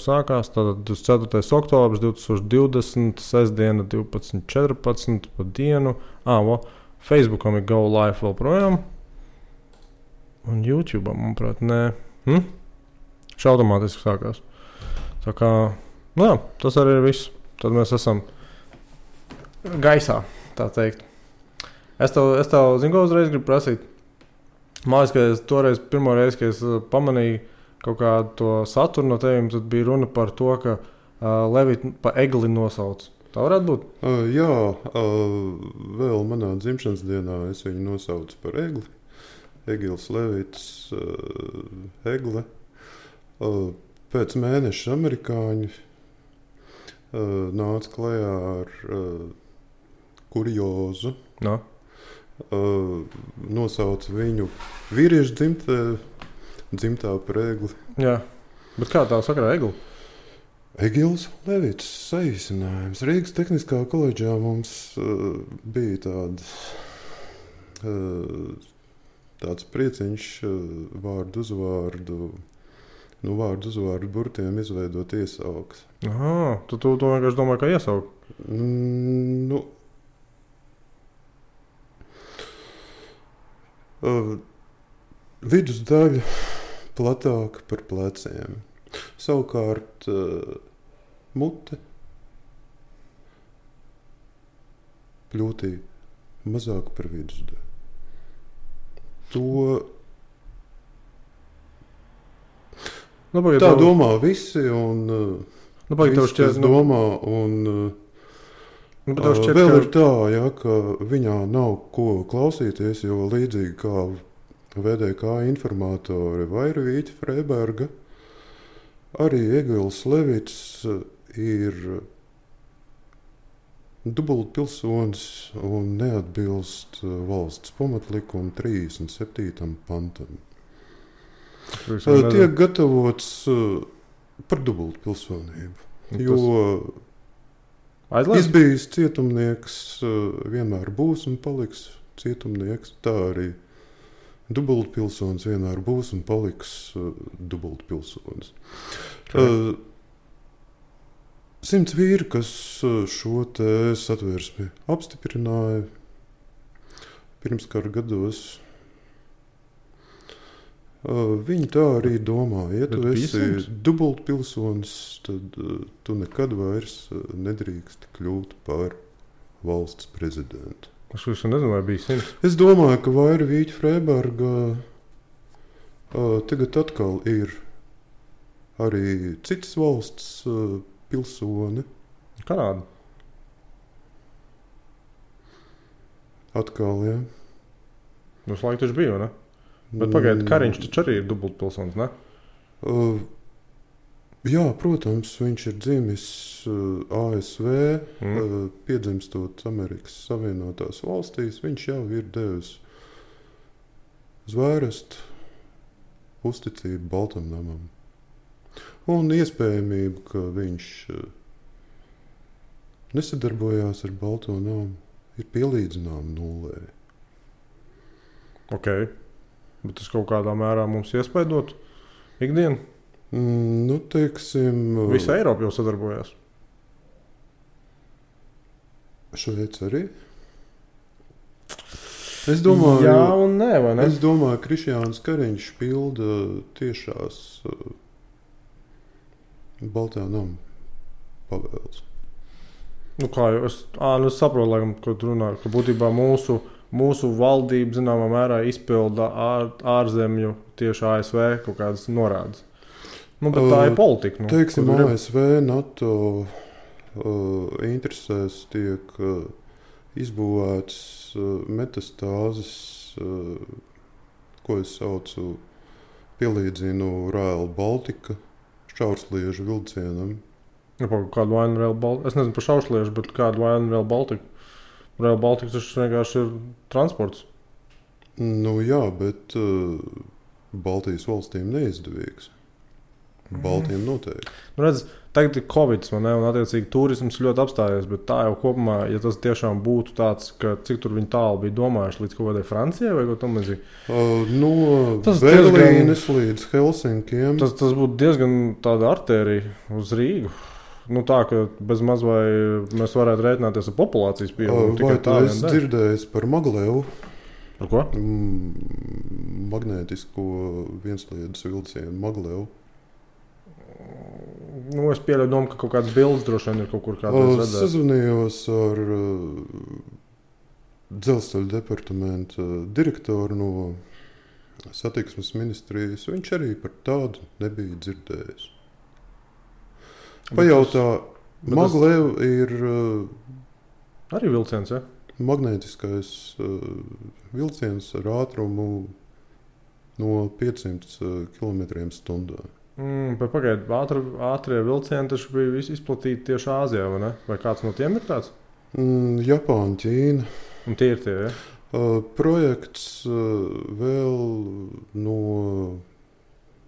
sākās. Tātad 24. oktobris 2020, sestdiena 12.14 pa dienu. Facebookam ir Go Live vēl projām. Un YouTube'am, manuprāt, nē. Automātiski sākās. Tā kā, tas arī ir viss. Tad mēs esam gaisā, tā teikt. Es tev zinu, ko uzreiz gribu prasīt. Mājas, ka es toreiz, pirmo reizi, kad es pamanīju kaut kādu to saturu no teviem, tad bija runa par to, ka Levita pa egli nosauc. Tā varētu būt? Jā, vēl manā dzimšanas dienā es viņu nosaucu par egli. Egils Levits, egle. Pēc mēneša amerikāņi nāca klajā ar kuriozu. No. Nosauca viņu vīriešu dzimtā par egli. Jā, bet kā tā sakarā egli? Egils Levits saīsinājums. Rīgas Tehniskā koledžā mums bija tāds prieciņš vārdu uzvārdu burtiem izveidot iesaukas. Tu vienkārši domāji, kā iesaukt? Vidusdaļa platāka par pleciem. Savukārt mute pļūtī mazāk par vidusdaļu. Tā domā visi, un visi tas domā, un vēl ir tā, ka viņā nav ko klausīties, jo līdzīgi kā VDK informātori Vairvīķa Freiberga, arī Egils Levits ir dubultpilsonis un neatbilst valsts pamatlikuma 37. pantam. Tiek gatavots par dubultpilsonību, jo izbijis cietumnieks vienmēr būs un paliks cietumnieks. Tā arī dubultpilsonis vienmēr būs un paliks dubultpilsonis. 100 vīri, kas šo te satversmi apstiprināja pirms kara gados, viņi tā arī domā. Ja tu esi dubultpilsonis, tad tu nekad vairs nedrīkst kļūt par valsts prezidentu. Es nezinu, vai bija 100. Es domāju, ka Vairvīķa Freiberga tagad atkal ir arī citas valsts pilsoni. Kanāda. Atkal, jā. Mums laika taču bija, ne? Bet pagaidi, Kariņš taču arī ir dubultpilsonis, ne? Jā, protams, viņš ir dzimis ASV, piedzimstot Amerikas Savienotās valstīs. Viņš jau ir devis zvērstu uzticību Baltam namam. Un iespējamība, ka viņš nesadarbojās ar Balto namu, ir pielīdzināma nullē. Ok. Bet tas kaut kādā mērā mums iespaidot ikdienu? Teiksim... Visa Eiropa jau sadarbojās. Šveic arī? Es domāju... Jā un nē, vai ne? Es domāju, ka Krišjāns Kariņš pilda tiešās Baltā nama pavēles. Kā jau es saprotu, laikam, ko tu runā, ka būtībā mūsu valdība zināmā mērā izpilda ārzemju tieši ASV kaut kādas norādes. Bet tā ir politika. Teiksim, ASV, NATO interesēs tiek izbūvēts metastāzes, ko es saucu, pielīdzinu Rail Baltica šaursliežu vilcienam. Kādu vainu Rail Baltica? Es nezinu par šaursliežu, bet kādu vainu Rail Baltica? Rail Baltica tas vienkārši ir transports. Jā, bet Baltijas valstīm neizdevīgs. Baltiem noteikti. Nu, redz, tagad ir Covid, un attiecīgi turisms ļoti apstājies, bet tā jau kopumā, ja tas tiešām būtu tāds, ka cik tur viņi tālu bija domājuši līdz kaut kādai Francijai vai kaut tam līdzīgi. No Tas Berlīnes līdz Helsinkiem. Tas būtu diezgan tāda artērija uz Rīgu. Nu tā, ka bez maz vai mēs varētu rēķināties ar populācijas pieaugumu. Vai tu esi dzirdējis par Maglevu? Par ko? Magnētisko viensliedes vilcienu Maglevu. Nu, es pieļauju domu, ka kaut kādas bildes droši vien ir kaut kur kādreiz redzētas. Sazvanījos ar dzelzceļa departamenta direktoru no satiksmes ministrijas. Viņš arī par tādu nebija dzirdējis. Pajautā, Maglev ir arī vilciens, ja? Magnētiskais vilciens ar ātrumu no 500 km/h. Pagaidiet, ātrie vilcieni taču bija izplatīti tieši Āzijā, vai ne? Vai kāds no tiem ir tāds? Japāna, Ķīna. Un tie ir tie, ja? Projekts vēl no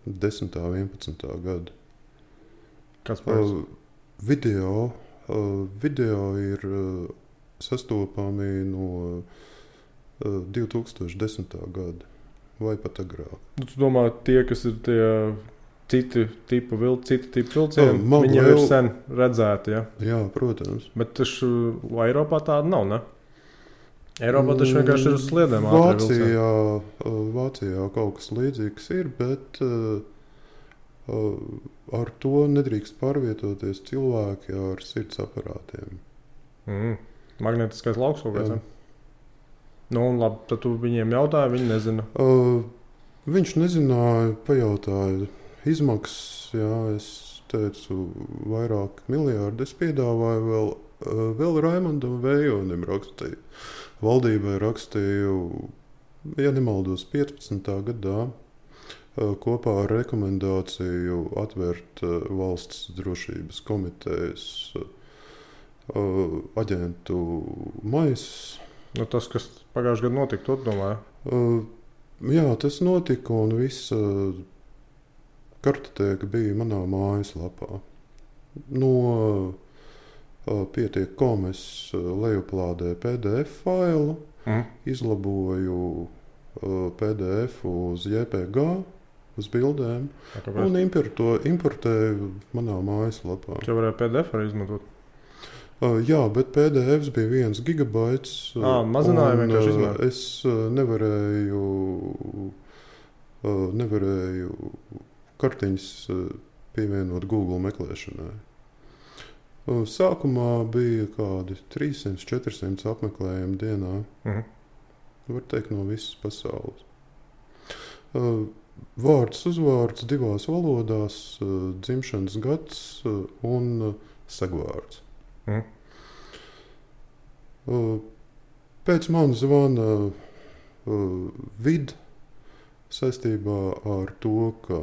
10. 11. gada. Kāds projekts? Video ir sastopami no 2010. gada vai pat agrāk. Tu domā, tie, kas ir tie citi tipu vilcieni, viņi jau ir sen redzēti, ja? Jā, protams. Bet taču Eiropā tāda nav, ne? Eiropā taču vienkārši ir uz sliedēm Vācijā kaut kas līdzīgs ir, bet ar to nedrīkst pārvietoties cilvēki ar sirds aparātiem. Magnētiskais lauks kaut kāds, Nu, labi, tad tu viņiem jautāji, viņi nezina. Viņš nezināja, pajautāja izmaksas, jā, es teicu, vairāk miljārdi. Es piedāvāju vēl Raimondam Vējonim rakstīju. Valdībai rakstīju, ja nemaldos, 15. gadā kopā ar rekomendāciju atvērt valsts drošības komitejas aģentu maisus. Nu, tas, kas pagājušajā gadā notika, tu domāji? Jā, tas notika un visa kartoteka bija manā mājaslapā. No pietiek.com es lejuplādēju PDF failu, izlaboju PDF uz JPG, uz bildēm un importēju manā mājaslapā. Tu varēji PDF arī izmantot? Jā, bet PDF bija 1 gigabaits. Mazināja vienkārši izmantot. Es nevarēju kartiņas pievienot Google meklēšanai. Sākumā bija kādi 300-400 apmeklējumi dienā. Var teikt, no visas pasaules. Vārds uzvārds 2 valodās, dzimšanas gads un segvārds. Pēc man zvana vid saistībā ar to, ka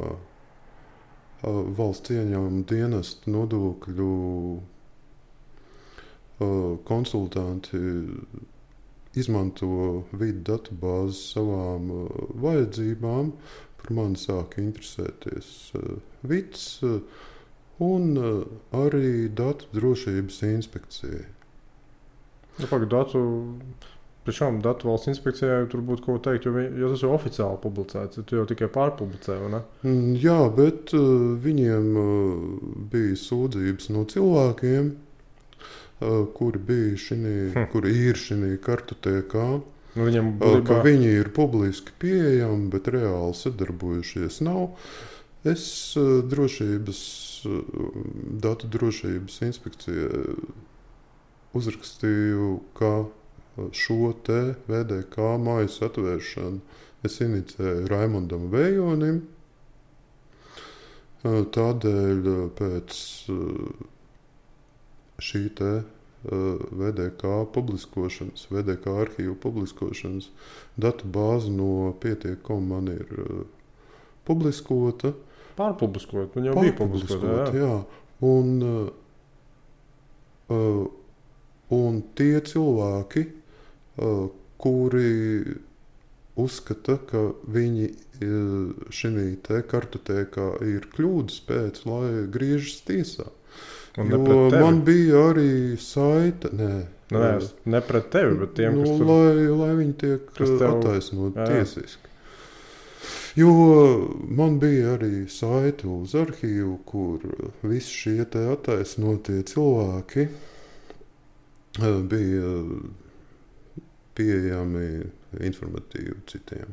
valsts ieņēmuma dienesta nodokļu konsultanti izmanto vidu datubāzi savām vajadzībām. Par mani sāka interesēties vids un arī datu drošības inspekcija. Datu valsts inspekcijai tur būtu ko teikt, jo tas jau oficiāli publicēts, tu jau tikai pārpublicē, vai ne? Jā, bet viņiem bija sūdzības no cilvēkiem, kuri ir šī kartotekā, ka viņi ir publiski pieejami, bet reāli sadarbojušies nav. Es datu drošības inspekcijai uzrakstīju, ka šo te VDK mājas atvēršanu es inicēju Raimondam Vējonim. Tādēļ pēc šī te VDK publiskošanas, VDK arhīvu publiskošanas datu bāze no pietiek.com man ir publiskota. Pārpubliskot, viņa jau bija publiskota, jā. Un tie cilvēki, kuri uzskata, ka viņi šī te kartotēkā ir kļūdas pēc, lai griežas tiesā. Un Jo man bija arī saita, ne pret tevi, bet tiem, kas tur... Lai viņi tiek attaisnot jā. tiesiski. Jo man bija arī saite uz arhīvu, kur visi šie te attaisnotie cilvēki bija pieejami informatīvi citiem.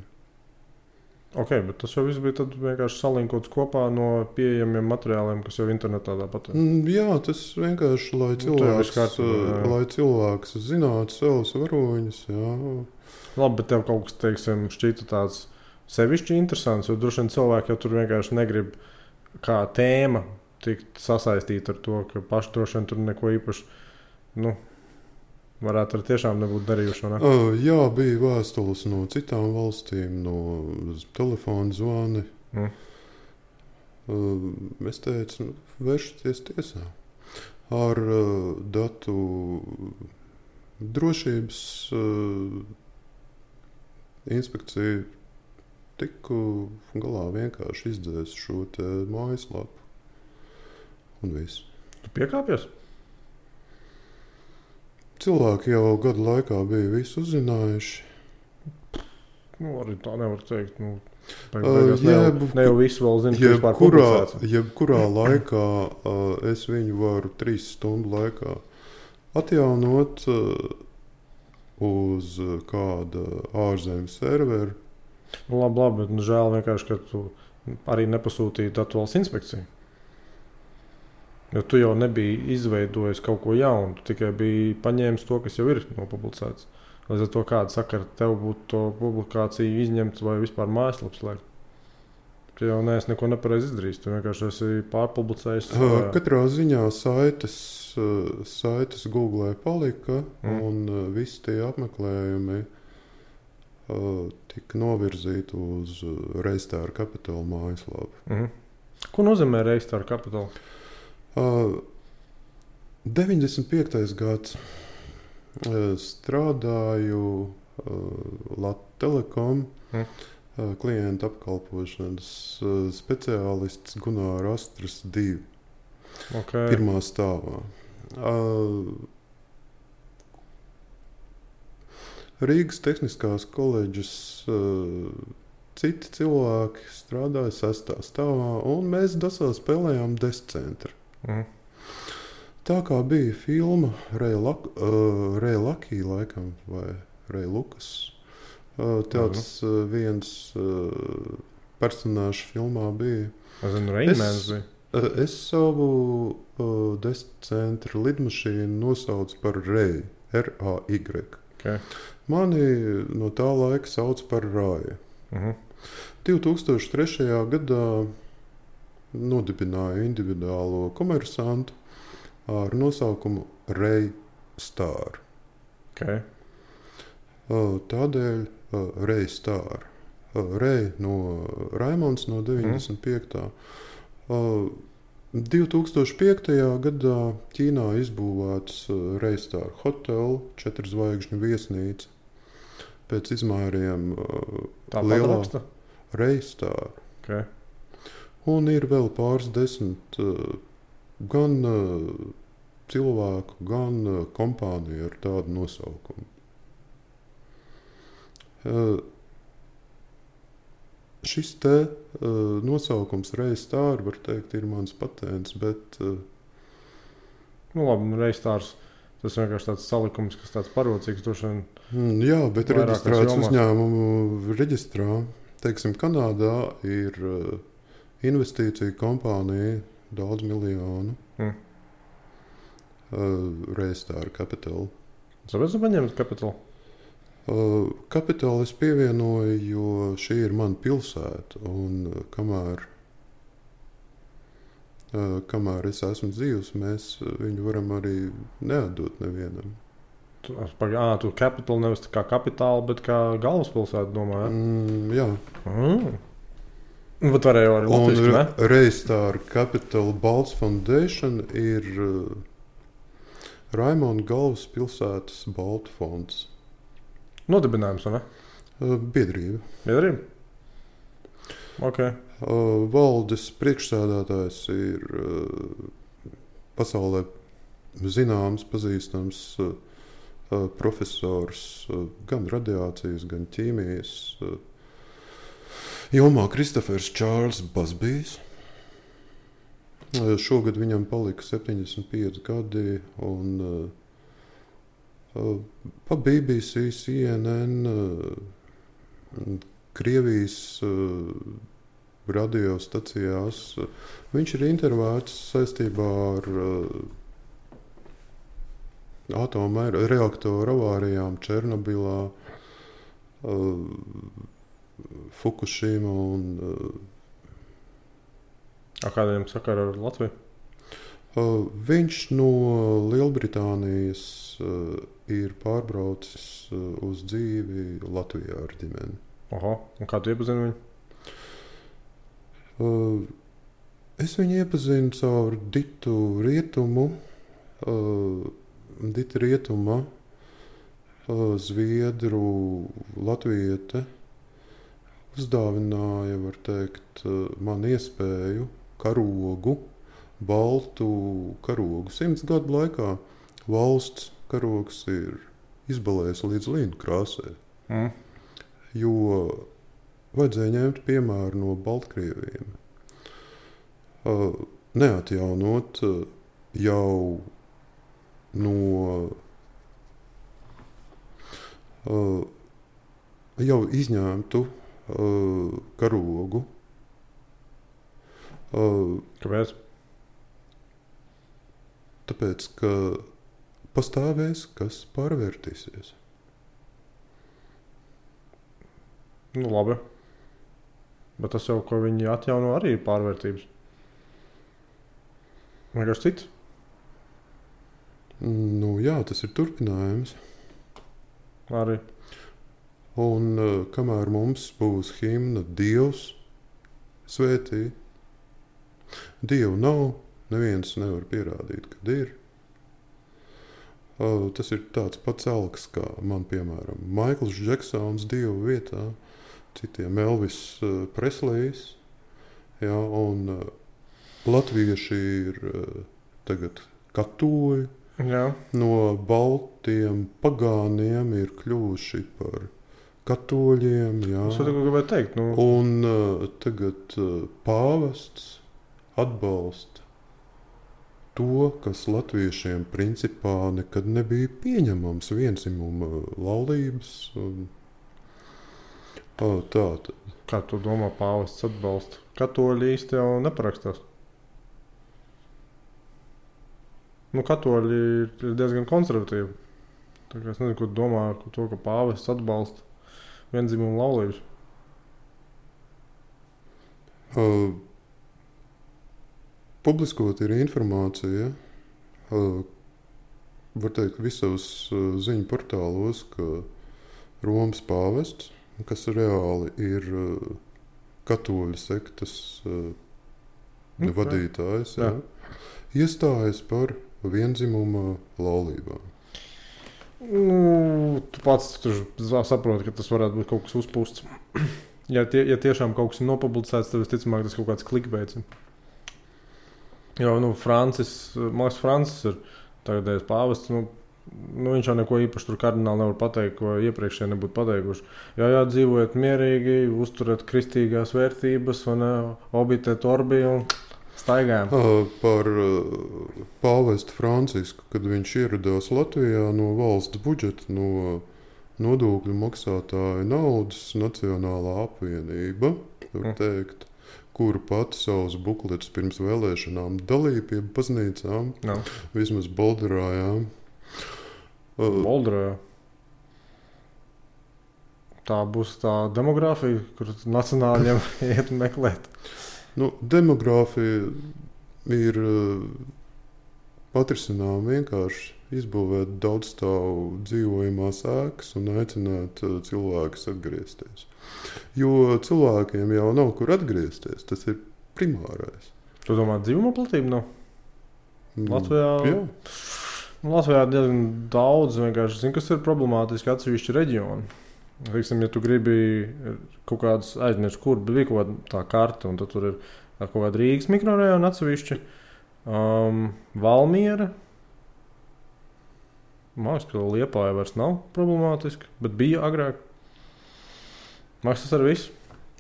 Ok, bet tas jau viss bija tad vienkārši salinkots kopā no pieejamiem materiāliem, kas jau internetā tāpat ir. Jā, tas vienkārši, lai cilvēks zinātu savus varoņus. Jā. Labi, bet tev kaut kas, teiksim, šķita tāds sevišķi interesants, jo droši vien cilvēki jau tur vienkārši negrib kā tēma tikt sasaistīta ar to, ka paši droši vien tur neko īpaši, varētu arī tiešām nebūt darījuši, ne? Jā, bija vēstules no citām valstīm, no telefona zvani. Es teicu, vēršaties tiesā. Ar datu drošības inspekciju tiku galā vienkārši izdzēs šo te mājaslapu. Un viss. Tu piekāpies? Cilvēki jau gadu laikā bija visu uzzinājuši. Arī tā nevar teikt. Ne jau visu vēl zinu, kas vispār publicēts. Jebkurā laikā es viņu varu 3 stundu laikā atjaunot uz kāda ārzemju servera. Labi, bet žēl vienkārši, ka tu arī nepasūtīji datu valsts inspekciju. Jo tu jau nebija izveidojis kaut ko jaunu, tu tikai biji paņēmis to, kas jau ir nopublicēts. Līdz ar to kāda sakara tev būtu to publikāciju izņemt vai vispār mājaslaps slēgt. Tu jau neesi neko nepareizi izdarījis, tu vienkārši esi pārpublicējis. Katrā ziņā saites Google palika un visi tie apmeklējumi tika novirzīti uz Reistāra Capital mājaslapu. Ko nozīmē Reistāra Capital? 95. gads strādāju Lattelekom klientu apkalpošanas speciālists Gunāra Astras 2. Okay. Pirmā stāvā. Rīgas Tehniskās koledžas citi cilvēki strādāja 6. stāvā, un mēs dasā spēlējām descentru. Tā kā bija filma Ray Lucky laikam, vai Ray Lukas, tāds viens personāžs filmā bija. Es savu descentru lidmašīnu nosaucu par Ray, R-A-Y. Okay. Mani no tā laika sauc par Rāju. 2003. gadā nodibināju individuālo komersantu ar nosaukumu Ray Star. Okay. Tādēļ Ray Star. Ray no Raimonds no 95. 2005. gadā Ķīnā izbūvēts Ray Star Hotel, 4 zvaigžņu viesnīca. Pēc izmēriem lielā Ray Star. Okay. Un ir vēl pāris 10 gan cilvēku, gan kompāniju ar tādu nosaukumu. Šis te nosaukums Ray Star, var teikt, ir mans patents, bet... Labi, Ray Stars, tas vienkārši tāds salikums, kas tāds parocīgs, droši vien... Jā, bet reģistrēts uzņēmumu reģistrā. Teiksim, Kanādā ir investīcija kompānija daudz miljonu. Ray Star Capital. Kāpēc tu paņēmi Capital? Capital es pievienoju, jo šī ir mana pilsēta, un kamēr es esmu dzīvs, mēs viņu varam arī neatdot nevienam. Tu Capital nevis kā kapitāla, bet kā galvaspilsēta, domāju, jā? Bet varēja arī latviski, ne? Ray Star Capital Balts Foundation ir Raimonda galvaspilsētas Baltu fonds. Nodibinājums, vai ne? Biedrība. Biedrība? Ok. Valdes priekšsēdētājs ir pasaulē zināms, pazīstams profesors gan radiācijas, gan ķīmijas jomā Kristofers Čārls Basbijs. Šogad viņam palika 75 gadi, un pa BBC, CNN, Krievijas radiostacijās viņš ir intervēts saistībā ar atomreaktoru avārijām Černobilā, Fukushima un Kādiem sakara ar Latviju? Viņš no Lielbritānijas ir pārbraucis uz dzīvi Latvijā ar ģimeni. Oho, un kā tu iepazini viņu? Es viņu iepazinu caur Ditu Rietumu. Dita Rietuma, zviedru latviete, uzdāvināja, var teikt, man iespēju karogu, baltu karogu. 100 gadu laikā valsts karogs ir izbalējis līdz līnu krāsē. Jo vajadzēja ņemt piemēru no Baltkrieviem. Neatjaunot jau jau izņemtu karogu. Kāpēc? Tāpēc, ka pastāvēs, kas pārvērtīsies. Nu, labi. Bet tas jau, ko viņi atjauno, arī ir pārvērtības. Vienkārši cits. Nu, jā, tas ir turpinājums. Arī. Un kamēr mums būs himna Dievs svētī, Dievu nav, neviens nevar pierādīt, kad ir. Tas ir tāds pats alks, kā man, piemēram, Maikls Džeksons Dievu vietā, citiem Elvis Preslejs, jā, un latvieši ir tagad katoļi. Jā. No baltiem pagāniem ir kļuvuši par katoļiem. Jā. Es to gribēju teikt. Nu. Un tagad pāvests atbalsta to, kas latviešiem principā nekad nebija pieņemams, vienzimuma laulības. Tātad. Kā tu domā, pāvests atbalsta? Katoļi īsti jau neparakstās. Nu, katoļi ir diezgan konservatīvi. Tā kā es nezinu, ko domā par to, ka pāvests atbalsta viendzimumu laulības. Publiskot ir informācija, var teikt, visos ziņu portālos, ka Romas pāvests, kas reāli ir katoļu sektas vadītājs, jā, iestājas par vienzimuma laulībām. Nu, tu pats tur saproti, ka tas varētu būt kaut kas uzpūsts. Ja tiešām kaut kas ir nopublicēts, tad visticamāk tas kaut kāds klikbeits. Jo, Francis ir tagadējais pāvests, viņš jau neko īpaši tur kardināli nevar pateikt, ko iepriekšēji nebūtu pateikuši. Jā, dzīvojiet mierīgi, uzturiet kristīgās vērtības, obitēt orbi un staigājam. Par pāvestu Francisku, kad viņš ieradās Latvijā no valsts budžeta, no nodokļu maksātāju naudas, Nacionālā apvienība, var teikt, kuru pati savus bukletus pirms vēlēšanām dalīja pie baznīcām, vismaz Bolderājām. Bolderājā? Tā būs tā demogrāfija, kur nacionāļiem iet meklēt. Demogrāfija ir atrisinām vienkārši izbūvēt daudzstāvu dzīvojamās ēkas un aicināt cilvēkus atgriezties. Jo cilvēkiem jau nav kur atgriezties, tas ir primārais. Tu domā, dzīvuma platība nav? Latvijā? Jā. Latvijā diezgan daudz vienkārši zinu, kas ir problemātiski atsevišķi reģioni. Teiksim, ja tu gribi kaut kādas aizmirst, kur bija kaut kāda tā karta, un tad tur ir kaut kāda Rīgas mikrorajona atsevišķi, Valmiera. Man liekas, ka Liepāja vairs nav problemātiski, bet bija agrāk. Man liekas, tas arī viss.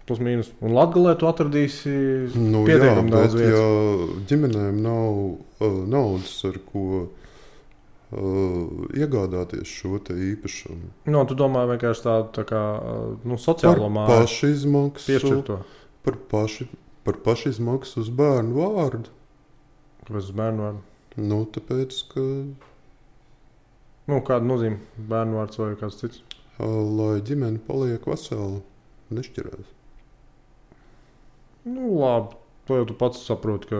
Plus mīnus. Un Latgalē tu atradīsi pietiekami daudz vietas. Ja ģimenēm nav naudas, ar ko iegādāties šo te īpašumu. No, tu domā vienkārši tādu tā kā, sociālo māju. Par pašizmaksu. Piešķirt to. Par pašizmaksu uz bērnu vārdu. Kāpēc uz bērnu vārdu? Tāpēc, ka... Kāda nozīme bērnu vārds vai kāds cits? Lai ģimene paliek vesela, nešķirās. Labi. To jau tu pats saproti, ka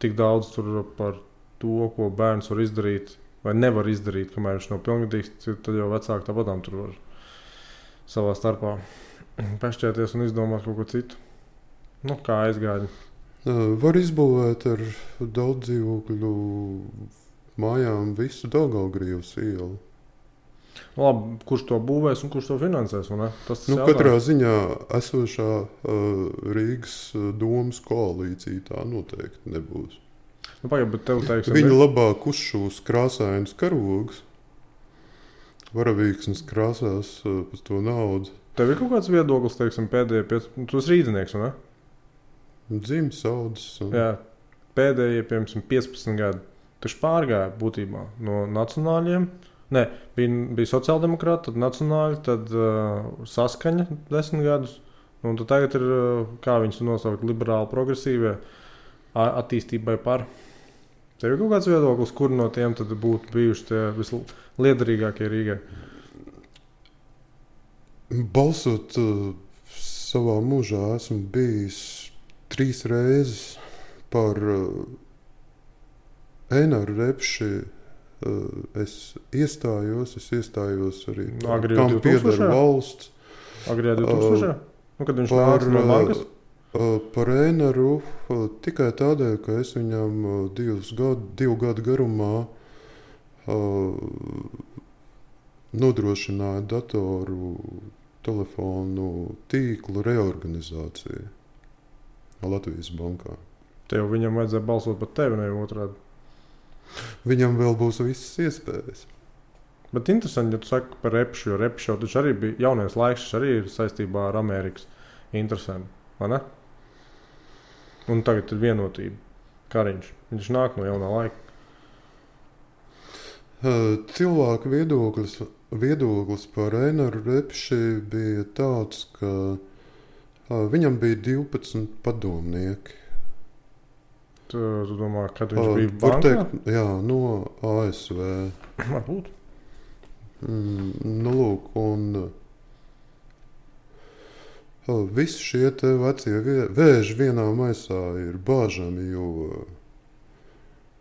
tik daudz tur par to, ko bērns var izdarīt vai nevar izdarīt, kamēr viņš nav pilngadīgs, tad jau vecāki tāpatām tur var savā starpā pešķēties un izdomāt kaut ko citu. Kā aizgāja. Var izbūvēt ar daudz dzīvokļu mājām visu Daugavgrīvas ielu. Labi, kurš to būvēs un kurš to finansēs? Tas katrā ziņā esošā Rīgas domas koalīcija tā noteikti nebūs. Bet tev, teiksim, Viņi labāk uzšūs krāsainus karogus, varavīksnes krāsās pēc to naudu. Tev ir kaut kāds viedoklis, teiksim, pēdējie tu esi rīdzinieks, vai ne? Dzimis, audzis. Jā, pēdējie, piemēram, 15 gadi. Taču pārgāja būtībā no nacionāļiem. Nē, bija sociāldemokrāti, tad nacionāļi, tad saskaņa 10 gadus. Un tad tagad ir, kā viņus nosaukt, liberāli progresīvie attīstībai par. Tev ir kaut kāds viedoklis, kur no tiem tad būtu bijuši tie visliederīgākie Rīgai? Balsot savā mūžā esmu bijis 3 reizes par Eināru Repši. Es iestājos arī tam pieder valsts. Agrijā 2000? Kad viņš nāca no bankas? Par Eināru tikai tādēļ, ka es viņam 2 gadu garumā nodrošināju datoru telefonu tīklu reorganizāciju Latvijas bankā. Tev viņam vajadzēja balsot par tevi, ne otrādi? Viņam vēl būs visas iespējas. Bet interesanti, ja tu saki par Repšu, jo Repšu jau taču arī bija jaunais laiks, arī ir saistībā ar Amerikas interesēm, vai ne? Un tagad ir vienotība. Kariņš, viņš nāk no jaunā laika. Cilvēku viedoklis par Eināru Repši bija tāds, ka viņam bija 12 padomnieki. Tu domā, kad viņš bija bankā? Teikt, jā, no ASV. Varbūt. Lūk, un visi šie te vecie vēži vienā maisā ir bāžami, jo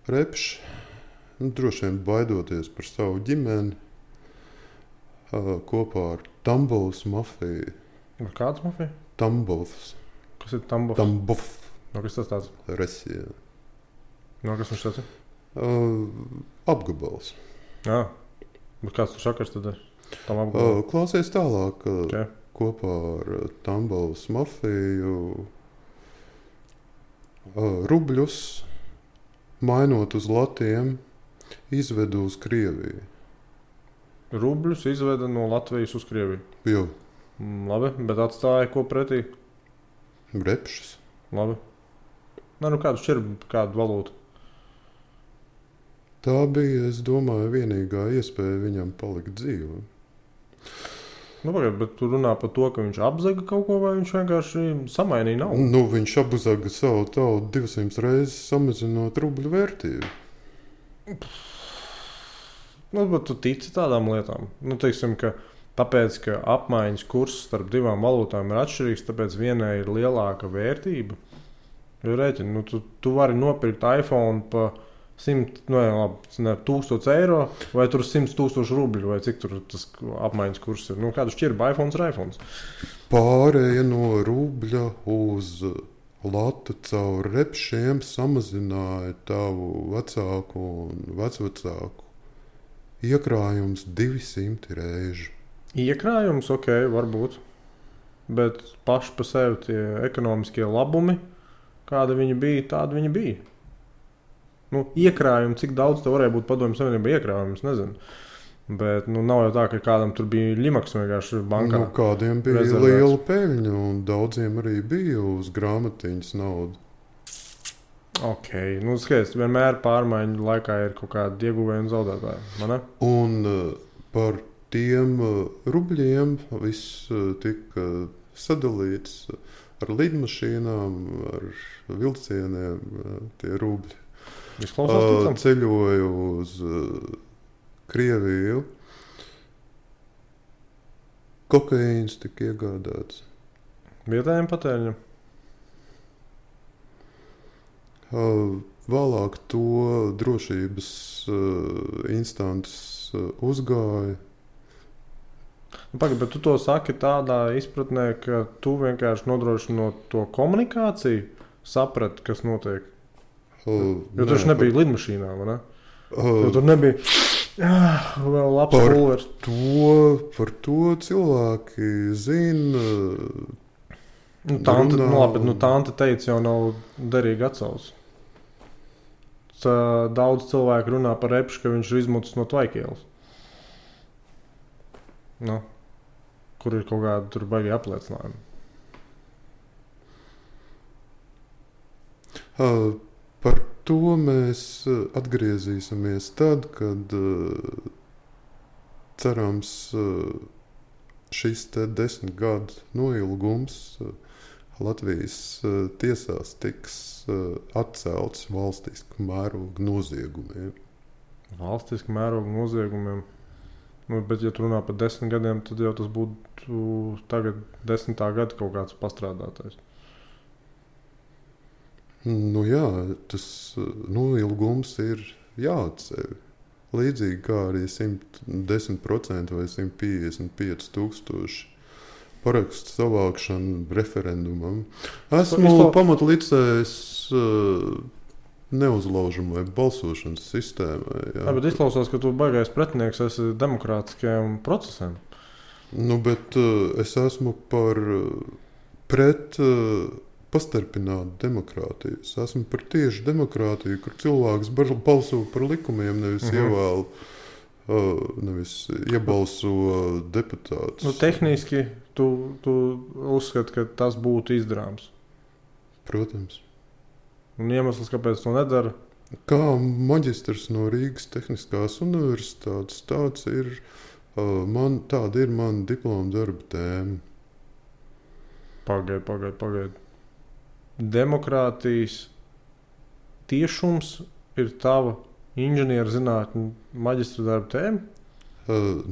Repš, droši vien baidoties par savu ģimeni, kopā ar Tambovas mafiju. Ar kāds mafija? Tambovs. Kas ir Tambovs? Tambov. Kas tas tāds? Resija. Kas viņš tāds ir? Apgabals. Jā. Bet kāds tur sakars tad ir? Klausies tālāk. Okay. Kopā ar Tambovas mafiju rubļus, mainot uz latiem, izvedu uz Krieviju. Rubļus izveda no Latvijas uz Krieviju? Jā. Labi, bet atstāja ko pretī? Repšas. Labi. Kādu šķirbu, kādu valūtu? Tā bija, es domāju, vienīgā iespēja viņam palikt dzīvē. Bet tu runā par to, ka viņš apzaga kaut ko, vai viņš vienkārši samainīja naudu? Viņš apzaga savu tautu 200 reizes, samazinot rubļu vērtību. Bet tu tici tādām lietām? Teiksim, ka tāpēc, ka apmaiņas kurs starp divām valūtām ir atšķirīgs, tāpēc vienai ir lielāka vērtība. Jo rēķini, tu vari nopirkt iPhone pa 1000 eiro vai tur 100 000 rubļu, vai cik tur tas apmaiņas kurs ir. Kādu šķirbu iPhones ir iPhones? Pārēja no rubļa uz latu caur repšiem samazināja tavu vecāku un vecvecāku iekrājums 200 reižu. Iekrājums, ok, varbūt. Bet paši pa sevi tie ekonomiskie labumi, kāda viņi bija, tāda viņi bija. Nu, iekrājumi, cik daudz tev varēja būt Padomju Savienībā iekrājumi, es nezinu. Bet nav jau tā, ka kādam tur bija limaks vienkārši bankā. Nu, kādiem bija rezervēts. liela peļņa, un daudziem arī bija uz grāmatiņas nauda. Ok, skaidrs, vienmēr pārmaiņu laikā ir kaut kādi ieguvēji un zaudētāji, vai ne? Un par tiem rubļiem viss tika sadalīts ar lidmašīnām, ar vilcieniem, tie rubļi. Izklausās ticam? Ceļoju uz Krieviju. Kokaīns tika iegādāts. Vietējiem patēriņam? Vēlāk to drošības instances uzgāja. Pagaid, bet tu to saki tādā izpratnē, ka tu vienkārši nodrošinot to komunikāciju, saprati, kas notiek. Jo tur nebija lidmašīnā, vai ne? Jo tur nebija vēl labs pulvers. Par to cilvēki zina. Tante teica, jau nav derīgi atsauc. Daudz cilvēku runā par Repšu, ka viņš ir izmucis no Tvaikielas. Kur ir kaut kāda tur baigi apliecinājumi. Par to mēs atgriezīsimies tad, kad cerams šis 10 gadu noilgums Latvijas tiesās tiks atcelts valstiska mēroga noziegumiem. Valstiska mēroga noziegumiem? Bet, ja tu runā par 10 gadiem, tad jau tas būtu tagad 10. gada kaut kāds pastrādātais. Jā, tas noilgums ir jāatceļ. Līdzīgi kā arī 110% vai 155,000 parakstu savākšanu referendumam. Esmu pamatlicējis neuzlaužamai balsošanas sistēmai. Jā, bet izklausās, ka tu baigais pretinieks esi demokrātiskajiem procesiem. Bet es esmu pret pastarpinātu demokrātiju. Es esmu par tieši demokrātiju, kur cilvēks balso par likumiem, nevis ievēl, nevis iebalso deputātus. Tehniski tu uzskati, ka tas būtu izdarāms? Protams. Un iemesls, kāpēc to nedara? Kā maģistrs no Rīgas Tehniskās universitātes, tāda ir mana diploma darba tēma. Pagaid. Demokrātijas tiešums ir tava inženierzinātņu maģistra darba tēma?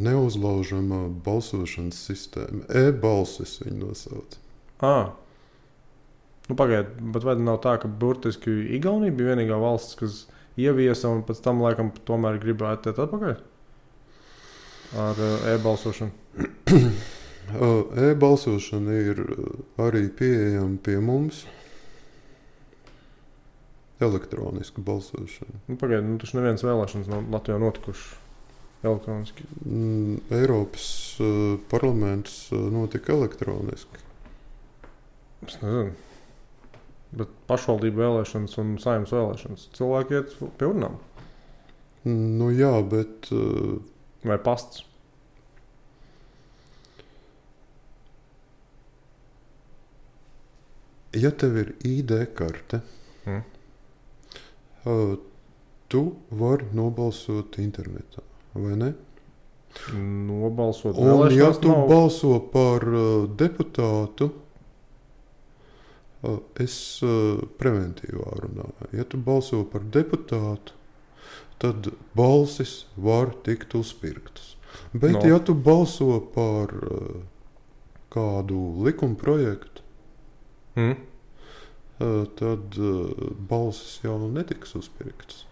Neuzlaužamā balsošanas sistēma. E-balsis viņu nosauc. Pagaid, bet vai nav tā, ka burtiski Igaunija bija vienīgā valsts, kas ieviesa un pēc tam laikam tomēr gribētu iet atpakaļ ar e-balsošanu? E-balsošana ir arī pieejama pie mums. Elektronisku balsošanu. Pagaid, taču nevienas vēlēšanas nav Latvijā notikušas elektroniski. Eiropas parlaments notika elektroniski. Es nezinu. Bet pašvaldību vēlēšanas un saimnes vēlēšanas cilvēki iet pie urnām? Jā, bet... Vai pasts? Ja tev ir ID karte, tu vari nobalsot internetā, vai ne? Nobalsot vēlēšanās. Un ja tu nav... balso par deputātu, es preventīvā runāju. Ja tu balso par deputātu, tad balsis var tikt uzpirktas. Bet ja tu balso par kādu likumprojektu, tad balsis jau netiks uzpirktas.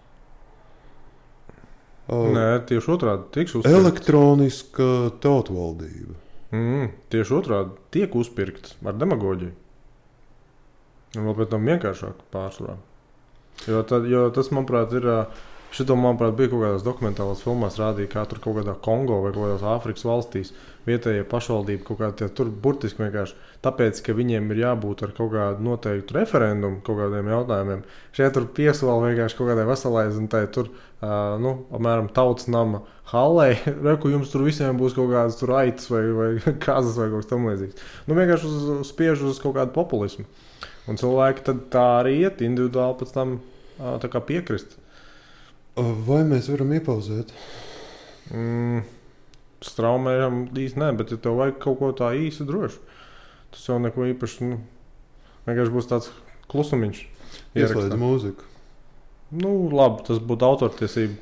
Nē, tieši otrādi tiks uzpirktas. Elektroniska tautvaldība. Tieši otrādi tiek uzpirktas ar demagoģiju. Un vēl pēc tam vienkāršāk pārsvarā. Jo tas, manuprāt, ir Šito, manuprāt, bija kaut kādās dokumentālās filmās rādīja, kā tur kaut kādā Kongo vai kaut kādās Āfrikas valstīs vietējie pašvaldība kaut kādā tur burtiski vienkārši tāpēc, ka viņiem ir jābūt ar kaut kādu noteiktu referendumu kaut kādiem jautājumiem. Šeit tur piesola vienkārši kaut kādai veselai zinātai tur, apmēram tautas nama hallei, reku jums tur visiem būs kaut kādas tur aitas vai kazas vai kaut kas tam līdzīgs. Nu vienkārši spiež uz kaut kādu populismu. Un cilvēki tad tā arī iet individuāli pēc tam tā kā piekrist. Vai mēs varam iepauzēt? Straumējam īsti nē, bet ja tev vajag kaut ko tā īsi droši, tas jau neko īpaši, vienkārši būs tāds klusumiņš. Ieslēdz mūziku. Nu, labi, tas būtu autortiesība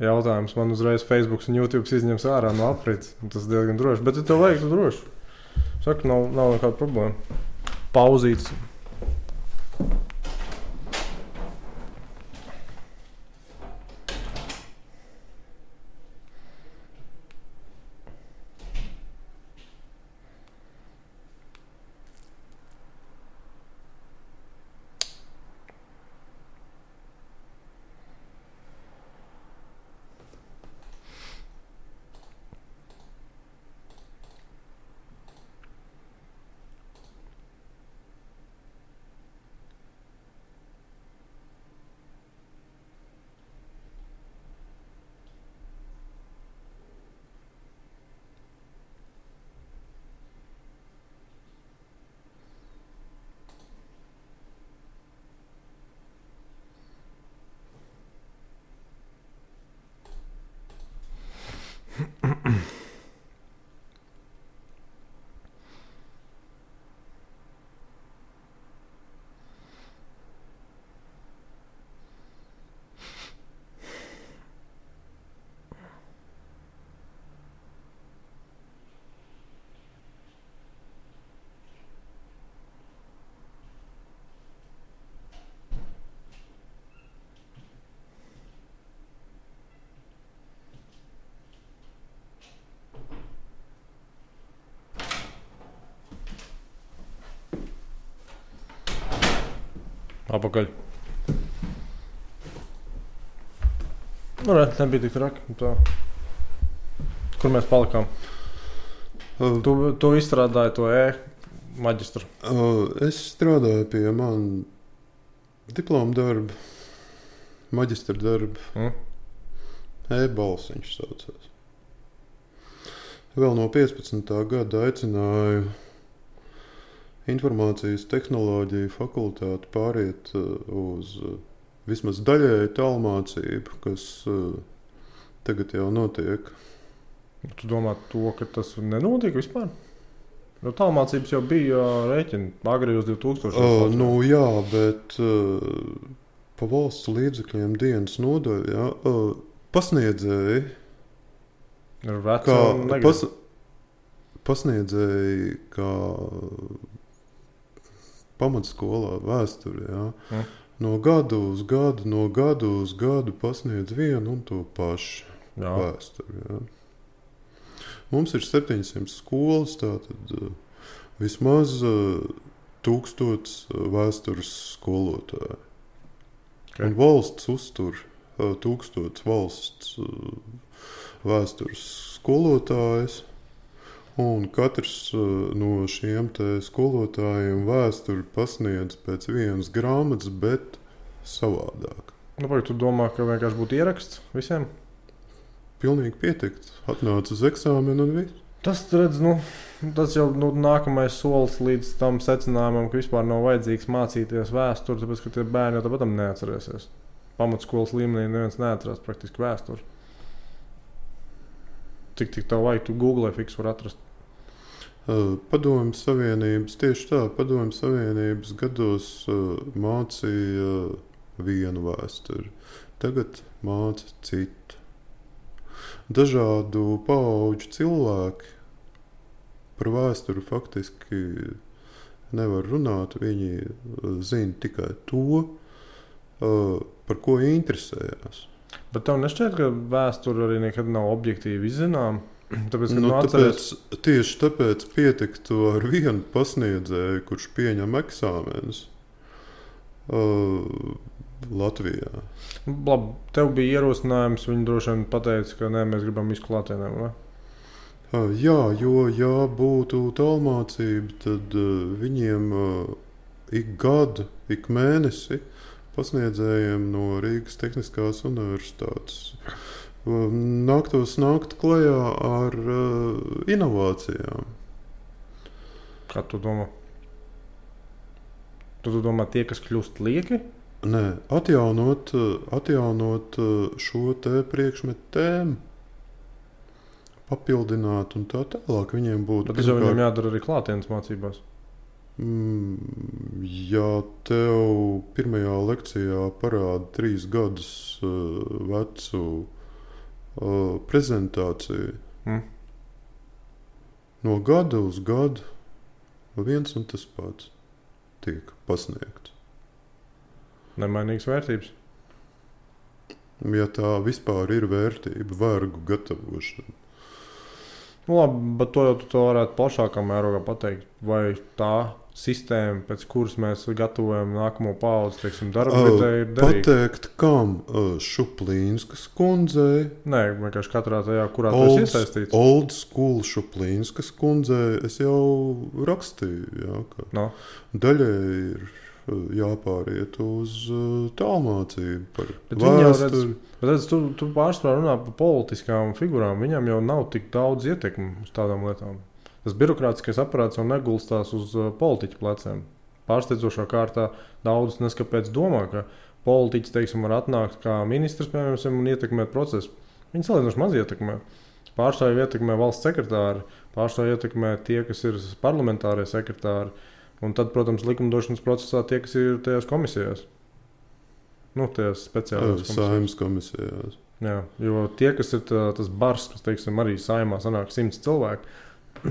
jautājums. Man uzreiz Facebook un YouTube izņems ārā no aprits. Tas diezgan droši, bet ja tev vajag, tu droši. Saka, nav nekāda problēma. Pauzīts. Apakaļ. Nu, nebija tik traki. Tā. Kur mēs palikām? Tu izstrādāji to maģistru. Es strādāju pie man diploma darba, maģistra darba. E-balsiņš saucās. Vēl no 15. gada aicināju informācijas tehnoloģiju fakultāti pāriet uz vismaz daļēju tālmācību, kas tagad jau notiek. Tu domā to, ka tas nenotiek vispār? Jo tālmācības jau bija rēķini agri uz 2000. Nu jā, bet pa valsts līdzekļiem dienas nodaļā pasniedzēji ir veci pasniedzēji kā pamatskolā vēsturi, jā. No gadu uz gadu pasniedz vienu un to pašu vēsturi, jā. Mums ir 700 skolas, tātad vismaz 1000 vēstures skolotāji. Okay. Un valsts uztur 1000 valsts vēstures skolotājus. Un katrs no šiem te skolotājiem vēsturi pasniedz pēc vienas grāmatas, bet savādāk. Nu, vai tu domā, ka vienkārši būtu ieraksts visiem? Pilnīgi pietikt. Atnāc uz eksāmenu un viss. Tas, redz, tas jau nākamais solis līdz tam secinājumam, ka vispār nav vajadzīgs mācīties vēsturi, tāpēc, ka tie bērni jau tāpat neatcerēsies. Pamatskolas līmenī neviens neatcerās praktiski vēsturi. Cik tev vajag, tu Google fiks var atrast? Padomju Savienības, tieši tā, Padomju Savienības gados mācīja vienu vēsturi. Tagad māca citu. Dažādu paauģu cilvēki par vēsturi faktiski nevar runāt. Viņi zina tikai to, par ko interesējās. Bet tev nešķiet, ka vēsture arī nekad nav objektīvi izzinām? Tieši tāpēc pietiktu ar vienu pasniedzēju, kurš pieņem eksāmenus. Latvijā. Labi, tev bija ierosinājums, viņi droši vien pateica, ka nē, mēs gribam visu klātienē, vai? Jā, jo, ja būtu tālmācība, tad viņiem ik gadu, ik mēnesi pasniedzējiem no Rīgas Tehniskās universitātes nāktos nākt klajā ar inovācijām. Kā tu domā? Tu domā tie, kas kļūst lieki? Nē, atjaunot šo te priekšmetu tēmu, papildināt un tā tālāk viņiem būtu. Bet tas jau viņiem jādara arī klātienes mācībās. Ja tev pirmajā lekcijā parāda 3 gadus vecu prezentāciju, no gada uz gadu viens un tas pats tiek pasniegts. Nemainīgas vērtības. Ja tā vispār ir vērtība, vergu gatavošana. Nu, labi, bet to jau tu varētu plašākā mērogā pateikt. Vai tā sistēma, pēc kuras mēs gatavojam nākamo paudzi, teiksim, darba vidē ir derīga? Pateikt, kam Šuplīnskas kundzei? Nē, vienkārši katrā tajā, kurā tu esi iesaistīts. Old school Šuplīnskas kundzei es jau rakstīju, jā, ka daļai ir jāpāriet uz tālmācību par vēsturi. Bet tu pārsvarā runā par politiskām figurām. Viņam jau nav tik daudz ietekmi uz tādām lietām. Tas birokrātiskais aparāts jau negulstās uz politiķu pleciem. Pārsteidzošā kārtā daudz neskapēc domā, ka politiķis, teiksim, var atnākt kā ministrs, piemēram, un ietekmēt procesu. Viņi salīdzinoši maz ietekmē. Pārstāvju ietekmē valsts sekretāri, pārstāvju ietekmē tie, kas ir parlamentārie sekretāri. Un tad, protams, likumdošanas procesā tie, kas ir tajās komisijās. Nu, tajās speciālās Saeimas komisijās. Jā, jo tie, kas ir tas bars, kas, teiksim, arī saimā sanāk 100 cilvēki,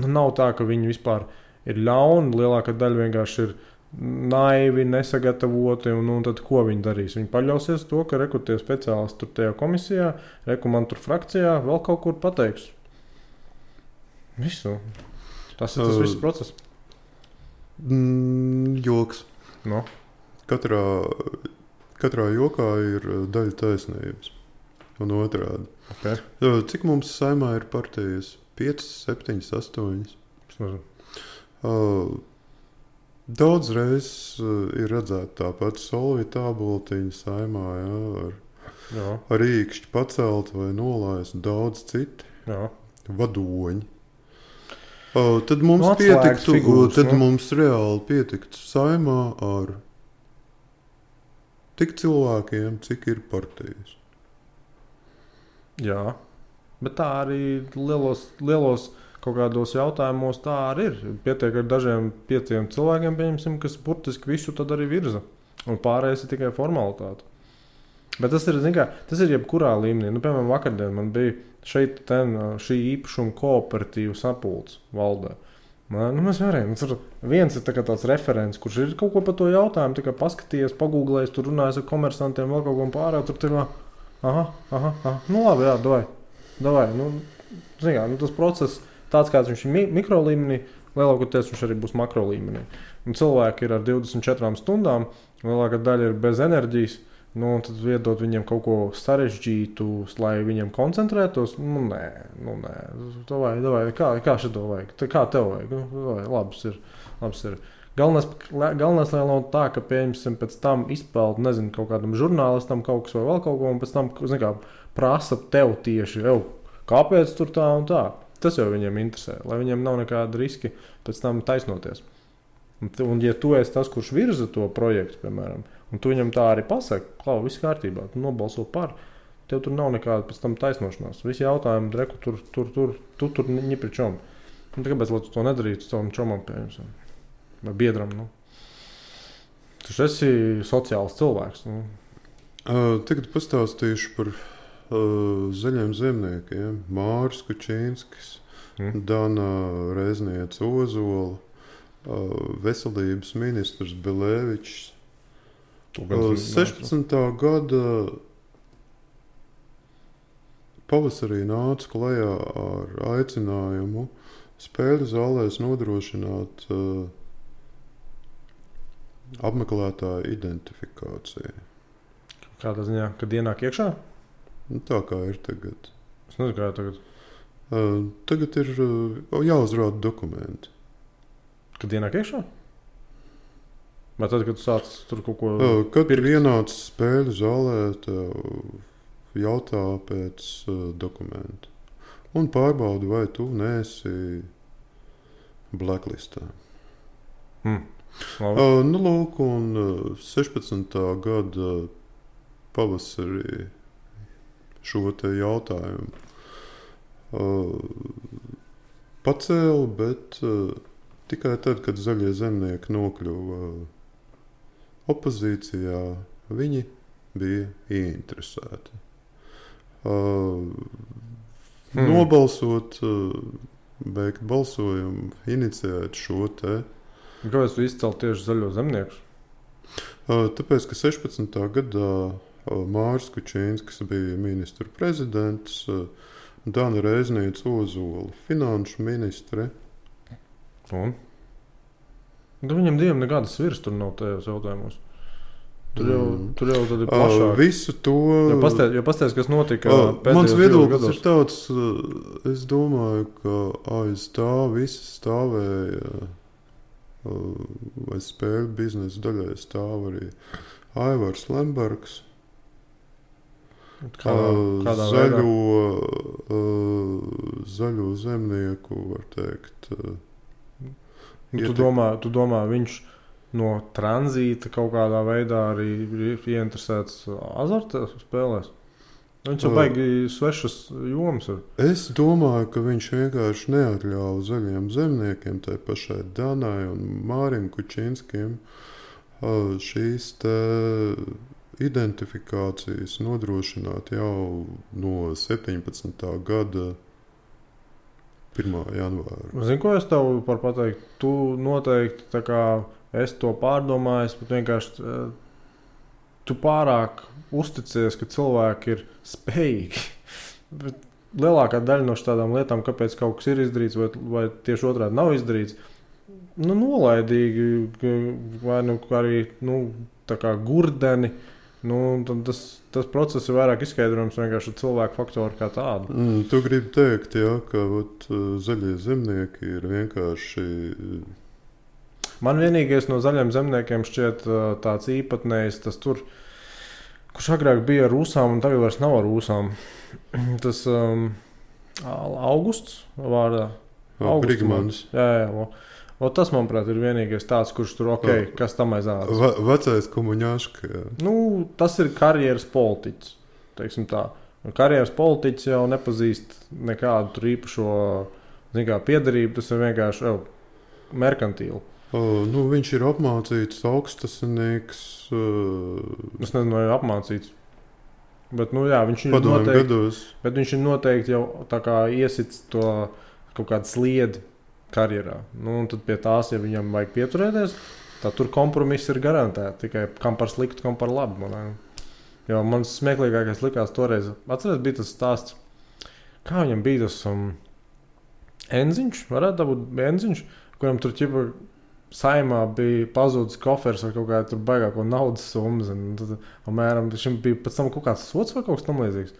nav tā, ka viņi vispār ir ļauni. Lielākā daļa vienkārši ir naivi, nesagatavoti. Un tad ko viņi darīs? Viņi paļausies to, ka tie speciālisti tur tajā komisijā, man tur frakcijā vēl kaut kur pateiks. Visu. Tas ir tas viss process. Joks. No. Katrā jokā ir daļa taisnības un otrādi. Okay. Cik mums saimā ir partijas? 5, 7, 8. Daudz reizes ir redzēta tāpat Solvita āboltiņa saimā, ar īkšķi pacelt vai nolaist, daudz citi vadoņi. Tad mums pietiktu, mums reāli pietiktu saimā ar tik cilvēkiem, cik ir partijas. Jā, bet tā arī lielos kaut kādos jautājumos tā arī ir. Pietiek ar dažiem 5 cilvēkiem, pieņemsim, kas burtiski visu tad arī virza. Un pārējais ir tikai formalitāte. Bet tas ir, tas ir jebkurā līmenī. Nu, piemēram, vakardien man bija šī īpašuma kooperatīva sapulce valdē. Mēs varējām. Viens ir tāds referents, kurš ir kaut ko par to jautājumu, paskatījies, pagūglējis, tur runājis ar komersantiem, vēl kaut ko pārējo. Tur tā kā, nu labi, jā, davai. Tas process, tāds kāds viņš ir mikro līmenī, lielākoties viņš arī būs makro līmenī. Un cilvēki ir ar 24 stundām, lielākā daļa ir bez enerģijas. Tad iedot viņiem kaut ko sarežģītu, lai viņiem koncentrētos. Nē. Davai, kā šito vajag? Kā tev vajag? Labs ir. Galvenais, lai nav tā, ka pieņemsim pēc tam izpeld, kaut kādam žurnālistam kaut kas vai vēl kaut ko, un pēc tam, prasa tev tieši, kāpēc tur tā un tā. Tas jau viņiem interesē, lai viņiem nav nekāda riski pēc tam taisnoties. Un ja tu esi tas, kurš virza to projektu, piemēram, un tu viņam tā arī pasaki, ka viss kārtībā, tu nobalso par, tev tur nav nekāda pēc tam taisnošanās. Visi jautājumi, reku, tur ņipri čom. Kāpēc, lai tu to nedarītu savam čomam, pieņemsim, vai biedram, Tu esi sociāls cilvēks, Tagad pastāstīšu par zaļiem zemniekiem. Māris Kučīnskis, Dana Rezniece Ozola, veselības ministrs Belēvičs. 16. gada pavasarī nāca klajā ar aicinājumu spēļu zālēs nodrošināt apmeklētāju identifikāciju. Kādā ziņā, kad ienāk iekšā? Nu, tā kā ir tagad. Es nezinu, kā tagad. Tagad ir jāuzrāda dokumenti. Kad ienāk iekšā? Vai tad, kad tu sāc tur kaut ko... Kad ir ienācis spēļu zālē, tev jautā pēc dokumentu. Un pārbaudi, vai tu neesi blacklistā. Nu, lūk, un 16. gada pavasarī šo te jautājumu pacēla, bet tikai tad, kad zaļie zemnieki nokļuva opozīcijā, viņi bija ieinteresēti. Nobalsot, beigt balsojumu, iniciēt šo te. Kāpēc tu izcēli tieši zaļo zemniekus? Tāpēc, ka 16. gadā Māris Kučīnskis bija ministru prezidents, Dana Reizniece Ozola finanšu ministre. Un? Viņam diviem nekādas virs tur nav tajos jautājumos. Tur jau tad ir plašāk. Visu to... Jo pastāst, kas notika mans viedoklis ir tāds, es domāju, ka aiz tā visi stāvēja, vai spēļu biznesa daļai stāv arī Aivars Lembergs. Kādā zaļo zemnieku, var teikt. Tu domā, viņš no tranzīta kaut kādā veidā arī ir ieinteresēts azarta spēlēs? Viņš jau baigi svešas jomas ir. Es domāju, ka viņš vienkārši neatļauj zaļiem zemniekiem, tai pašai Danai un Mārim Kučinskim, šīs te identifikācijas nodrošināt jau no 17. gada 1. janvāra. Zini, ko es tev par pateikt? Tu noteikti, tā kā es to pārdomāju, bet vienkārši tu pārāk uzticies, ka cilvēki ir spējīgi. Bet lielākā daļa no šādām lietām, kāpēc kaut kas ir izdarīts vai tieši otrādi nav izdarīts, nolaidīgi vai arī tā kā gurdeni. Tas process ir vairāk izskaidrojams vienkārši ar cilvēku faktoru kā tādu. Tu gribi teikt, jā, ka zaļie zemnieki ir vienkārši... Man vienīgais no zaļiem zemniekiem šķiet tāds īpatnējs, tas tur, kurš agrāk bija ar ūsām un tagad vairs nav ar ūsām. Tas Augusts vārdā. Brigmanis. Jā. Tas, manuprāt, ir vienīgais tāds, kurš tur kas tam aizādas. Vecais komuņāška. Tas ir karjeras politiķis, teiksim tā. Karjeras politiķis jau nepazīst nekādu tur īpašo piederību, tas ir vienkārši merkantīli. Viņš ir apmācīts augstasinīgs. Es nezinu, vai apmācīts. Bet, viņš ir noteikti jau tā kā iesits to kaut kādu sliedi karjerā. Un tad pie tās, ja viņam vajag pieturēties, tad tur kompromiss ir garantēti. Tikai kam par sliktu, kam par labu. Jo man smieklīgākais likās toreiz. Atceries, bija tas stāsts, kā viņam bija tas enziņš, varētu būt enziņš, kuram tur ķipa saimā bija pazudis kofers ar kaut kādu tur baigāko naudas summas. Mēram, šim bija pēc tam kaut kāds sots vai kaut kas tam līdzīgs.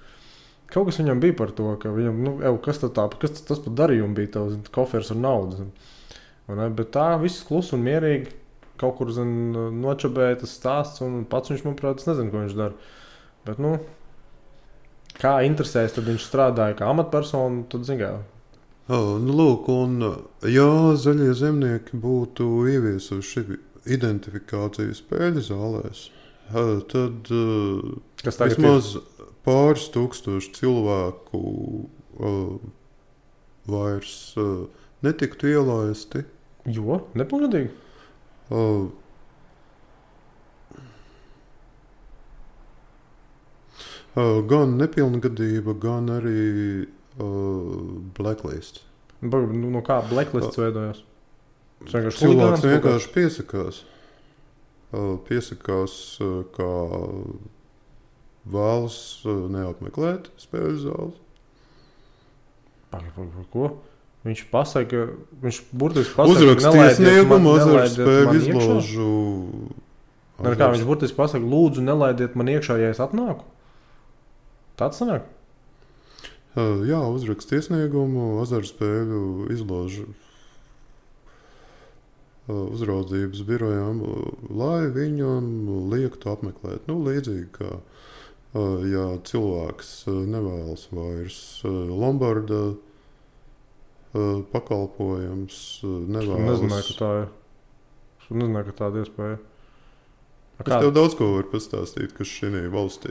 Kaut kas viņam bija par to, ka viņam, kas tas par darījumu bija tavs kofers ar naudu. Bet tā viss klus un mierīgi kaut kur nočabēja tas stāsts un pats viņš, manuprāt, es nezinu, ko viņš dara. Bet, kā interesēs, tad viņš strādāja kā amatpersona, tad zingā. Lūk, un ja zaļie zemnieki būtu ieviesuši identifikāciju spēļu zālēs, tad vismaz pāris tūkstoši cilvēku vairs netiktu ielaisti. Jo? Nepilngadīgi? Gan nepilngadība, gan arī blacklist. No kā blacklists veidojās? Cilvēks vienkārši piesakās, kā vēlas neapmeklēt spēļu zāles. Par ko? Viņš burtiski pasaka, uzrakstīja sniegumu azartu spēļu izložu Kā viņš burtiski pasaka, lūdzu, nelaidiet man iekšā, ja es atnāku? Tāds sanāk? Jā, uzrakst iesniegumu, azartspēļu izložu uzraudzības birojām, lai viņam liektu apmeklēt. Līdzīgi kā, ja cilvēks nevēlas vairs Lombarda pakalpojums, nevēlas... Nezināju, ka tāda iespēja. Es tev daudz ko varu pastāstīt, kas šī valstī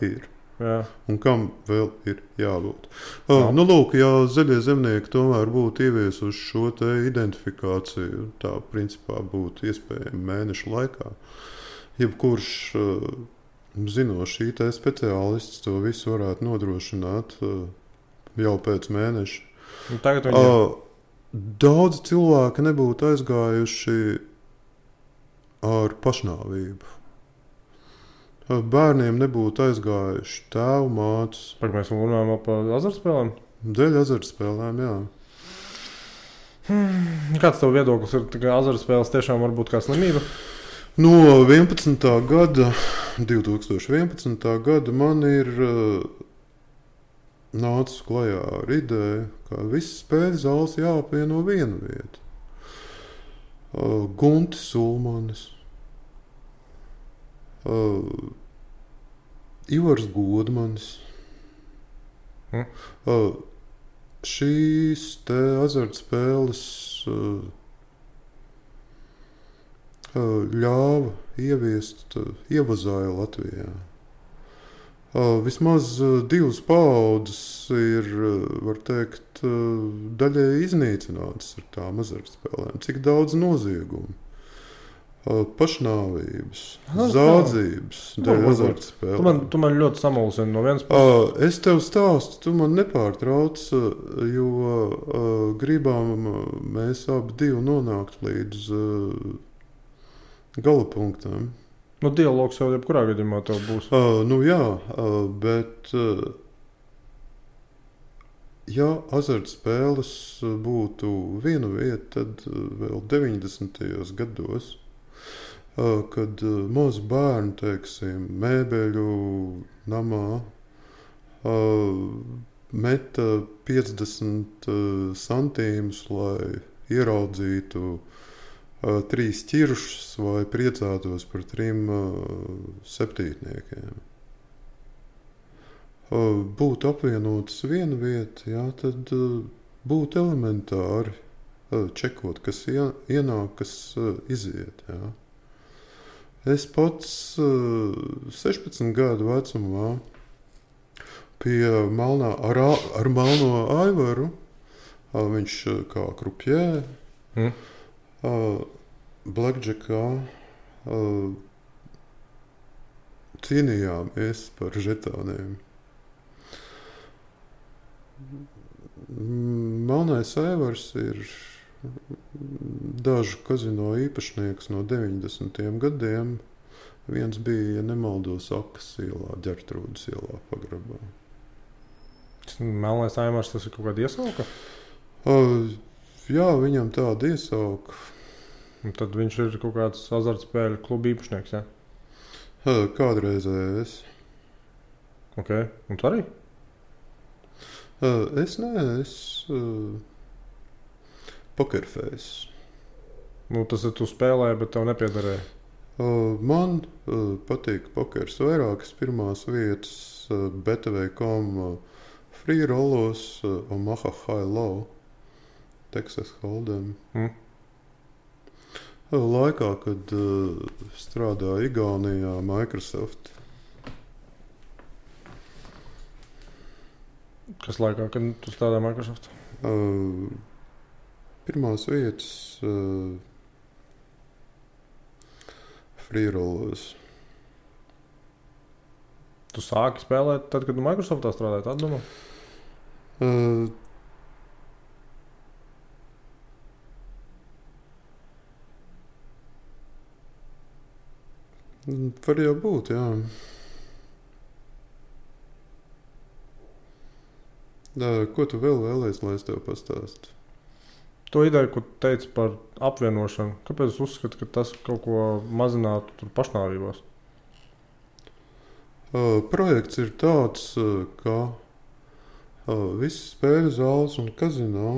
ir. Jā. Un kam vēl ir jābūt. Lūk, ja zaļie zemnieki tomēr būtu ieviesuši šo te identifikāciju, tā principā būtu iespējami mēnešu laikā. Jebkurš zinošs IT speciālists to visu varētu nodrošināt jau pēc mēneša. Daudz cilvēki nebūtu aizgājuši ar pašnāvību. Bērniem nebūtu aizgājuši tēvu mātes. Mēs runājam par azartspēlēm? Dēļ azartspēlēm, jā. Kāds tev viedoklis ir, ka azartspēles tiešām var būt kā slimība? No 2011. gada man ir nācis klajā ar ideju, ka visas spēļu zāles jāapvieno vienu vietu. Guntis Ulmanis, Ivars Godmanis. Šīs te azartspēles ļāva ieviest ievazāju Latvijā. Vismaz 2 paaudzes ir, var teikt, daļēji iznīcinātas ar tām azartspēlēm. Cik daudz noziegumu, pašnāvības, zādzības dēļ azartspēlēm. Tu man ļoti samulsini no vienas puses. Es tev stāstu, tu man nepārtrauc, jo gribam mēs abi divi nonākt līdz galapunktam. Dialogs jau jebkurā gadījumā tev būs. Jā, bet ja azartspēles būtu viena vieta, tad vēl 90. gados, kad mazi bērni, teiksim, mēbeļu namā meta 50 centīmus, lai ieraudzītu 3 ķiršus vai priecātos par 3 septītniekiem. Būtu apvienotas viena vieta, jā, tad būtu elementāri čekot, kas ienāk, kas iziet. Jā. Es pats 16 gadu vecumā pie ar Melno Aivaru, viņš kā krupjē, Blackjackā cīnījāmies par žetāniem. Melnais Aivars ir dažu kazino īpašnieks no 90. gadiem. Viens bija, ja nemaldos, Akas ielā, Ģertrūdas ielā pagrabā. Melnais Aivars, tas ir kaut kāda iesauka? Jā, viņam tāda iesauka. Un tad viņš ir kaut kāds azartspēļu klubu īpašnieks, jā? Kādreizējais. Ok, un tu arī? Es pokerfejs. Tas ir tu spēlēji, bet tev nepiedarēja. Man patīk pokers vairākas pirmās vietas BTV.com free rollos Omaha High Low, Texas Hold'em. Laikā, kad strādāja Igaunijā Microsoft. Kas laikā, kad tu strādāji Microsoft? Pirmās vietas free rollos. Tu sāki spēlēt tad, kad tu Microsoftā strādāji, tā domā? Var jau būt, jā. Ko tu vēl vēlies, lai es tev pastāstu? To ideju, ko teici par apvienošanu, kāpēc es uzskatu, ka tas kaut ko mazinātu tur pašnāvībās? Projekts ir tāds, ka visas spēļu zāles un kazino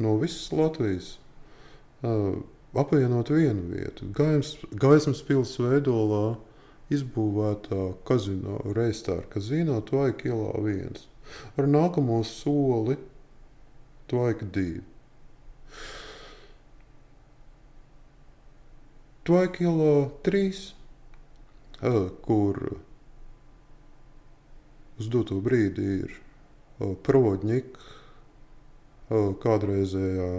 no visas Latvijas apvienot vienu vietu. Gaismas pils Veidolā izbūvētā kazino, Reistāra kazino, Tvaika ielā 1. Ar nākamo soli Tvaika 2. Tvaika ielā 3, kur uz doto brīdi ir Provodņika, kādreizējā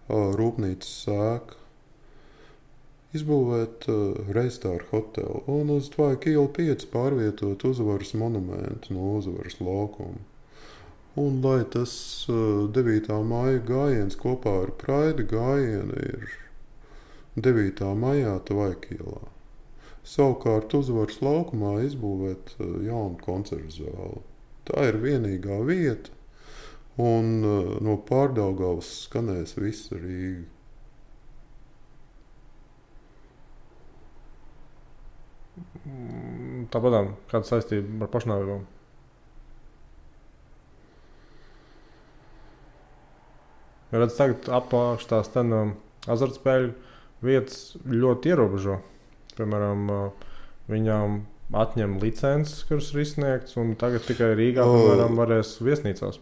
rūpnīcas sēka, izbūvēt Reistāra hotelu un uz Tvaika ielu 5 pārvietot Uzvaras monumentu no Uzvaras laukuma. Un lai tas 9. maija gājiens kopā ar Praida gājienu ir 9. maijā Tvaika ielā. Savukārt Uzvaras laukumā izbūvēt jaunu koncertu zāli. Tā ir vienīgā vieta, un no Pārdaugavas skanēs visa Rīga. Tāpat kāda saistība ar pašnāvībām? Redz, tagad apakš tās azartspēļu vietas ļoti ierobežo. Piemēram, viņām atņem licences, kuras ir izsniegts, un tagad tikai Rīgā, piemēram, varēs viesnīcās.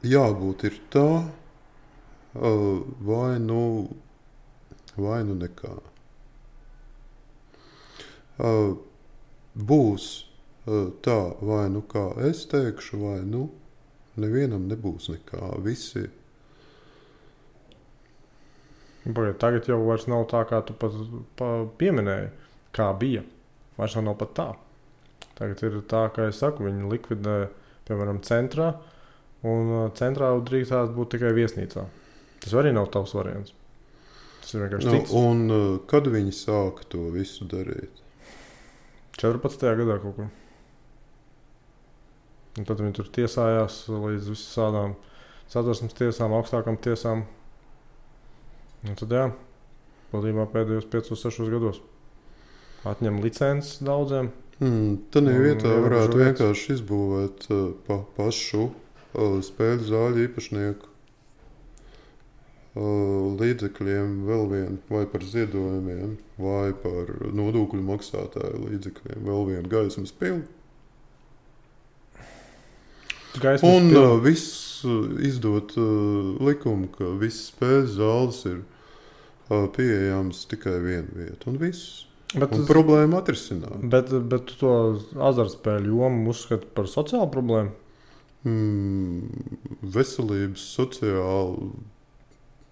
Jābūt ir tā, vai nu nekā. Būs tā, vai nu kā es teikšu, vai nu nevienam nebūs nekā. Visi. Tagad jau vairs nav tā, kā tu pat pieminēji, kā bija. Vairs nav pat tā. Tagad ir tā, kā es saku, viņi likvidē, piemēram, centrā, un centrā drīkstās būt tikai viesnīcā. Tas arī nav tavs variants. Tas ir vienkārši cits. Un kad viņi sāka to visu darīt? 14. gadā kaut kur. Un tad viņi tur tiesājās līdz visādām Satversmes tiesām, augstākām tiesām. Un tad būtībā pēdējos 5-6 gados atņem licences daudziem. Tādā vietā varētu vienkārši izbūvēt pašu spēļu zāļu īpašnieku līdzekļiem vēl vienu, vai par ziedojumiem, vai par nodokļu maksātāju līdzekļiem vēl vienu gaismas pili. Un viss izdot likumu, ka visas spēļu zāles ir pieejams tikai vienu vietu, un viss. Un problēma atrisināt. Bet tu to azartspēļu jomu uzskati par sociālu problēmu? Veselības sociāli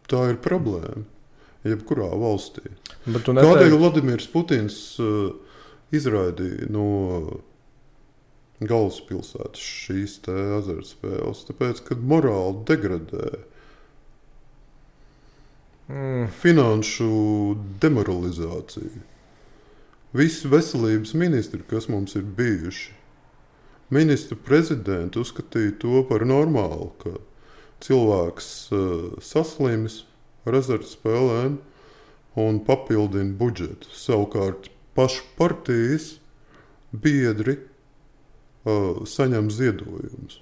tā ir problēma jebkurā valstī. Kādēļ Vladimirs Putins izraidīja no galvaspilsētas šīs te azartspēles? Tāpēc, kad morāli degradē, finanšu demoralizācija. Visi veselības ministri, kas mums ir bijuši, ministru prezidenti uzskatīja to par normālu, ka cilvēks saslimis ar azartspēlēm un papildina budžetu. Savukārt pašu partijas biedri saņem ziedojumus.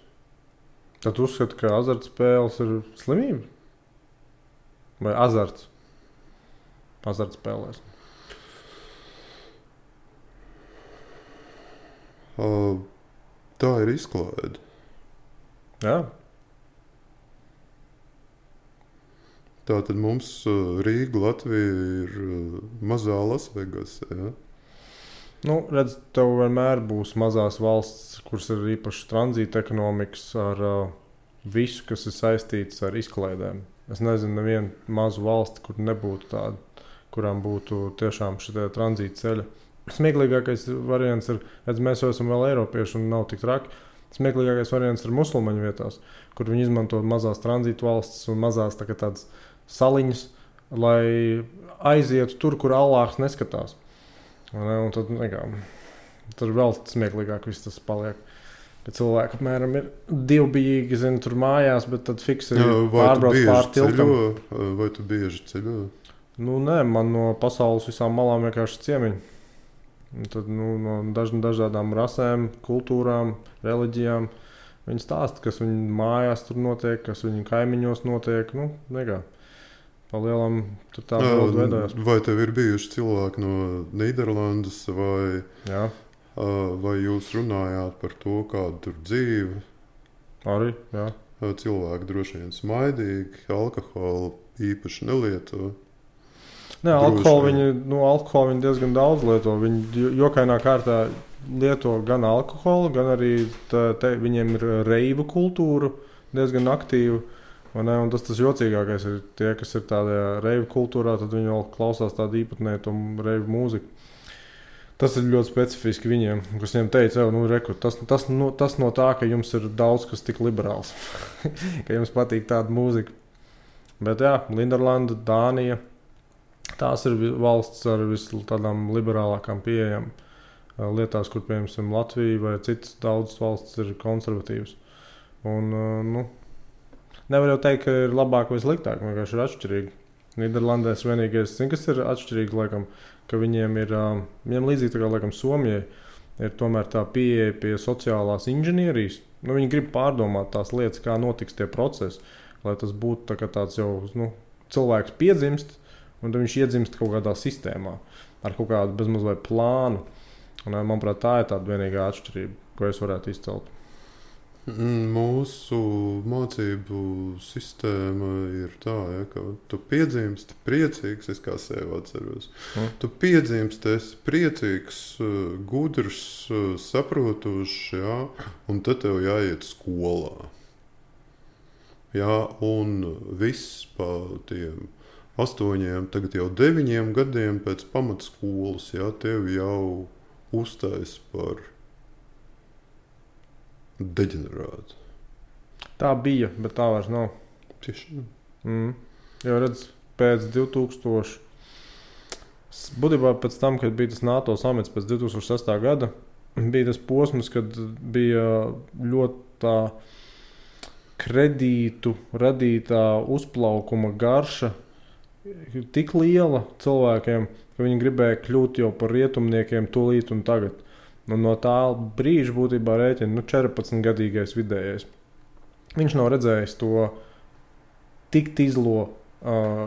Tad uzskata, ka azartspēles ir slimība? Vai azarts? Azartspēlēs. Tā ir izklaide. Jā. Tātad mums Rīga, Latvija ir mazā Lasvegas. Ja? Redz, tev vienmēr būs mazās valsts, kuras ir īpaši tranzīta ekonomikas ar visu, kas ir saistīts ar izklaidēm. Es nezinu nevienu mazu valsti, kur nebūtu tāda, kurām būtu tiešām šitie tranzīta ceļa. Smieklīgākais variants ir, redz, mēs jau esam vēl eiropieši un nav tik traki. Smieklīgākais variants ir musulmaņu vietās, kur viņi izmanto mazās tranzīta valstis un mazās tādas saliņas, lai aizietu tur, kur Allāhs neskatās. Un tad tur vēl smieklīgāk viss tas paliek. ka cilvēki apmēram ir divbijīgi, zin, tur mājās, bet tad fiksi Vai pārbrauc tu pār bieži tiltam. ceļo? Vai tu bieži ceļo? Nu, nē, man no pasaules visām malām vienkārši ciemiņi. Un tad, no dažādām rasēm, kultūrām, reliģijām. Viņi stāsta, kas viņu mājās tur notiek, kas viņu kaimiņos notiek. Nu, nekā. Palielam tur tā bilde veidojās. Vai tev ir bijuši cilvēki no Nīderlandes vai... Jā. Vai jūs runājāt par to, kāda tur dzīve? Arī, jā. Cilvēki droši vien smaidīgi, alkoholu īpaši nelieto. Nē, alkoholu viņi diezgan daudz lieto. Viņi jokainā kārtā lieto gan alkoholu, gan arī viņiem ir reivu kultūra diezgan aktīva. Un tas jocīgākais ir tie, kas ir tādā reivu kultūrā, tad viņi vēl klausās tādu īpatnēju reivu mūziku. Tas ir ļoti specifiski viņiem, kas viņiem teica, tas no tā, ka jums ir daudz kas tik liberāls, ka jums patīk tāda mūzika. Bet jā, Nīderlanda, Dānija, tās ir valsts ar tādām liberālākām pieejām lietās, kur, piemēram, Latvija vai citas daudzas valstis ir konservatīvas. Un, nevar jau teikt, ka ir labāk vai sliktāk, vienkārši ir atšķirīgi. Nīderlandē vienīgais, kas ir atšķirīgi, laikam, ka viņiem ir līdzīgi tā kā, laikam, Somijai, ir tomēr tā pieeja pie sociālās inženierijas. Viņi grib pārdomāt tās lietas, kā notiks tie procesi, lai tas būtu tā tāds jau, cilvēks piedzimst, un tad viņš iedzimst kaut kādā sistēmā, ar kaut kādu bezmaz vai plānu. Un, manuprāt, tā ir tāda vienīgā atšķirība, ko es varētu izcelt. Mūsu mācību sistēma ir tā, ka tu piedzimsti priecīgs, es kā sevi atceros. Tu piedzimsti, esi priecīgs, gudrs, saprotošs, jā, un tad tev jāiet skolā. Jā, un viss pa tiem 8, tagad jau 9 gadiem pēc pamatskolas, jā, tev jau uztais par deģenerātu. Tā bija, bet tā vairs nav. Tieši. Jo redz, pēc 2000, būtībā pēc tam, kad bija tas NATO samits pēc 2006. gada, bija tas posms, kad bija ļoti tā kredītu radītā uzplaukuma garša tik liela cilvēkiem, ka viņi gribēja kļūt jau par rietumniekiem tūlīt un tagad. Un no tā brīža būtībā rēķina 14-gadīgais vidējais. Viņš nav redzējis to tik izlo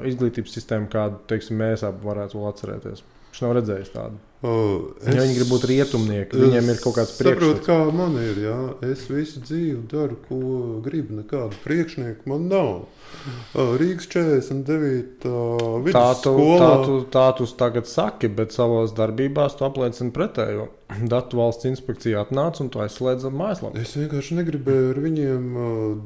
izglītības sistēmu, kādu, teiksim, mēs abi varētu vēl atcerēties. Viņš nav redzējis tādu. Viņi grib būt rietumnieki, viņiem ir kaut kāds priekšstats. Saprotu, kā man ir, jā. Es visu dzīvi daru, ko gribu, nekādu priekšnieku man nav. Rīgas 49. Vidusskola. Tā tu tagad saki, bet savās darbībās tu apliecini pretējo. Datu valsts inspekcija atnāca un tu aizslēdz mājaslapu. Es vienkārši negribēju ar viņiem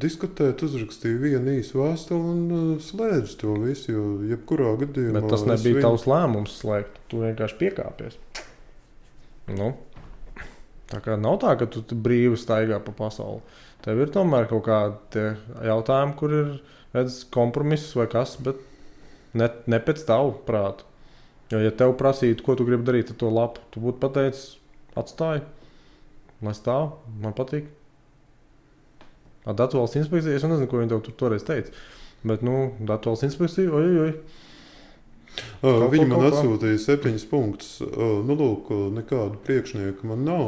diskutēt, uzrakstīju vienu īsu vēstuli un slēdzu to visu, jo jebkurā gadījumā... Bet tas nebija tavs lēmums slēgt, tu vienkārši piekāpies. Tā kā nav tā, ka tu brīvi staigā pa pasauli. Tev ir tomēr kaut kādi jautājumi, kur ir kompromiss vai kas, bet ne pēc tavu prātu. Jo, ja tev prasītu, ko tu gribi darīt ar to lapu, tu būtu pateicis, atstāj, lai stāv, man patīk. Ar datu valsts inspekciju, es nezinu, ko viņi tev toreiz teica, bet, datu valsts inspekciju, ojojoj. Viņi man atsūtīja 7 punktus. Lūk, nekādu priekšnieku man nav.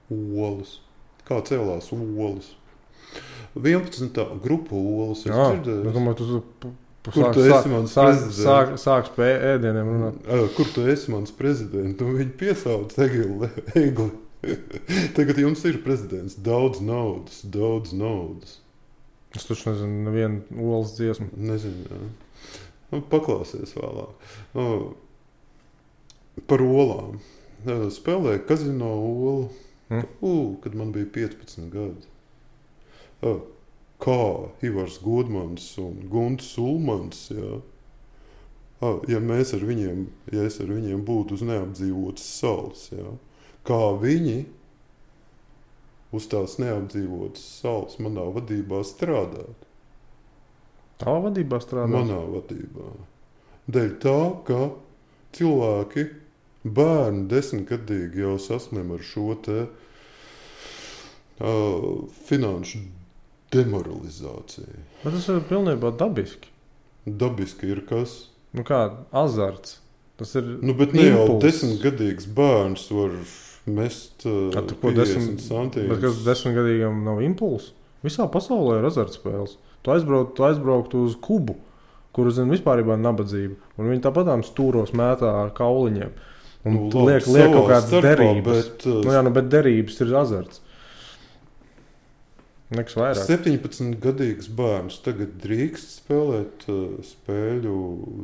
Olas. Kā cēlās olas? 11. grupa olas. Es dzirdēju. Es domāju, Kur tu esi mans prezidents? Sāks pie ēdieniem runāt. Kur tu esi mans prezidents? Viņi piesauc Egli. Tagad jums ir prezidents. Daudz naudas. Es taču nezinu, nevienu olas dziesmu. Nezinu, jā. Paklausies vēlāk. Par olām. Spēlēju kazino olu, kad man bija 15 gadi. Kā Ivars Godmans un Gunts Ulmans, jā. Ja es ar viņiem būtu uz neapdzīvotas salas, jā. Kā viņi uz tās neapdzīvotas salas manā vadībā strādāt. Tavā vadībā strādāt? Manā vadībā. Dēļ tā, ka cilvēki bērni 10-gadīgi jau saslim ar šo te finanšu demoralizāciju. Bet tas ir pilnībā dabiski. Dabiski ir kas? Nu kā, azarts. Tas ir bet ne jau 10-gadīgs bērns var mest 50 centīmus. Bet kas 10-gadīgam nav impulss? Visā pasaulē ir azartspēles. Tu aizbrauktu uz Kubu, kur zin vispārībā nabadzība. Un viņi tāpatām stūros mētā ar kauliņiem. Un liek kaut kādas derības. Bet derības ir azarts. Nekas vairāk. 17-gadīgs bērns tagad drīkst spēlēt spēļu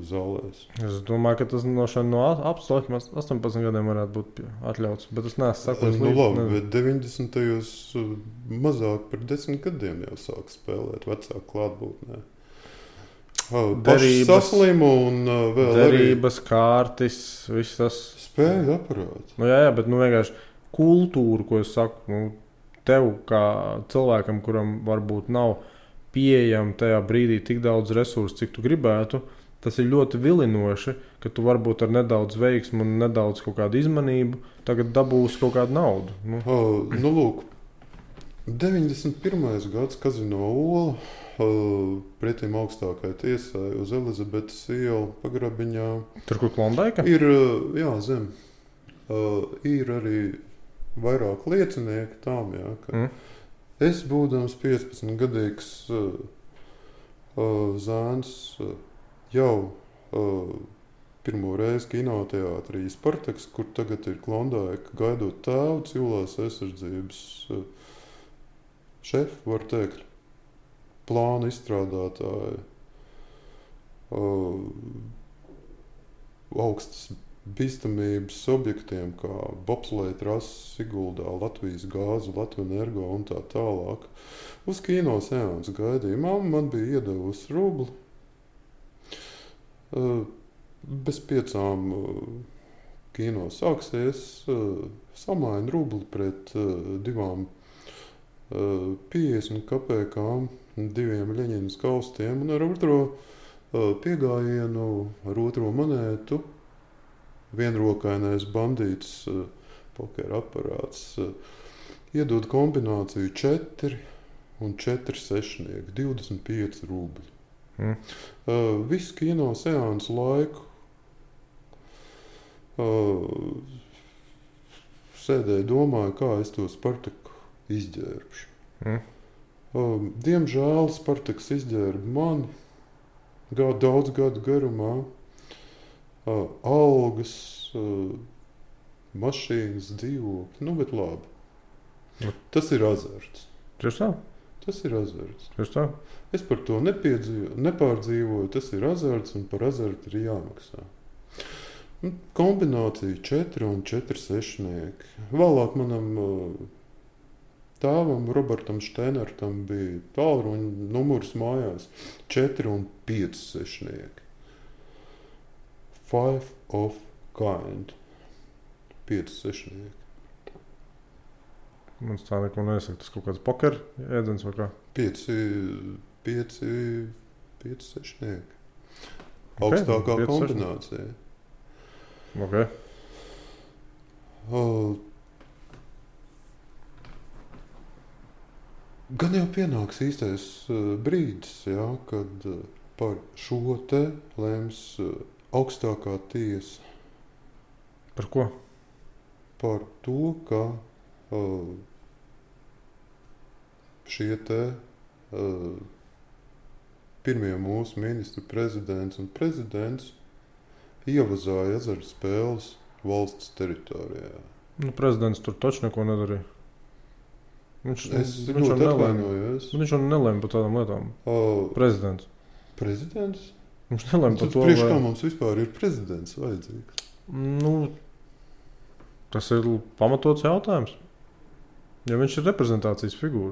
zālēs. Es domāju, ka tas no 18 gadiem varētu būt atļauts, bet es neesmu sakojis līdzi. Labi, bet 90-tajos mazāk par 10 gadiem jau sāk spēlēt vecāku klātbūtnē. Derības, saslimu un vēl derības, kārtis, viss tas. Spēļu aparāts. Jā, bet vienkārši kultūra, ko es saku, tev kā cilvēkam, kuram varbūt nav pieejama tajā brīdī tik daudz resursu, cik tu gribētu, tas ir ļoti vilinoši, ka tu varbūt ar nedaudz veiksmu un nedaudz kaut kādu izmanību tagad dabūsi kaut kādu naudu. Lūk, 91. gads Kazino Ola pretim augstākai tiesai uz Elizabetes ielu pagrabiņā. Tur, kur Klondaika? Ir, zem. Ir arī vairāk liecinieki tām, ka es, būdams 15-gadīgs zēns, jau pirmo reizi kinoteātrī Spartaks, kur tagad ir Klondaika, gaidot tēvu civilās aizsardzības šefu, var teikt, plāna izstrādātāji, augstas bīstamības objektiem, kā bobsleja trases Siguldā, Latvijas gāzu, Latvijas energo un tā tālāk. Uz kino seansu gaidīja. Mamma man bija iedevusi rubli. Bez 5 kino sāksies, samaina rubli pret 2 50 kapekām, 2 Ļeņinas kaustiem un ar otro piegājienu, ar otro monētu vienrokainais bandīts pokera aparāts iedod kombināciju 4 un 4 sešnieki, 25 rubļi. Visu kino seansu laiku sēdēju, domāju, kā es to Spartaku izģērbšu. Diemžēl Spartaks izģērba mani daudz gadu garumā. Algas, mašīnas, dzīvokļi, bet labi. Tas ir azarts. Tieši tā? Tas ir azarts. Tieši tā? Es par to nepārdzīvoju, tas ir azarts un par azartu ir jāmaksā. Kombinācija 4 un 4 sešnieki. Vēlāk manam tēvam, Robertam Steinertam, bija tālruņa numurs mājās 4 un 5 sešnieki. 5 of kind. 5 sešnieki. Man tā neko nesaka. Tas kaut kāds poker ēdens vai kā? 5 sešnieki. Augstākā kombinācija. Okay. Gan jau pienāks īstais brīdis, kad par šo te lems augstākā tiesa. Par ko? Par to, ka šie te pirmie mūsu ministri, prezidents un prezidents ievazāja azartspēles valsts teritorijā. Prezidents tur taču neko nedarīja. Es ļoti atvainojos. Viņš jau nelēma par tādām lietām. Prezidents. Prezidents? Viņš nelēma par to, priekš kā mums vispār ir prezidents vajadzīgs? Tas ir pamatots jautājums. Ja viņš ir reprezentācijas figūra,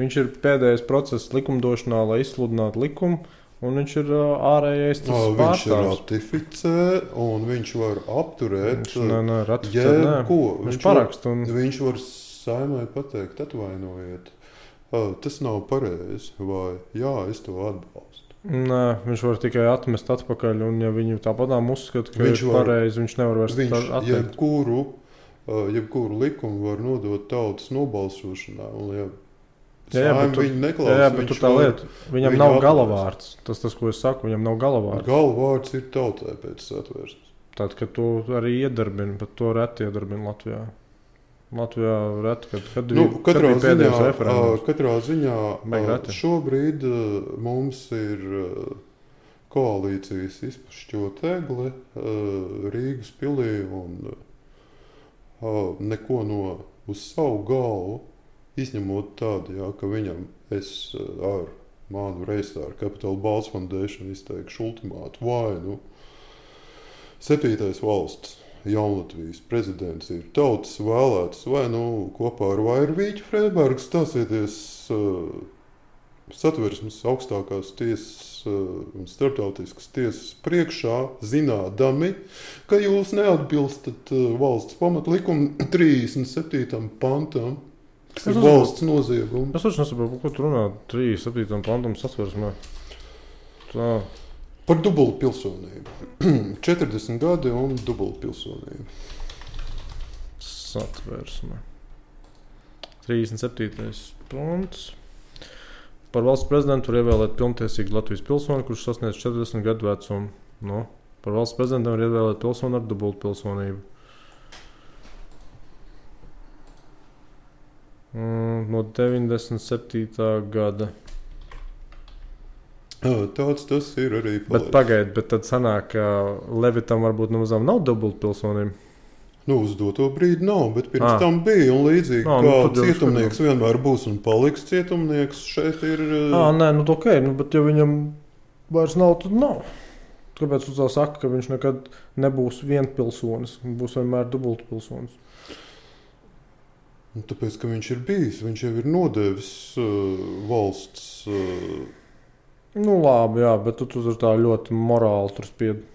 viņš ir pēdējais process likumdošanā, lai izsludinātu likumu, un viņš ir ārējais tas pārstāvs. Viņš ir ratificē, un viņš var apturēt jebko. Viņš paraksta. Viņš var Saimai pateikt, atvainojiet, tas nav pareizi, vai jā, es to atbalstu. Nē, viņš var tikai atmest atpakaļ, un ja viņu tāpatām uzskata, ka Viņš ir var- pareizi, viņš nevar vairs atteikt. jebkuru likumu var nodot tautas nobalsošanā. Un, ja Jā, bet Saima tur- viņu neklausa, Jā, bet tur tā lieta, viņam viņu nav atmest. galavārds. Tas, ko es saku, viņam nav galavārds. Galvārds ir tautai pēc satversmes. Tad, kad to arī iedarbina, bet to reti iedarbina Latvijā. Latvijā reti, kad Katrā bija pēdējais referendums. Katrā ziņā Baigi reti. šobrīd mums ir koalīcijas izpašķotegle Rīgas pilī un neko no uz savu galvu, izņemot tādu, jā, ka viņam es ar manu Reistāru Capital Balts Foundation izteikšu ultimātu vai, 7. valsts Jaunlatvijas prezidents ir tautas vēlēts vai, kopā ar Vairu Vīķu Freibergu stāsieties satversmes augstākās tiesas un starptautiskas tiesas priekšā, zinādami, ka jūs neatbilstat valsts pamatlikuma 37. pantam, kas ir valsts noziegums. Es taču nesaprotu, ko tu runā 37. pantam satversmē. Tā. Par dubultu pilsonību. 40 gadi un dubultu pilsonību. Satversme. 37. pants. Par valsts prezidentu var ievēlēt pilntiesīgu Latvijas pilsoni, kurš sasniedz 40 gadu vecumu. Par valsts prezidentu var ievēlēt pilsoni ar dubultu pilsonību. No 97. gada. Tāds tas ir arī. Bet pagaid, bet tad sanāk, ka Levitam varbūt nemazām nav dubultu pilsonību. Uz doto brīdi nav, bet pirms tam bija. Un līdzīgi kā cietumnieks vienmēr būs un paliks cietumnieks, šeit ir. Nē, ok, bet ja viņam vairs nav, tad nav. Kāpēc tu tā saki, ka viņš nekad nebūs vienpilsonis, būs vienmēr dubultu pilsonis? Tāpēc, ka viņš ir bijis, viņš jau ir nodevis valsts. Labi, jā, bet tu tur tā ļoti morāli tur spied.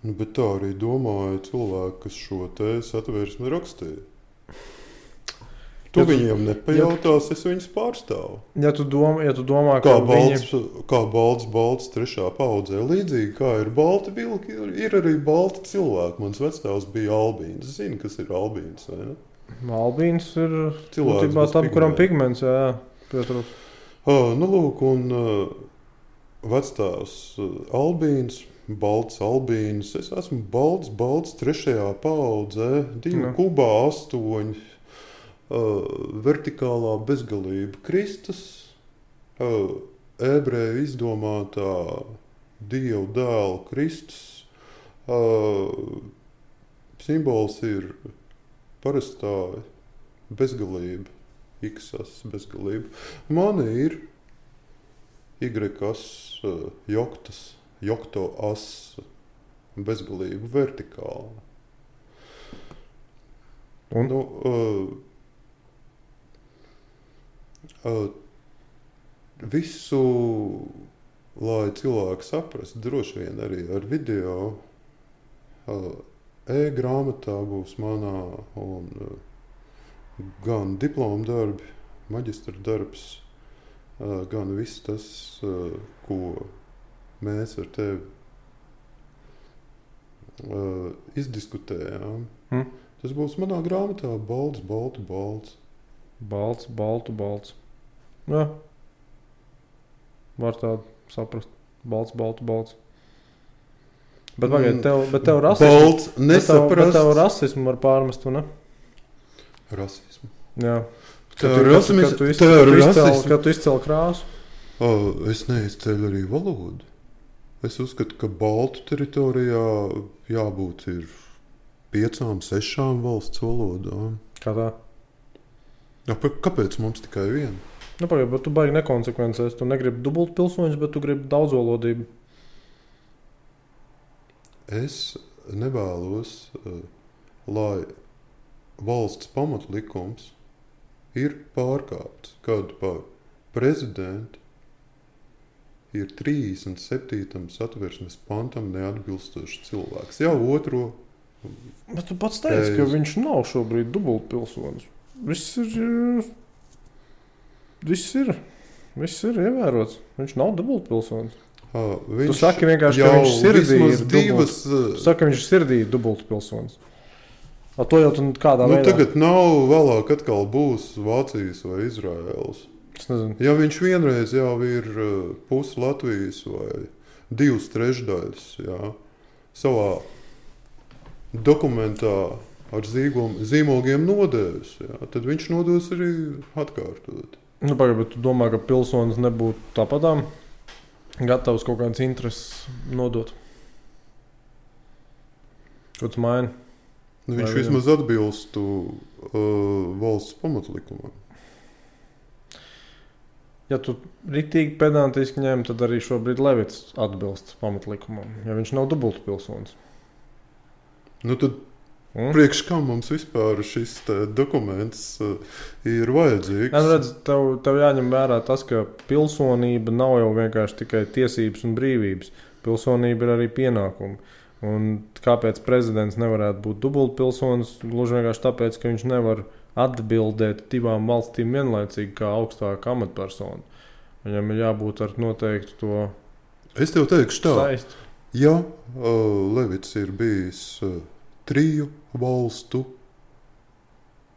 Bet tā arī domāja cilvēki, kas šo te satversmi rakstīja. Tu viņiem nepajautās, es viņus pārstāvu. Ja tu domā, kā balts trešā paudzē, līdzīgi kā ir balti vilki, ir arī balti cilvēki. Mans vectēvs bija albīns. Zini, kas ir albīns, vai ne? Albīns ir būtībā tam, kuram pigments, jā, pietrūkst. Lūk, un vectēvs albīns, balts albīns. Es esmu balts trešajā paudzē, 2 kubā 8, vertikālā bezgalība Kristus, ebreju izdomātā Dieva dēla Kristus. Simbols ir parastā bezgalība, iksas bezgalība. Man ir Y-as, jokto as, bezgalība vertikāla. Un? Visu, lai cilvēki saprastu, droši vien arī ar video, e-grāmatā būs manā un gan diploma darbi, maģistra darbs, gan viss tas, ko mēs ar tevi izdiskutējām. Tas būs manā grāmatā balts, baltu, balts. Balts, baltu, balts. Jā. Var tādu saprast. Balts, baltu, balts. Bet pagaid, tev rasismu. Balts nesaprast. Bet tev rasismu var pārmest, vai ne? Rasismu? Jā. Kad tu izcēli krāsu? Es neizceļu arī valodu. Es uzskatu, ka baltu teritorijā jābūt ir 5, 6 valsts valodām. Kā tā? Kāpēc mums tikai viena? Pagaid, bet tu baigi nekonsekvences. Tu negribi dubultu pilsoņus, bet tu gribi daudzvalodību. Es nevēlos, lai valsts pamatlikums ir pārkāpts, kad par prezidentu ir 37. satversmes pantam neatbilstošs cilvēks. Jau otro. Bet tu pats teici, ka viņš nav šobrīd dubultu pilsonis. Viss ir. Viss ir ievērots. Viņš nav dubultpilsonis. Viņš Tu saki vienkārši, ka viņš sirdī ir divas. Tu saki, ka viņš sirdī ir dubultpilsonis. To jau tu kādā veidā. Tagad nav vēlāk atkal būs Vācijas vai Izraēlas. Es nezinu. Ja viņš vienreiz jau ir pusi Latvijas vai 2/3, jā, savā dokumentā ar zīmogiem nodevis, jā, tad viņš nodos arī atkārtot. Pagaid, bet tu domā, ka pilsonis nebūtu tāpatām gatavs kaut kādas intereses nodot? Ko tu maini? Viņš vismaz atbilstu valsts pamatlikumam. Ja tu ritīgi pedantiski ņem, tad arī šobrīd Levits atbilst pamatlikumam, ja viņš nav dubultpilsonis. Tad priekš kā mums vispār šis dokuments ir vajadzīgs? Redz, tev jāņem vērā tas, ka pilsonība nav jau vienkārši tikai tiesības un brīvības. Pilsonība ir arī pienākumi. Un kāpēc prezidents nevarētu būt dubultpilsonis? Gluži vienkārši tāpēc, ka viņš nevar atbildēt divām valstīm vienlaicīgi kā augstāka amatpersona. Viņam ir jābūt ar noteiktu to Es tev teikšu tā. saisti. Ja Levits ir bijis 3 valstu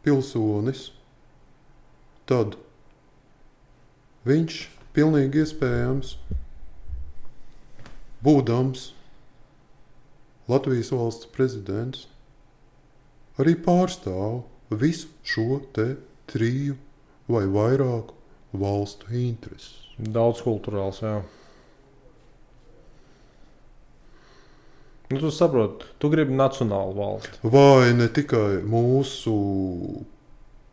pilsonis, tad viņš pilnīgi iespējams, būdams Latvijas valsts prezidents, arī pārstāv visu šo te 3 vai vairāku valstu intereses. Daudz kulturāls, jā. Tu saproti, tu gribi nacionālu valsti. Vai ne tikai mūsu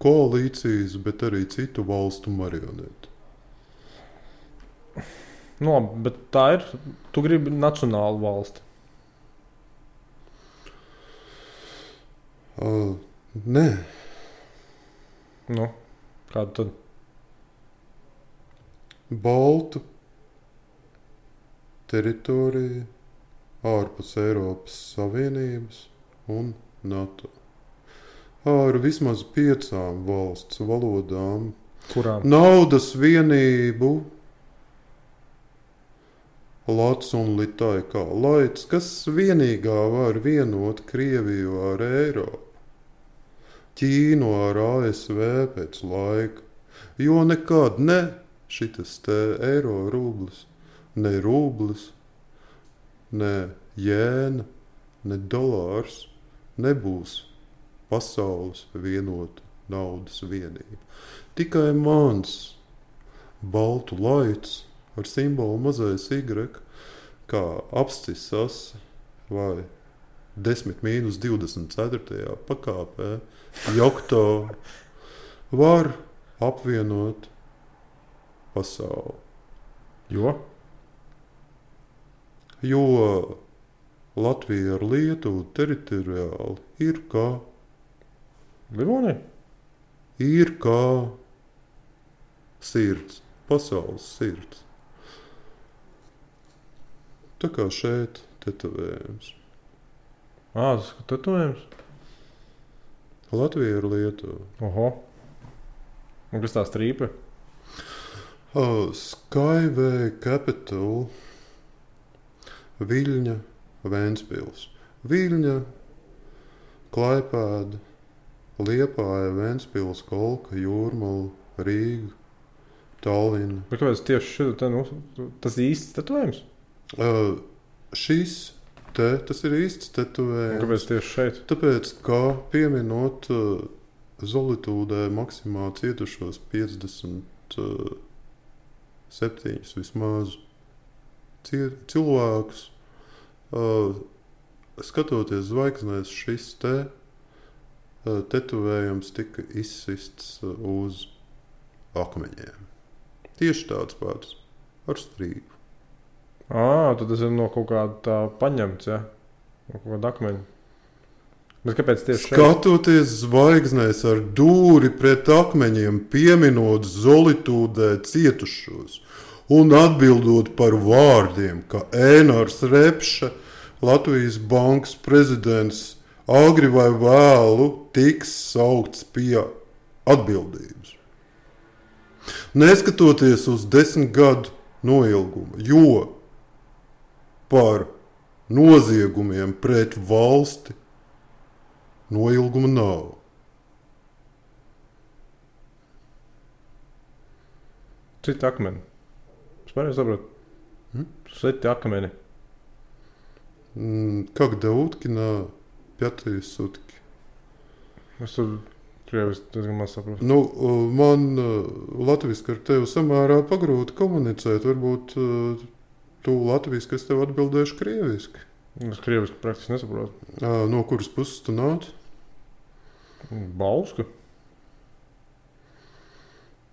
koalīcijas, bet arī citu valstu marioneti. Labi, bet tā ir. Tu gribi nacionālu valsti. Nē. Kādu tad? Baltu teritoriju ārpus Eiropas Savienības un NATO. Ar vismaz 5 valsts valodām. Kurām? Naudas vienību lats un litai kā laids, kas vienīgā var vienot Krieviju ar Eiropu, Ķīnu ar ASV pēc laika, jo nekad ne šitas te eiro rublis, ne rublis, ne jēna, ne dolārs nebūs pasaules vienota naudas vienība. Tikai mans baltu laids ar simbolu mazais Y, kā apstisas vai 10-24. pakāpē, jokto var apvienot pasauli. Jo Latvija ar Lietuvu teritoriāli ir kā Livonija? Ir kā sirds, pasaules sirds. Tā kā šeit tetovējums. Tas ir tetovējums? Latvija ar Lietuvu. Oho. Un kas tā strīpa? Skyway Capital, Viļņa, Ventspils. Viļņa, Klaipēda, Liepāja, Ventspils, Kolka, Jūrmala, Rīga, Tallina. Bet kāpēc tieši šeit tas īsts tetovējums? Tas ir īsts tetovējums. Kāpēc tieši šeit? Tāpēc, kā pieminot Zolitūdē maksimā cietušos 57 vismaz cilvēkus, skatoties zvaigznēs, šis tetovējums tika izsists uz akmeņiem. Tieši tāds pats ar strīpu. Tad tas ir no kaut kāda tā paņemts, ja? No kaut kāda akmeņa. Bet kāpēc tieši šeit? Skatoties zvaigznēs ar dūri pret akmeņiem, pieminot Zolitūdē cietušos un atbildot par vārdiem, ka Ēnars Repša, Latvijas bankas prezidents, agri vai vēlu tiks saukts pie atbildības. Neskatoties uz 10 gadu noilgumu, jo par noziegumiem pret valsti noilguma nav. Citi akmeni. Es pareizi saprotu. Citi akmeni. Когда утки на 5 sutki. Es tur krieviski diezgan maz saprotu. Nu, man latviski ar tevi samērā pagrūti komunicēt. Varbūt tu latviski, es tev atbildēšu krieviski. Es krieviski praktiski nesaprotu. No kuras puses tu nāc? Bausku.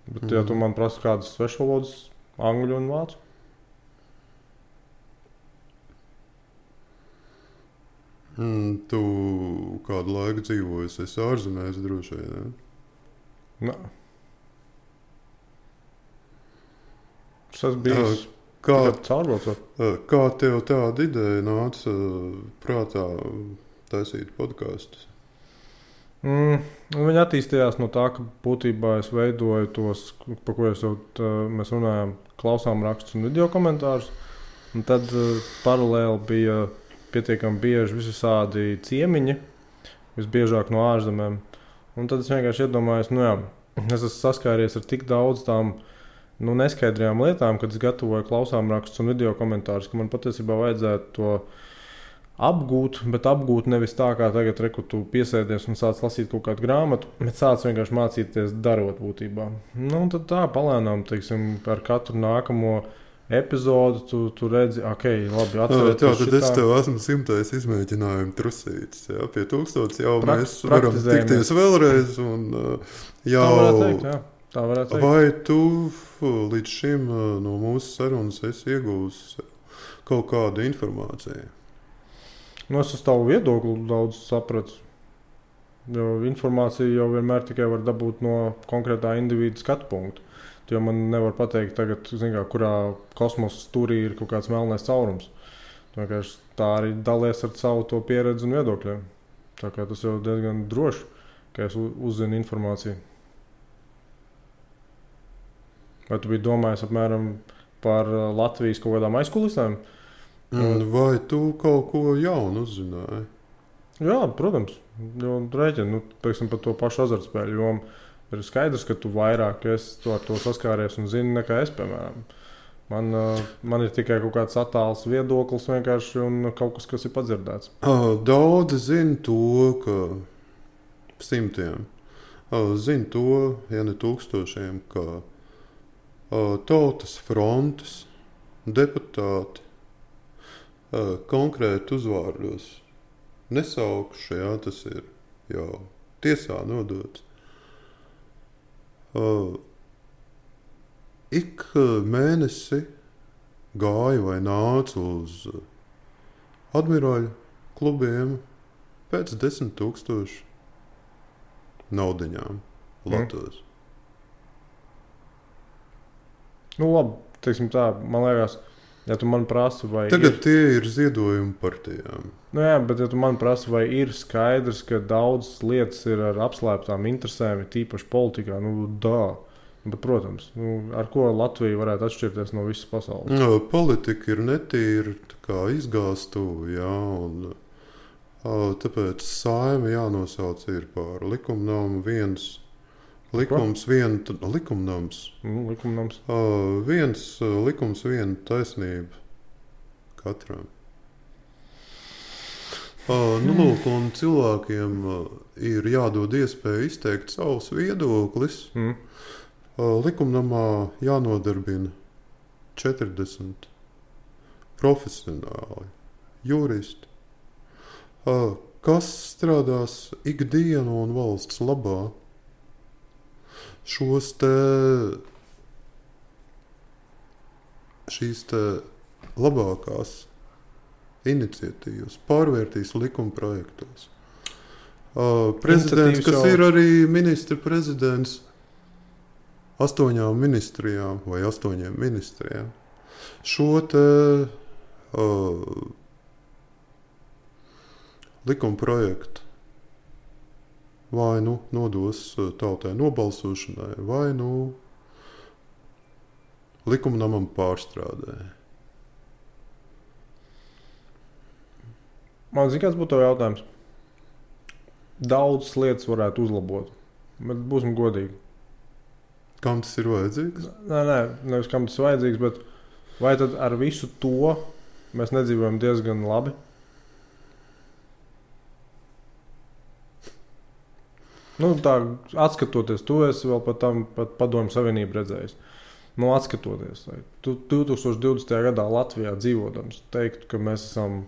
Bet, ja tu man prasi kādas svešvalodas, angļu un vācu. Tu kādu laiku dzīvojusi, esi ārzemēs droši vien, ne? Es esmu bijis caurbraucot. Kā tev tāda ideja nāca prātā taisīt podkastus? Viņi attīstījās no tā, ka būtībā es veidoju tos, par ko mēs runājām, klausām rakstus un video komentārus. Un tad paralēli bija pietiekami bieži visādi ciemiņi, visbiežāk no ārzemēm. Un tad es vienkārši iedomājos, es esmu saskāries ar tik daudz tām neskaidrajām lietām, kad es gatavoju klausām rakstus un video komentārus, ka man patiesībā vajadzētu to apgūt, bet apgūt nevis tā, kā tagad tu piesēdies un sāc lasīt kaut kādu grāmatu, bet sāc vienkārši mācīties darot būtībā. Un tad tā palēnām, teiksim, ar katru nākamo epizodu tu redzi, labi, atcerieties. Tad es tev esmu 100. izmēģinājumu trusītis. Jā, pie 1000 jau mēs varam tikties vēlreiz. Un, jau... Tā varētu teikt, jā. Tā varētu teikt. Vai tu līdz šim no mūsu sarunas esi iegūsi kaut kādu informāciju? Es uz tavu viedokli daudz sapratu. Jo informāciju jau vienmēr tikai var dabūt no konkrētā individu skatu punkta. Jo man nevar pateikt, tagad, kurā kosmosa stūrī ir kaut kāds melnais caurums. Tā arī dalies ar savu to pieredzi un viedokļiem. Tā kā tas jau diezgan droši, ka es uzzinu informāciju. Vai tu biji domājis apmēram par Latvijas kaut kādām aizkulisēm? Vai tu kaut ko jaunu uzzināji? Jā, protams. Rēķini, teiksim, par to pašu azartspēļu jomu. Ir skaidrs, ka tu vairāk ar to saskāries un zini nekā es, piemēram. Man ir tikai kaut kāds attāls viedoklis vienkārši un kaut kas ir padzirdēts. Daudzi zina to, ka simtiem. Zina to, ja ne tūkstošiem, ka Tautas frontes deputāti konkrēti uzvārdos nesaukšu, tas ir jau tiesā nodots. Ik mēnesi gāju vai nācu uz admirāļu klubiem pēc 10 000 naudiņām Latvijas. Labi, teiksim tā, man liekas, ja tu man prasi, vai tagad tie ir ziedojumi partijām. Jā, bet ja tu man prasi, vai ir skaidrs, ka daudzas lietas ir ar apslēptām interesēm, tīpaši politikā, bet, protams, ar ko Latvija varētu atšķirties no visas pasaules? Politika ir netīra, kā izgāstuve, un tāpēc Saeima jānosauc ir par likumnamu viens. Likumnams. Viens likums, viena taisnība katram. Lūk, un cilvēkiem ir jādod iespēja izteikt savus viedoklis. Likumnamā jānodarbina 40 profesionāli juristi, kas strādās ikdienu un valsts labā. Šīs labākās iniciatīvas pārvērtīs likuma projektos. Prezidents, kas ir arī ministra prezidents 8 ministrijām vai 8 ministrijām, šo likuma projektu vai nodos tautai nobalsošanai, vai likumnamam pārstrādē. Man zina, kāds būtu tev jautājums. Daudzas lietas varētu uzlabot, bet būsim godīgi. Kam tas ir vajadzīgs? Nē, nevis kam tas ir vajadzīgs, bet vai tad ar visu to mēs nedzīvojam diezgan labi? Nu, tā, atskatoties, tu esi vēl pat Padomju Savienību redzējis. Nu, atskatoties, tu 2020. gadā Latvijā dzīvodams, teiktu, ka mēs esam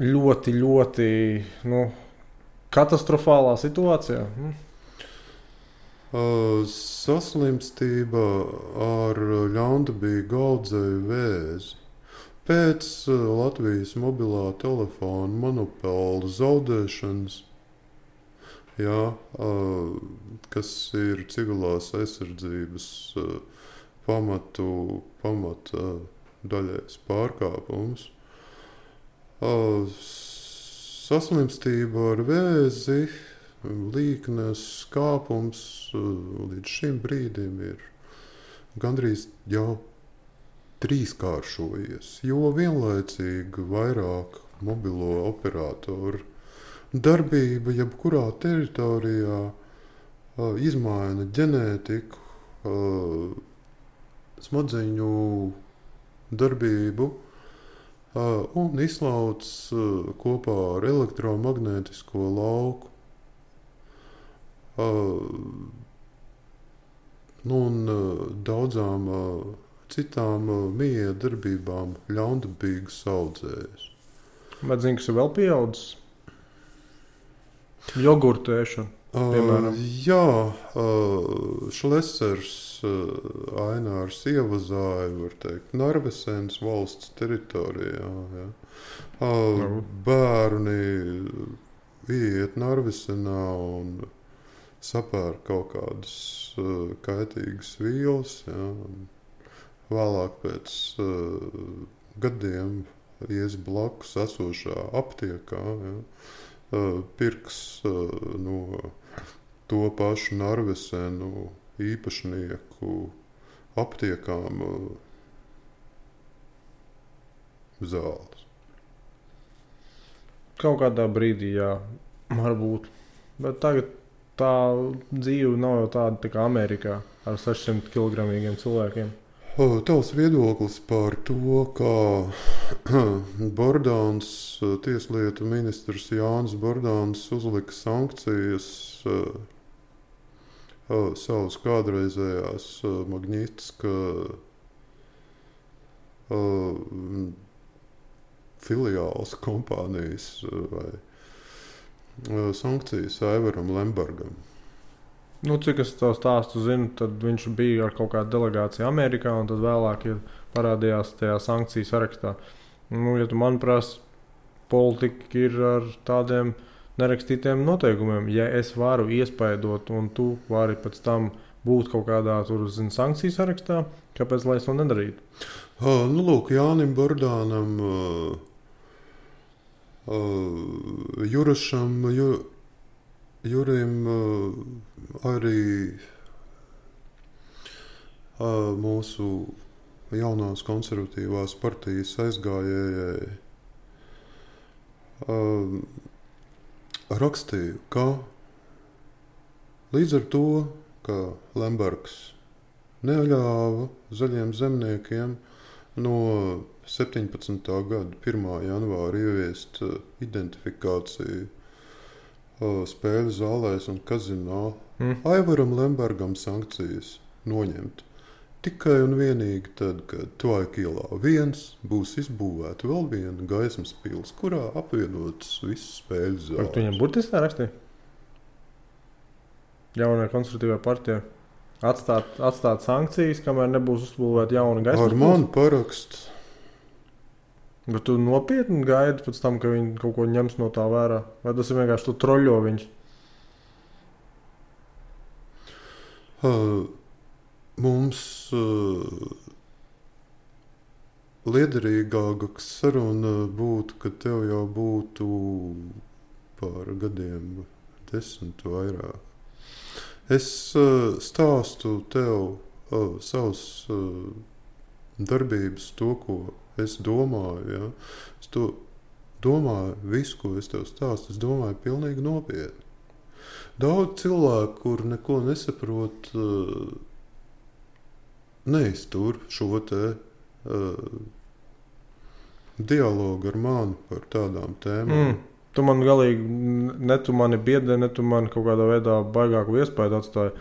ļoti, ļoti katastrofālā situācijā. Saslimstība ar ļaundabīgu audzēju vēzi. Pēc Latvijas mobilā telefona monopola zaudēšanas, kas ir civilās aizsardzības pamata daļais pārkāpums. Saslimstība ar vēzi, līknes skāpums līdz šim brīdim ir gandrīz jau trīskāršojies, jo vienlaicīgi vairāk mobilo operatoru darbība jebkurā teritorijā izmaina ģenētiku, smadzeņu darbību un izslauc kopā ar elektromagnētisko lauku. Un daudzām citām miedarbībām ļaundabīgas audzējas. Bet zini, kas ir vēl pieaudzis? Jogurtēšana, piemēram. Šlesers Ainārs ievazāja, var teikt, Narvesenes valsts teritorijā. Bērni iet Narvesenā un sapēr kaut kādas kaitīgas vielas. Vēlāk pēc gadiem ies blakus esošā aptiekā, pirks no to pašu Narvesenu īpašnieku aptiekām zāles. Kaut kādā brīdī, varbūt. Bet tagad tā dzīve nav jau tāda kā Amerikā ar 600 kilogramīgiem cilvēkiem. Tavs viedoklis par to, kā Bordāns, tieslietu ministrs Jānis Bordāns uzlika sankcijas savas kādreizējās Magnitska filiāls kompānijas vai sankcijas Aivaram Lembergam. Cik es to stāstu zinu, tad viņš bija ar kaut kādu delegāciju Amerikā, un tad vēlāk parādījās tajā sankciju sarakstā. Ja tu man prasi, politika ir ar tādiem nerakstītiem noteikumiem. Ja es varu iespaidot, un tu vari pēc tam būt kaut kādā sankciju sarakstā, kāpēc lai es to nedarītu? Lūk, Jānim Bordānam, Jurim arī mūsu jaunās konservatīvās partijas aizgājējai rakstīju, ka līdz ar to, ka Lembergs neļāva zaļiem zemniekiem no 17. gada 1. janvāra ieviest identifikāciju spēļu zālēs un kazinā, Aivaram Lembergam sankcijas noņemt. Tikai un vienīgi tad, kad Tvaika ielā 1 būs izbūvēta vēl viena gaismas pils, kurā apvienotas visas spēļu zāles. Tu viņam burtiski tā rakstīja? Jaunajā konservatīvā partijā atstāt sankcijas, kamēr nebūs uzbūvēta jauna gaismas pils? Ar manu parakstu. Bet tu nopietni gaidi pēc tam, ka viņi kaut ko ņems no tā vērā? Vai tas ir vienkārši tu troļo viņus? Mums liederīgāka saruna būtu, ka tev jau būtu par gadiem 10 vairāk. Es stāstu tev savas darbības, to, ko es domāju. Ja? Es to domāju, visu, ko es tev stāstu, es domāju pilnīgi nopietni. Daudz cilvēku, kur neko nesaprot, neiztur šo te dialogu ar mani par tādām tēmām. Tu man galīgi, ne tu mani biedē, ne tu mani kaut kādā veidā baigāku iespēju atstāji.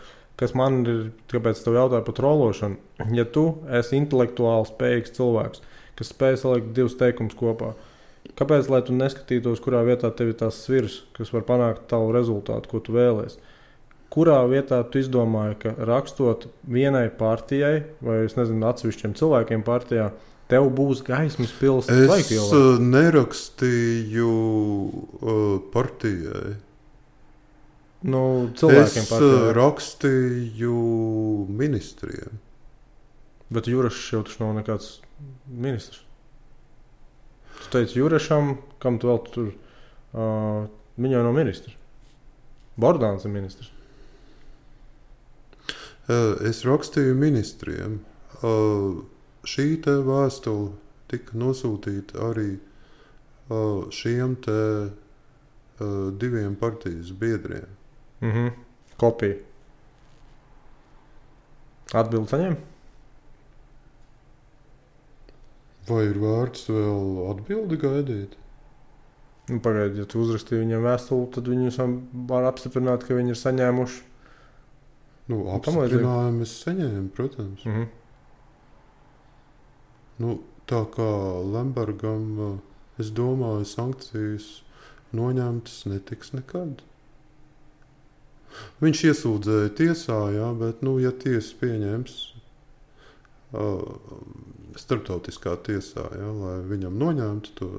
Kas man ir, kāpēc tev jautāju par trološanu? Ja tu esi intelektuāli spējīgs cilvēks, kas spēj salikt divus teikumus kopā, kāpēc, lai tu neskatītos, kurā vietā tev ir tās svirs, kas var panākt tavu rezultātu, ko tu vēlies? Kurā vietā tu izdomāji, ka rakstot vienai partijai, vai es nezinu, atsevišķiem cilvēkiem partijā, tev būs gaismas pils laikilā? Es nerakstīju partijai. Nu, cilvēkiem partijai. Es rakstīju ministriem. Bet Jurašs jau taču nav nekāds ministrs. Tu teici Jurašam, kam tu vēl tur, viņai nav ministrs. Bordāns ir ministrs. Es rakstīju ministriem. Šī te vēstule tika nosūtīta arī šiem te diviem partijas biedriem. Kopija. Atbildi saņem? Vai ir vērts vēl atbildi gaidīt? Nu, pagaidi, ja tu uzrakstīji viņiem vēstuli, tad viņi var apstiprināt, ka viņi ir saņēmuši. Nu, apstiprinājumu es saņēmu, protams. Nu, tā kā Lembergam, es domāju, sankcijas noņemtas netiks nekad. Viņš iesūdzēja tiesā, jā, bet, nu, ja tiesa pieņems starptautiskā tiesā, jā, lai viņam noņemtu to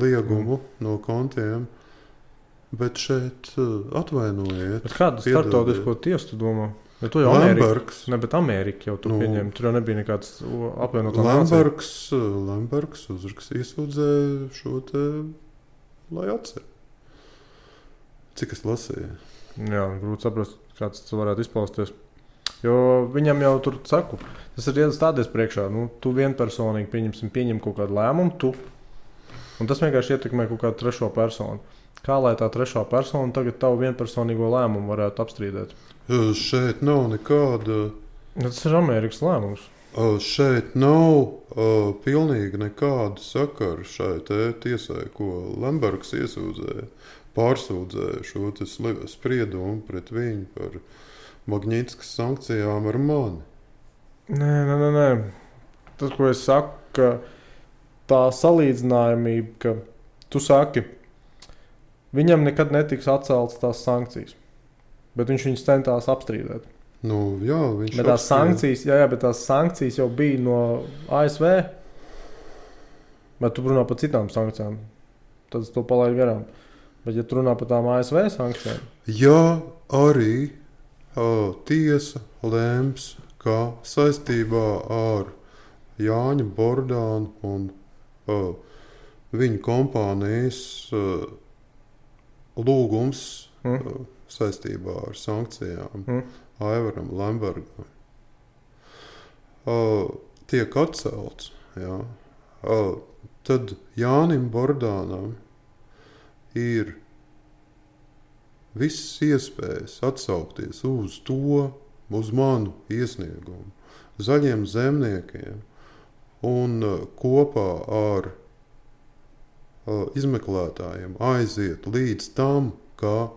liegumu no kontiem, bet šeit atvainojiet. Bet kādu starptautisko tiesu tu domā? Ja tu jau Lembergs. Ne, bet Amerika jau tu pieņem. Tur jau nebija nekāds apvienotā nācija. Lembergs iesūdzēja šo te, lai atcer. Cik es lasīju? Jā, grūti saprast, kāds tas varētu izpausties. Jo viņam jau tur saku, tas ir iestādies priekšā. Nu, tu vienpersonīgi pieņem kaut kādu lēmumu, tu. Un tas vienkārši ietekmē kaut kādu trešo personu. Kā lai tā trešā persona tagad tavu vienpersonīgo lēmumu varētu apstrīdēt? Šeit nav nekāda... Tas ir Amerikas lēmums. Šeit nav pilnīgi nekāda sakara šai tiesai, ko Lembergs iesūdzēja, pārsūdzēja šo spriedumu pret viņu par Magnitskas sankcijām ar mani. Nē. Tas, ko es saku, ka tā salīdzinājumība, ka tu saki, viņam nekad netiks atceltas tās sankcijas, bet viņš viņus centās apstrīdēt. Nu, jā, viņš bet tās sankcijas, bet tās sankcijas jau bija no ASV, bet tu runā par citām sankcijām, tad es to palaidu garām. Bet ja tu runā par tām ASV sankcijām? Jā, arī tiesa lēms, ka saistībā ar Jāņa Bordānu un viņa kompānijas lūgums saistībā ar sankcijām Aivaram Lembergam tiek atcelts. Jā. Tad Jānim Bordānam ir visas iespējas atsaukties uz manu iesniegumu, Zaļiem zemniekiem un kopā ar izmeklētājiem aiziet līdz tam, ka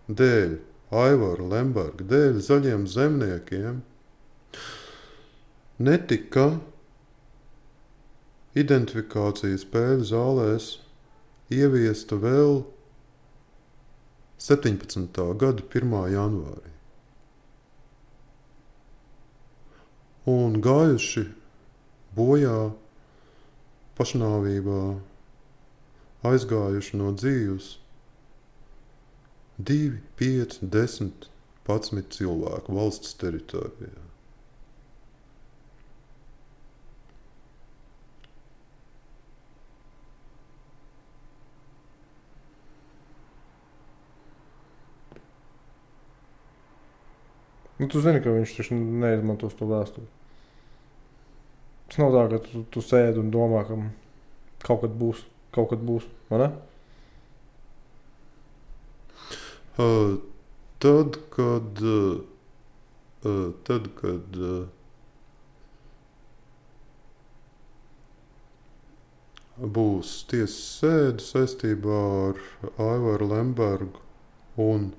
dēļ Aivara Lemberga, dēļ Zaļiem zemniekiem netika identifikācijas spēļu zālēs ieviesta vēl 17. gada 1. janvārī. Un gājuši bojā pašnāvībā, aizgājuši no dzīves 2, 5, 10, 11 cilvēku valsts teritorijā. Nu, tu zini, ka viņš taču neizmantos to vēsturi. Tas nav tā, ka tu sēdi un domā, ka kaut kad būs, vai ne? Tad, kad būs tiesas sēde saistībā ar Aivaru Lembergu un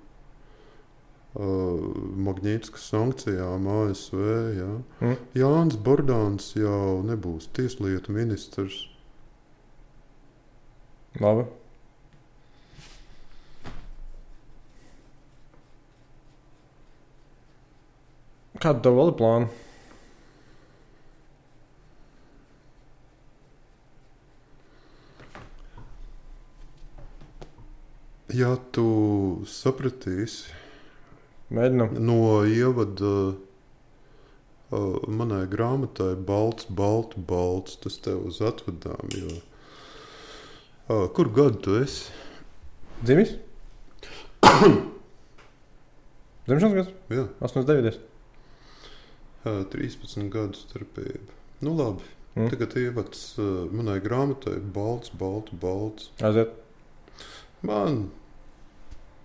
Magnītiskas sankcijām ASV. Ja? Jānis Bordāns jau nebūs tieslietu ministrs. Labi. Kāda tev vēl ir plāna? Ja tu sapratīsi Mēģinam. no ievada manai grāmatai balts, tas tev uz atvadām, jo kur gadu tu esi? Dzimis? Dzimšanas gads? Jā. 89. 13 gadu starpība. Nu labi, tagad ievads manai grāmatai balts. Aiziet. Man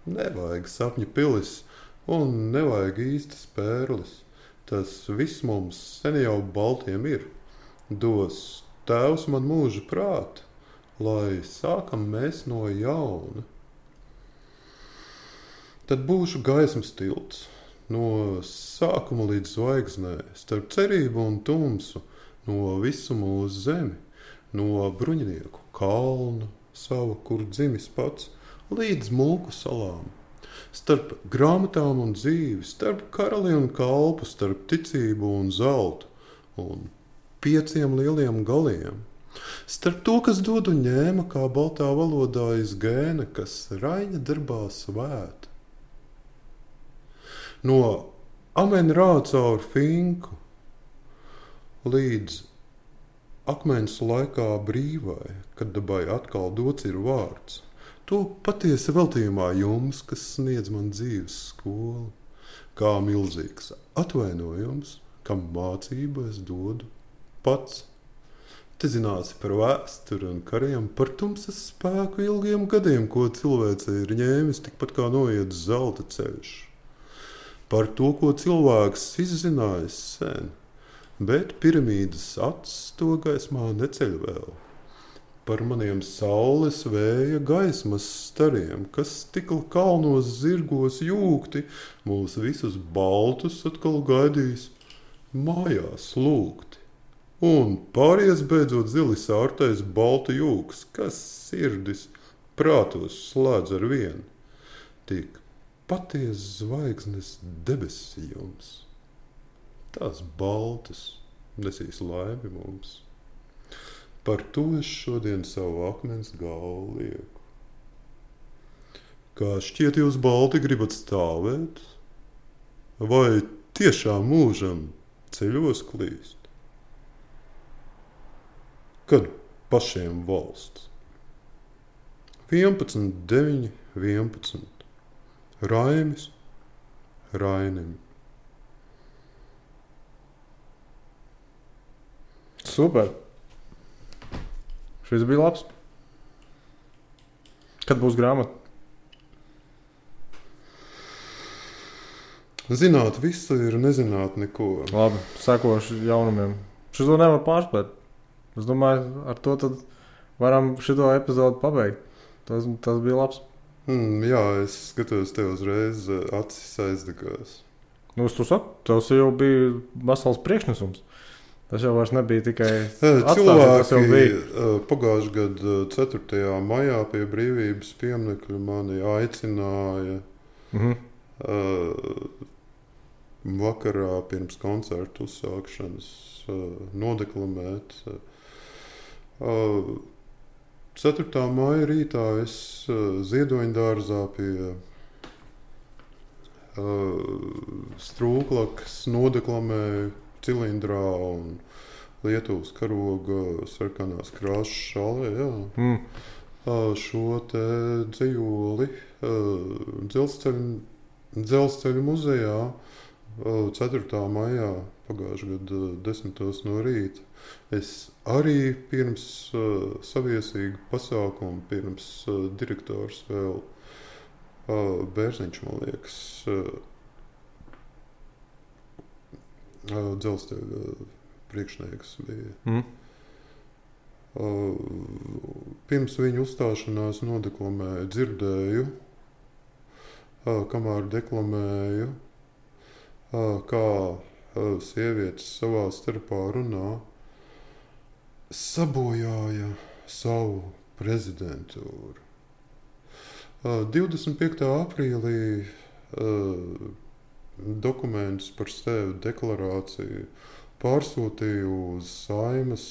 nevajag sapņu pilis un nevajag īstas pērlis. Tas viss mums sen jau baltiem ir. Dos Tēvs man mūža prāta, lai sākam mēs no jauna. Tad būšu gaismas tilts, no sākuma līdz zvaigznē, starp cerību un tumsu, no visu mūsu zemi, no bruņinieku kalnu sava, kur dzimis pats, līdz mulku salām. Starp grāmatām un dzīvi, starp karali un kalpu, starp ticību un zeltu, un 5 lieliem galiem. Starp to, kas dod un ņēma, kā baltā valodā izgēna, kas Raņa darbā svēta. No amen rā caur finku līdz akmens laikā brīvai, kad dabai atkal dots ir vārds. To patiesi veltījumā jums, kas sniedz man dzīves skolu, kā milzīgs atvainojums, kam mācību es dodu pats. Te zināsi par vēsturi un kariem, par tumsas spēku ilgiem gadiem, ko cilvēce ir ņēmis, tikpat kā noiet zelta ceļš. Par to, ko cilvēks izzinājis sen, bet piramīdas acis to gaismā neceļ vēl. Par maniem saules vēja gaismas stariem, kas tikl kalnos zirgos jūgti, mūs visus baltus atkal gaidīs mājās lūgti. Un pāries beidzot zili sārtais balta jūgs, kas sirdis prātos slēdz ar vienu. Tik paties zvaigznes debesi jums, tās baltas nesīs laimi mums. Par to es šodien savu akmens galvu lieku. Kā šķiet jūs balti gribat stāvēt? Vai tiešām mūžam ceļos klīst? Kad pašiem valsts? 11, 9, 11. Raimis Rainim. Super. Šis bija labs. Kad būs grāmata? Zināt visu ir nezināt neko. Labi, sekošu jaunumiem. Šito nevar pārspēt. Es domāju, ar to tad varam šito epizodu pabeigt. Tas bija labs. Jā, es skatos tev uzreiz acis aizdegās. Nu, tu saki, tas jau bija vesels priekšnesums. Tas jau vairs nebija tikai cilvēki. Pagājušajā gada 4. maijā pie Brīvības pieminekļa mani aicināja vakarā pirms koncertu uzsākšanas nodeklamēt. 4. maija rītā es Ziedoņdārzā pie Strūklakas nodeklamēju cilindrā un Lietuvas karoga sarkanās krāšas šalē, šo te dzejoli dzelzceļu muzejā 4. maijā pagājušā gada 10. no rīta. Es arī pirms saviesīgu pasākumu, pirms direktors vēl Bērziņš, man liekas, dzelzceļa priekšnieks bija. Pirms viņa uzstāšanās nodeklamēju, dzirdēju, kamēr deklamēju, kā sievietes savā starpā runā, sabojāja savu prezidentūru. 25. aprīlī dokumentus par sevi deklarāciju pārsūtīju uz Saeimas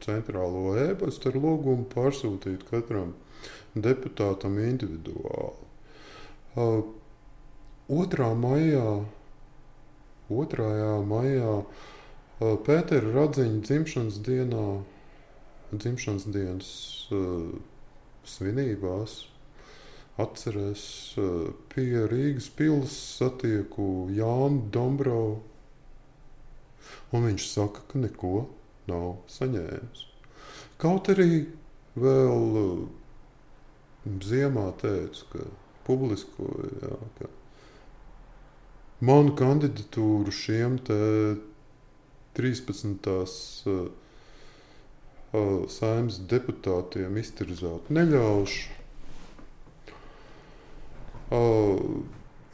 centrālo e-pastu ar lūgumu pārsūtīt katram deputātam individuāli. 2. maijā Pētera Radziņa dzimšanas dienas svinībās atcerēs pie Rīgas pils satieku Jānu Dombrovu, un viņš saka, ka neko nav saņēmis. Kaut arī vēl ziemā teica, ka publiskoja, ka manu kandidatūru šiem te 13. Saeimas deputātiem iztirzāt neļaušu.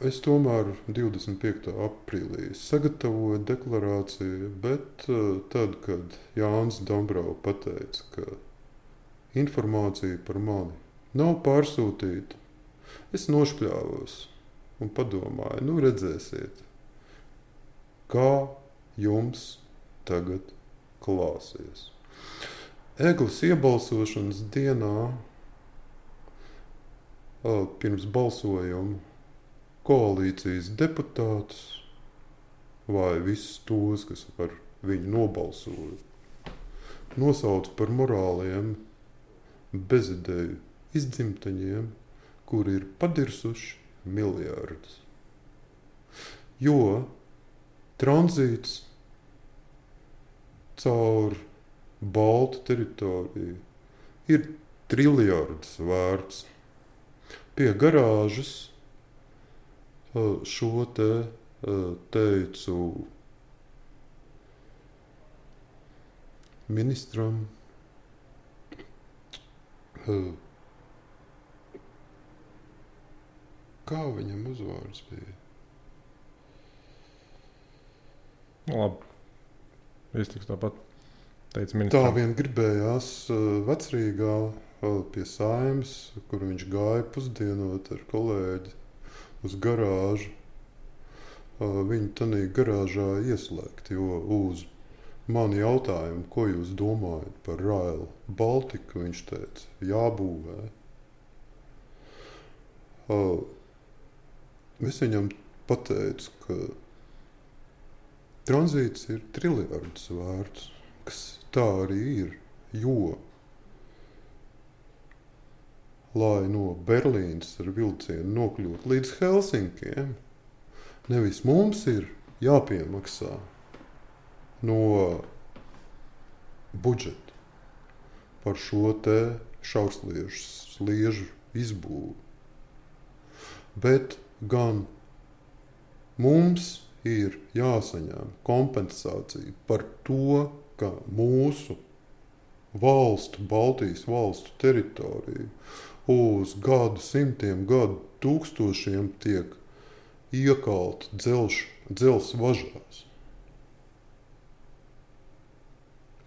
Es tomēr 25. aprīlī sagatavoju deklarāciju, bet tad, kad Jānis Dombrovs pateica, ka informācija par mani nav pārsūtīta, es nošpļāvos un padomāju, redzēsiet, kā jums tagad klāsies. Eglis iebalsošanas dienā pirms balsojuma koalīcijas deputātus vai visus tos, kas par viņu nobalsoja, nosauca par morāliem bezideju izdzimtaņiem, kuri ir padirsuši miljardus. Jo tranzīts caur Baltu teritoriju ir triljardus vērts. Pie garāžas šo te teicu ministram, kā viņam uzvārds bija? Labi, iztiks tāpat. Tā vien gribējās Vecrīgā pie Saeimas, kur viņš gāja pusdienot ar kolēģi uz garāžu. Viņu tanī garāžā ieslēgt, jo uz mani jautājumu, ko jūs domājat par Rail Baltiku, viņš teica, jābūvē. Es viņam pateicu, ka tranzīts ir triljardus vērts, kas tā arī ir, jo, lai no Berlīnas ar vilcienu nokļūt līdz Helsinkiem, nevis mums ir jāpiemaksā no budžeta par šo te šaursliežu izbūvi, bet gan mums ir jāsaņem kompensācija par to, ka mūsu valstu, Baltijas valstu teritoriju uz gadu simtiem, gadu tūkstošiem tiek iekalta dzelzs važās.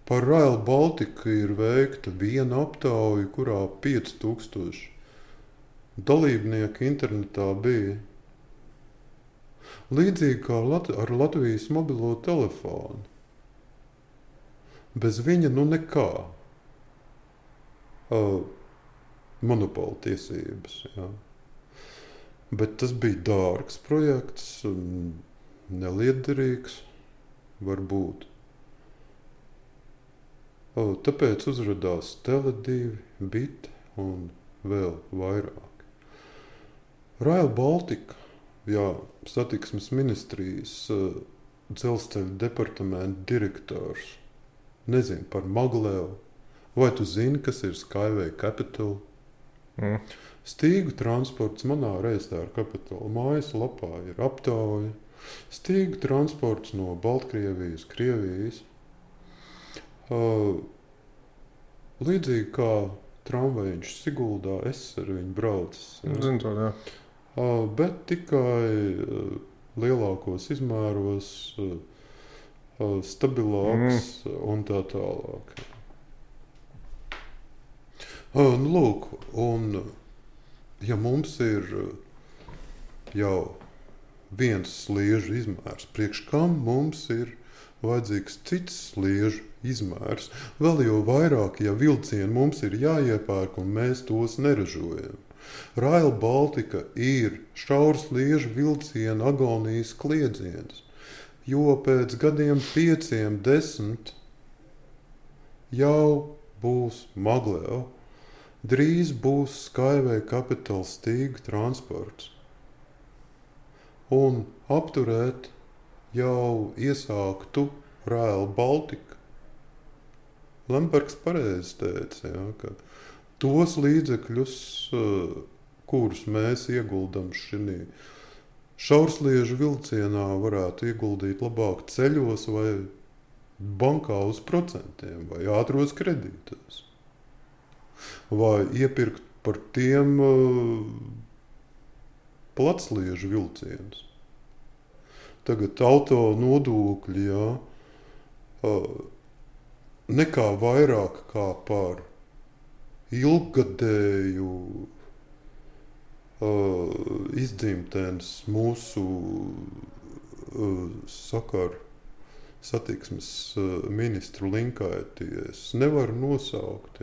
Par Rail Baltiku ir veikta viena aptauja, kurā 5000 dalībnieku internetā bija. Līdzīgi kā ar Latvijas mobilo telefonu. Bez viņa nekā. Monopola tiesības. Jā. Bet tas bija dārgs projekts, neliederīgs varbūt. Tāpēc uzradās Tele2, BIT un vēl vairāk. Rail Baltica satiksmes ministrijas dzelzceļa departamenta direktors nezina par Maglevu, vai tu zini, kas ir Skyway Capital? Stīgu transports manā Reistāra Capital mājaslapā ir aptauja. Stīgu transports no Baltkrievijas, Krievijas. Līdzīgi kā tramvajiņš Siguldā, es ar viņu braucis. Zinu to, jā. Bet tikai lielākos izmēros, stabilāks un tā tālāk. Lūk, un ja mums ir jau viens sliežu izmērs, priekš kam mums ir vajadzīgs cits sliežu izmērs, vēl jau vairāk, ja vilcieni mums ir jāiepērk un mēs tos neražojam. Rail Baltica ir šaursliežu vilcienu agonijas kliedziens, jo pēc gadiem 5, 10 jau būs Magleva, drīz būs Skyway Capital stīgu transports. Un apturēt jau iesāktu Rail Baltica. Lembergs pareizi teica, ka tos līdzekļus, kurus mēs ieguldam šī šaursliežu vilcienā, varētu ieguldīt labāk ceļos vai bankā uz procentiem vai ātros kredītos. Vai iepirkt par tiem platsliežu vilcienus. Tagad auto nodokļi, nekā vairāk kā par ilggadēju izdzimtenes mūsu satiksmes ministru Linkaities nevar nosaukt.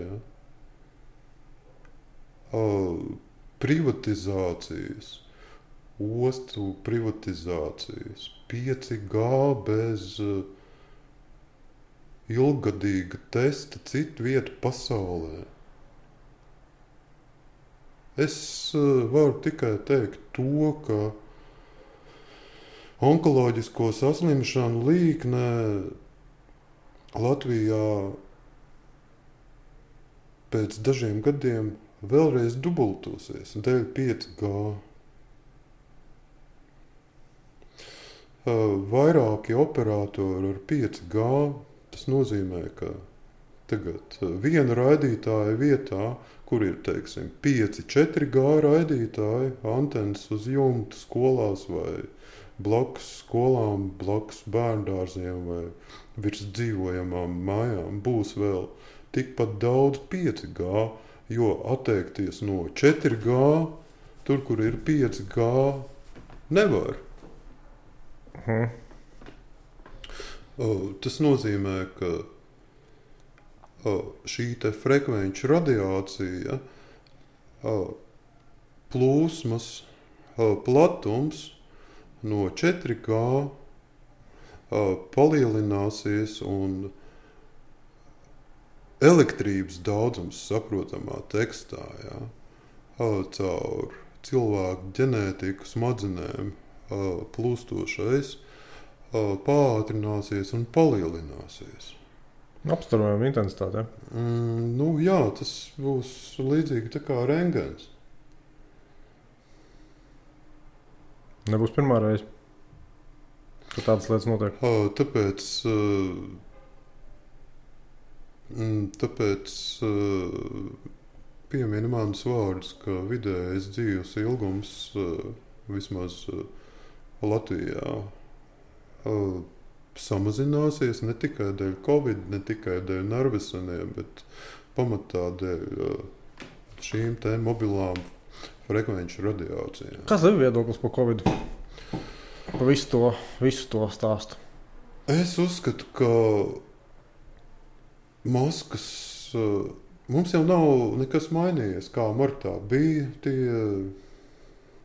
Privatizācijas, ostu privatizācijas, 5G bez ilggadīga testa citu vietu pasaulē. Es varu tikai teikt to, ka onkoloģisko saslimšanu līkne Latvijā pēc dažiem gadiem vēlreiz dubultosies dēļ 5G. Vairāki operatori ar 5G, tas nozīmē, ka tagad viena raidītāja vietā, kur ir, teiksim, 5, 4G raidītāji, antenas uz jumta skolās vai blakus skolām, blakus bērndārziem vai virs dzīvojamām mājām, būs vēl tikpat daudz 5G, jo atteikties no 4G, tur, kur ir 5G, nevar. Tas nozīmē, ka šī te frekvenču radiācija, plūsmas, platums no 4G palielināsies un elektrības daudzums saprotamā tekstā, caur cilvēku ģenētiku smadzenēm plūstošais pātrināsies un palielināsies. Apstarojama intensitāte. Jā, tas būs līdzīgi tā kā rengens. Nebūs pirmā reize, ka tādas lietas notiek. Tāpēc piemina manus vārdus, ka vidējais dzīves ilgums vismaz Latvijā samazināsies ne tikai dēļ Covid, ne tikai dēļ nerveseniem, bet pamatā dēļ šīm te mobilām frekvenču radiācijām. Kas ir viedoklis par Covid? Par visu to stāstu? Es uzskatu, ka maskas mums jau nav nekas mainījies, kā martā bija tie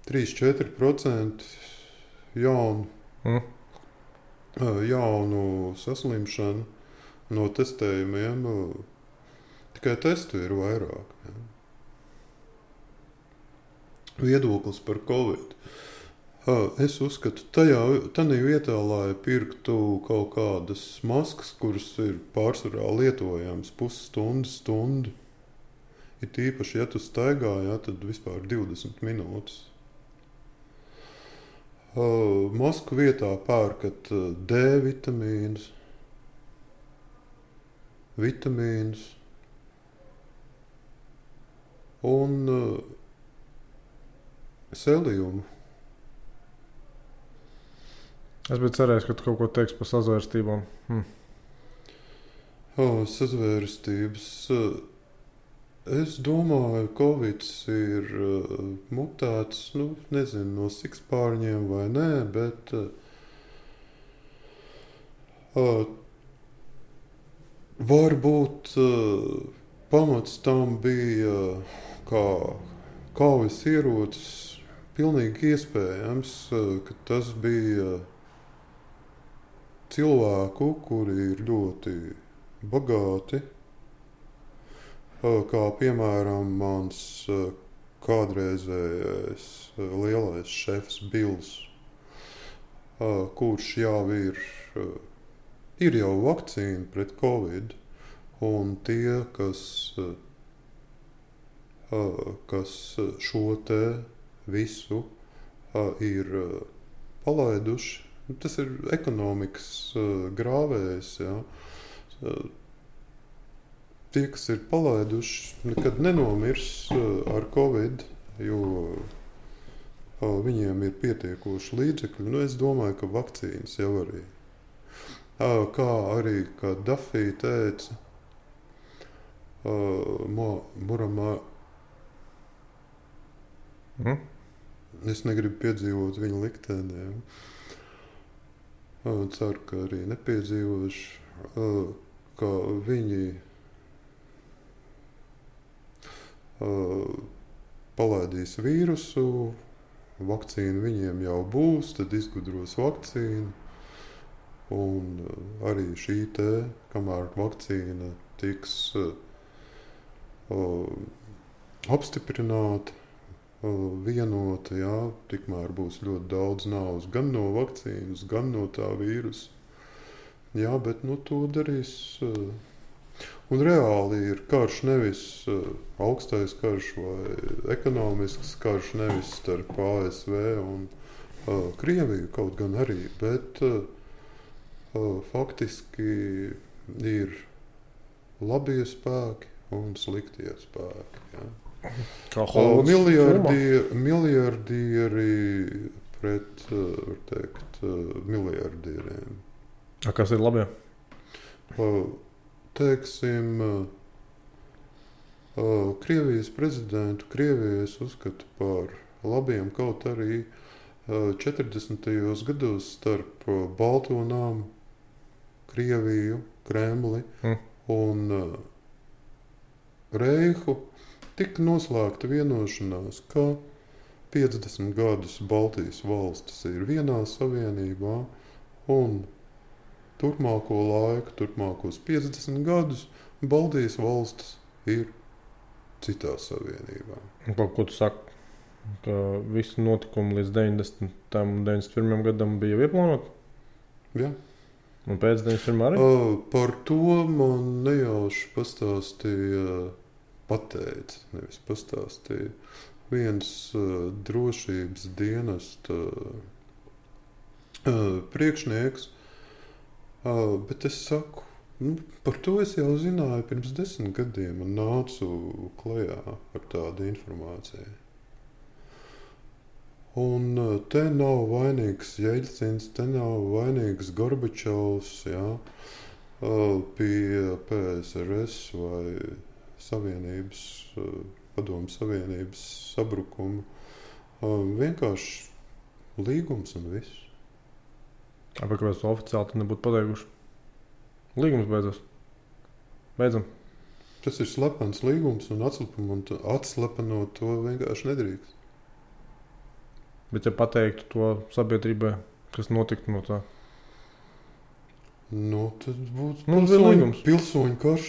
3-4% jaunu saslimšanu no testējumiem. Tikai testu ir vairāk. Viedoklis par Covid. Es uzskatu, tādā vietā, lai pirktu kaut kādas maskas, kuras ir pārsvarā lietojamas pusstundu, ir tīpaši, ja tu staigā, tad vispār 20 minūtes. Masku vietā pērkat D vitamīnus, un seliumu. Es biju cerējis, ka tu kaut ko teiksi par sazvērstībām. Sazvērstības. Es domāju, ka Covid ir mutēts, nezinu, no sikspārņiem vai nē, bet varbūt pamats tam bija kā kaujas ierocis. Pilnīgi iespējams, ka tas bija cilvēku, kuri ir ļoti bagāti, kā piemēram mans kādreizējais lielais šefs Bills, kurš jau ir jau vakcīna pret Covid, un tie, kas šo te visu ir palaiduši, tas ir ekonomikas grāvējs. Ja. Tie, kas ir palaiduši, nekad nenomirs ar Covid, jo viņiem ir pietiekoši līdzekļi. Es domāju, ka vakcīnas jau arī. Kā arī, kā Dafī teica, Muramā. Es negribu piedzīvot viņa likteni. Ceru, ka arī nepiedzīvošu, ka viņi palaidīs vīrusu, vakcīna viņiem jau būs, tad izgudros vakcīnu. Un arī šī te, kamēr vakcīna tiks apstiprināta, vienota, tikmēr būs ļoti daudz naudas gan no vakcīnas, gan no tā vīrusa. Bet to darīs. Un reāli ir karš nevis augstais karš vai ekonomisks karš, nevis starp ASV un Krieviju, kaut gan arī, bet faktiski ir labie spēki un sliktie spēki. Miljardieri pret, var teikt, miljardieriem. Kas ir labie? Teiksim, Krievijas prezidentu Krievijas uzskatu par labiem, kaut arī 40. gados starp Balto namu, Krieviju, Kremli un Reihu tika noslēgta vienošanās, ka 50 gadus Baltijas valstis ir vienā savienībā un turpmāko laiku, turpmākos 50 gadus Baltijas valstis ir citā savienībā. Ko tu saki, ka visi notikumi līdz 90. un 91. gadam bija ieplānoti? Jā. Un pēc 91. arī? Par to man nejauši nevis pastāstīja viens drošības dienesta priekšnieks, bet es saku, par to es jau zināju pirms 10 gadiem un nācu klajā ar tādu informāciju. Un te nav vainīgs Jeļcins, te nav vainīgs Gorbačovs, pie PSRS vai Padomu Savienības sabrukuma. Vienkārši līgums un viss. Kāpēc to oficiāli nebūtu pateikuši? Līgums beidzas. Beidzam. Tas ir slepens līgums un atslepenot to vienkārši nedrīkst. Bet ja pateiktu to sabiedrībai, kas notiktu no tā? Tad būtu pilsoņu karš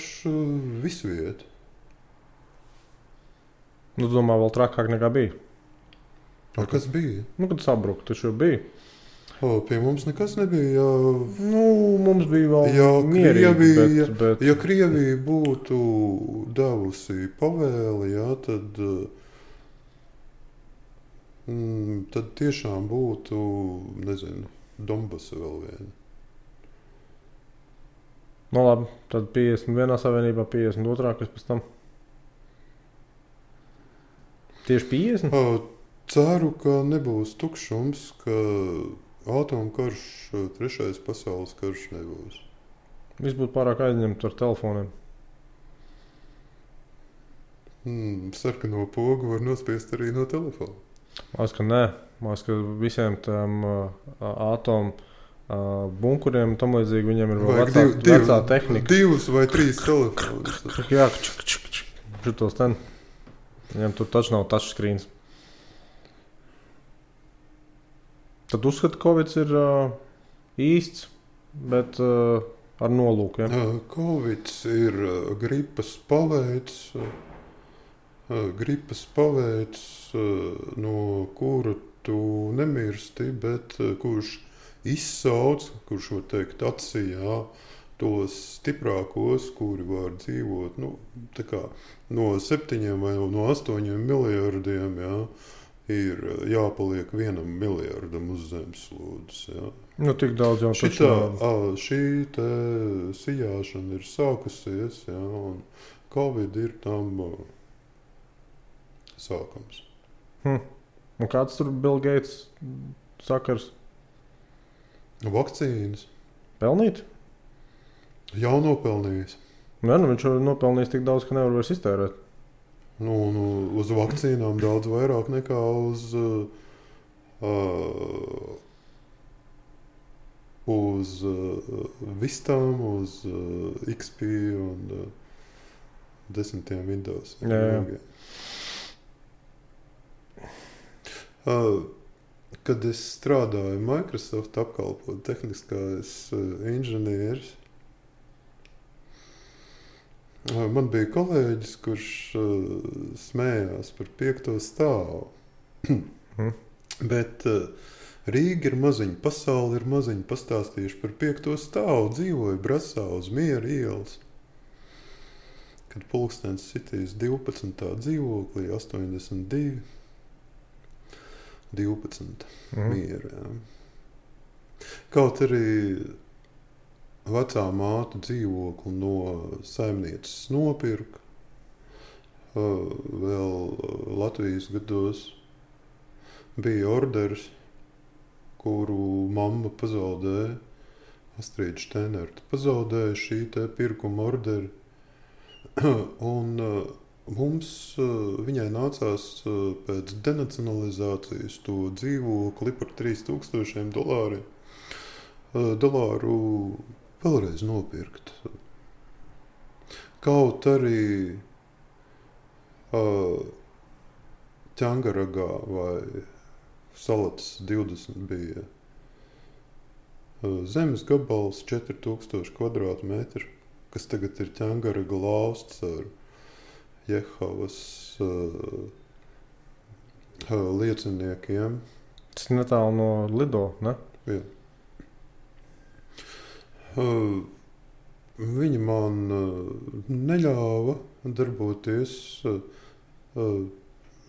visviet. Domā, vēl trakāk nekā bija? Kas bija? Kad sabruka, taču bija. Pie mums nekas nebija. Mums bija vēl mierīgi, bet... Ja Krievija būtu devusi pavēli, tad tiešām būtu, nezinu, Donbasa vēl viena. Labi, tad 51. savienībā, 52. kas pēc tam? Tieši 50? Ceru, ka nebūs tukšums, ka atomkarš, 3. pasaules karš nebūs. Viss būtu pārāk aizņemts ar telefoniem. Sarkano pogu var nospiest arī no telefona. Māc, ka nē. Māc, ka visiem tām atomu bunkuriem un tam līdzīgi viņiem ir vēl vecā tehnika. 2 vai 3 telefonus. Jā, šitos ten. Viņam tur taču nav touchscreens. Tad uzskata, ka Covid ir īsts, bet ar nolūku. Ja? Covid ir gripas paveids, no kura tu nemirsti, bet kurš izsauc, kurš var teikt atsijā tos stiprākos, kuri var dzīvot tā kā no 7 vai no 8 miljardiem, ir jāpaliek 1 miljardam uz zemeslodes. Tik daudz jau šī te sijāšana ir sākusies, un Covid ir tam sākums. Un kāds tur Bill Gates sakars? Vakcīnas. Pelnīt? Jau nopelnījis. Viņš ir nopelnījis tik daudz, ka nevar vairs iztērēt. Uz vakcīnām daudz vairāk nekā uz vistām, uz XP un 10 Windows. Kad es strādāju Microsoft apkalpot tehniskais inženieris, man bija kolēģis, kurš smējās par 5. stāvu. Bet Rīga ir maziņa, pasaule ir maziņa, pastāstījuši par 5. stāvu, dzīvoju Brasā uz Miera ielas. Kad pulkstens sitīs 12. dzīvoklī, 82, 12 Miera. Kaut arī vecā māte dzīvokli no saimnieces nopirka vēl Latvijas gados. Bija orders, kuru mamma pazaudēja, Astrīda Štenerta pazaudēja šī te pirkuma orderi. Un mums, viņai nācās pēc denacionalizācijas to dzīvokli par $3000 vēlreiz nopirkt. Kaut arī Ķangaragā vai Salatas 20 bija zemes gabals 4000 kvadrātmetru, kas tagad ir Ķangaraga lausts ar Jehovas lieciniekiem. Tas netālu no Lido, ne? Jā. Viņa man neļāva darboties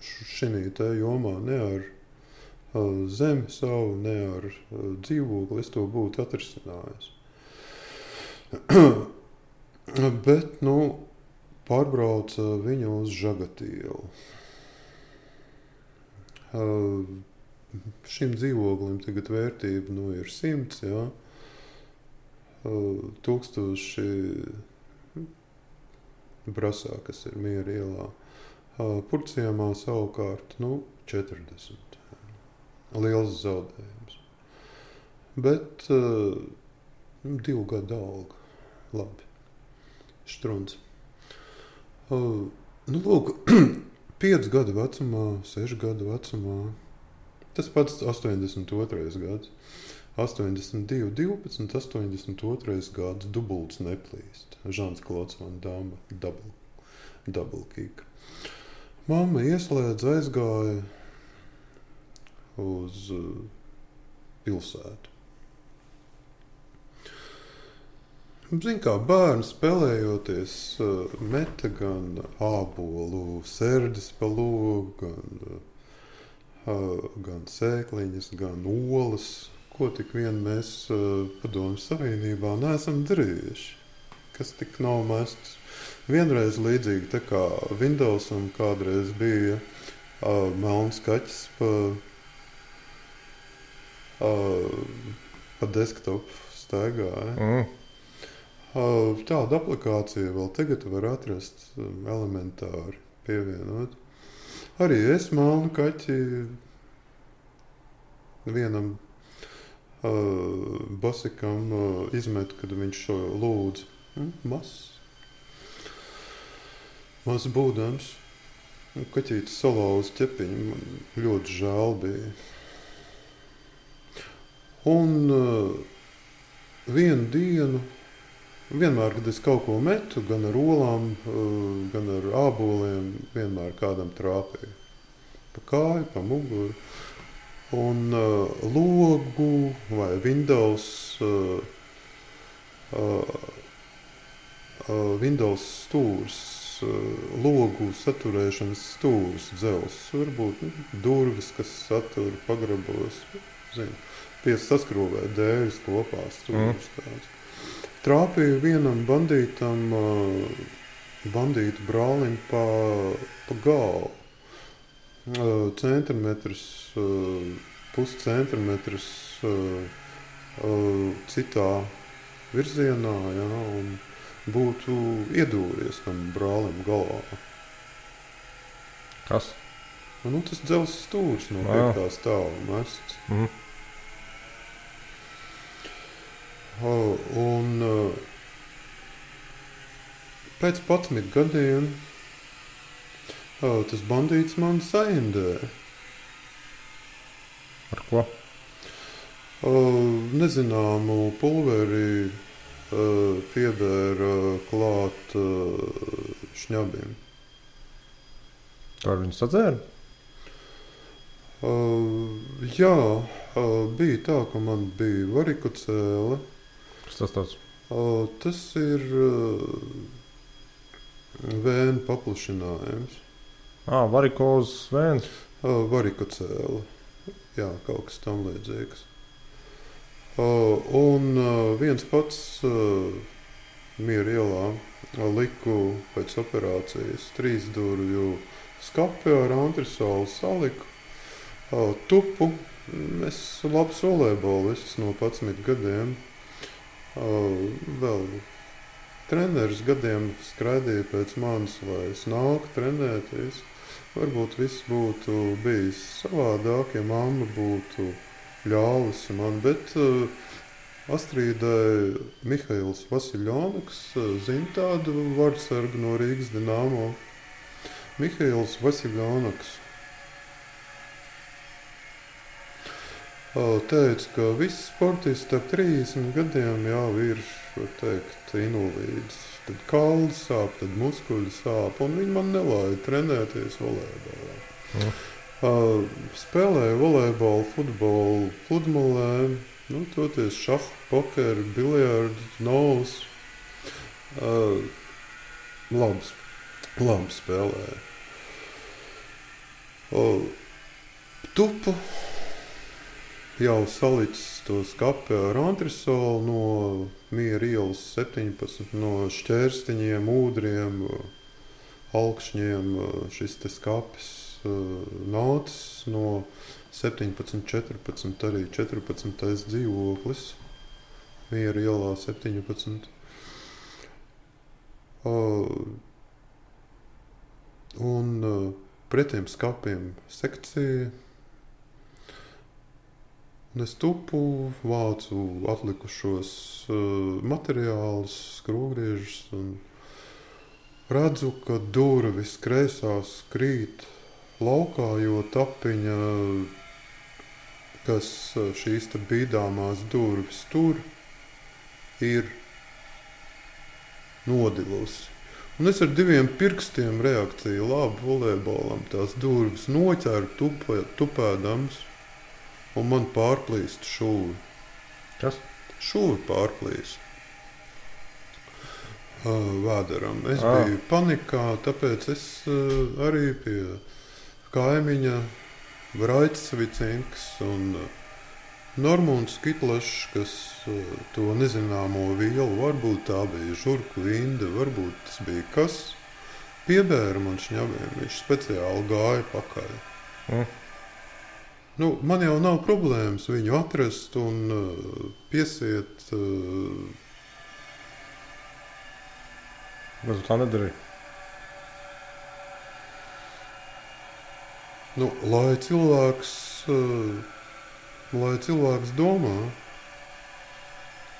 šinī te jomā, ne ar zemi savu, ne ar dzīvokli. Es to būtu atrisinājis. Bet, pārbrauca viņu uz Žagatielu. Šim dzīvoklim tagad vērtība ir 100, jā. 1000 Brasā, kas ir Miera ielā. Purciemā savukārt 40. Liels zaudējums. Bet 2 gadu alga. Labi. Štruns. Lūk, 5 gadu vecumā, 6 gadu vecumā. Tas pats 82. gads. 82, 12, 82. gads, dubults neplīst. Žans Klods van Dama, double kick. Mamma ieslēdz, aizgāja, uz pilsētu. Zin kā bērni spēlējoties meta gan ābolu sērdes pa logu, gan sēkliņas, gan olas, ko tik vien mēs Padomju Savienībā neesam darījuši, kas tik nav mests. Vienreiz līdzīgi tā kā Windowsam kādreiz bija melns kaķis pa desktopu staigāja. Tādu aplikāciju vēl tagad var atrast elementāri pievienot. Arī es melnu kaķi vienam basikam izmetu, kad viņš šo lūdzu. Maz būdams. Kaķītis salauza ķepiņu, man ļoti žēl bija. Un vienu dienu, vienmēr, kad es kaut ko metu, gan ar olām, gan ar āboliem, vienmēr kādam trāpīja. Pa kāju, pa muguru. Un logu vai Windows stūrs, logu saturēšanas stūrs, dzels, varbūt durvis, kas satur pagrabos, saskrūvē dēļas kopā stūrs tāds. Trāpīja vienam bandītu brālim pa galvu. Puscentimetrs citā virzienā, ja, un būtu iedūries tam brālim galvā. Kas? Tas dzels stūrs no 5. stāva mests. Un pēc 11 gadiem tas bandīts man saindē. Ar ko? Nezināmu pulveri piebēra klāt šņabim. Tā viņi sadzēra? Jā, bija tā, ka man bija varikocēle. Kas tas tāds? Tas ir vēnu paplašinājums. Varikozes vēns? Varikocēle. Jā, kaut kas tam līdzīgs. Un viens pats Miera ielā liku pēc operācijas 3 durvju skapi ar antrisolu saliku. Tupu. Es labs volejbolists no 11 gadiem. Vēl treneris gadiem skraidīja pēc manis, lai es nāku trenēties. Varbūt viss būtu bijis savādāk, ja mamma būtu ļāvusi man, bet Astrīdai Mihails Vasiljonoks zina tādu vārdsargu no Rīgas Dinamo. Mihails Vasiljonoks teica, ka visi sportisti ap 30 gadiem jau ir, var teikt, invalīds. Tad kauli sāp, tad muskuļi sāp, un viņi man nelaida trenēties volejbolā. Spēlēju volejbolu, futbolu, pludmalē, toties šahu, pokeru, biljardu, novus. Labi spēlēju. Tupu jau salicis to skapi ar antrisolu no Miera ielas 17, no šķērstiņiem, ūdriem, alkšņiem. Šis te skapis nācis no 17, 14, arī 14. dzīvoklis. Miera ielā 17. Un pretiem skapiem sekcija. Un es tupu, vācu atlikušos materiālus, skrūvgriežus un redzu, ka durvis kreisās krīt laukā, jo tapiņa, kas šīs te bīdāmās durvis tur, ir nodilusi. Un es ar 2 pirkstiem reakciju labi volejbolam tās durvis noķēru tupēdams. un man pārplīst šūvi. Kas? Šūvi pārplīst. Vēderam. Es biju panikā, tāpēc es arī pie kaimiņa Vraicis Vicinks un Normunds Kitlašs, kas to nezināmo vielu, varbūt tā bija žurku vinde, varbūt tas bija kas, piebēra man šņabiem, viņš speciāli gāja pakaļ. Nu, man jau nav problēmas viņu atrast un piesiet. Bet tu tā nedarīji. Nu, lai cilvēks domā.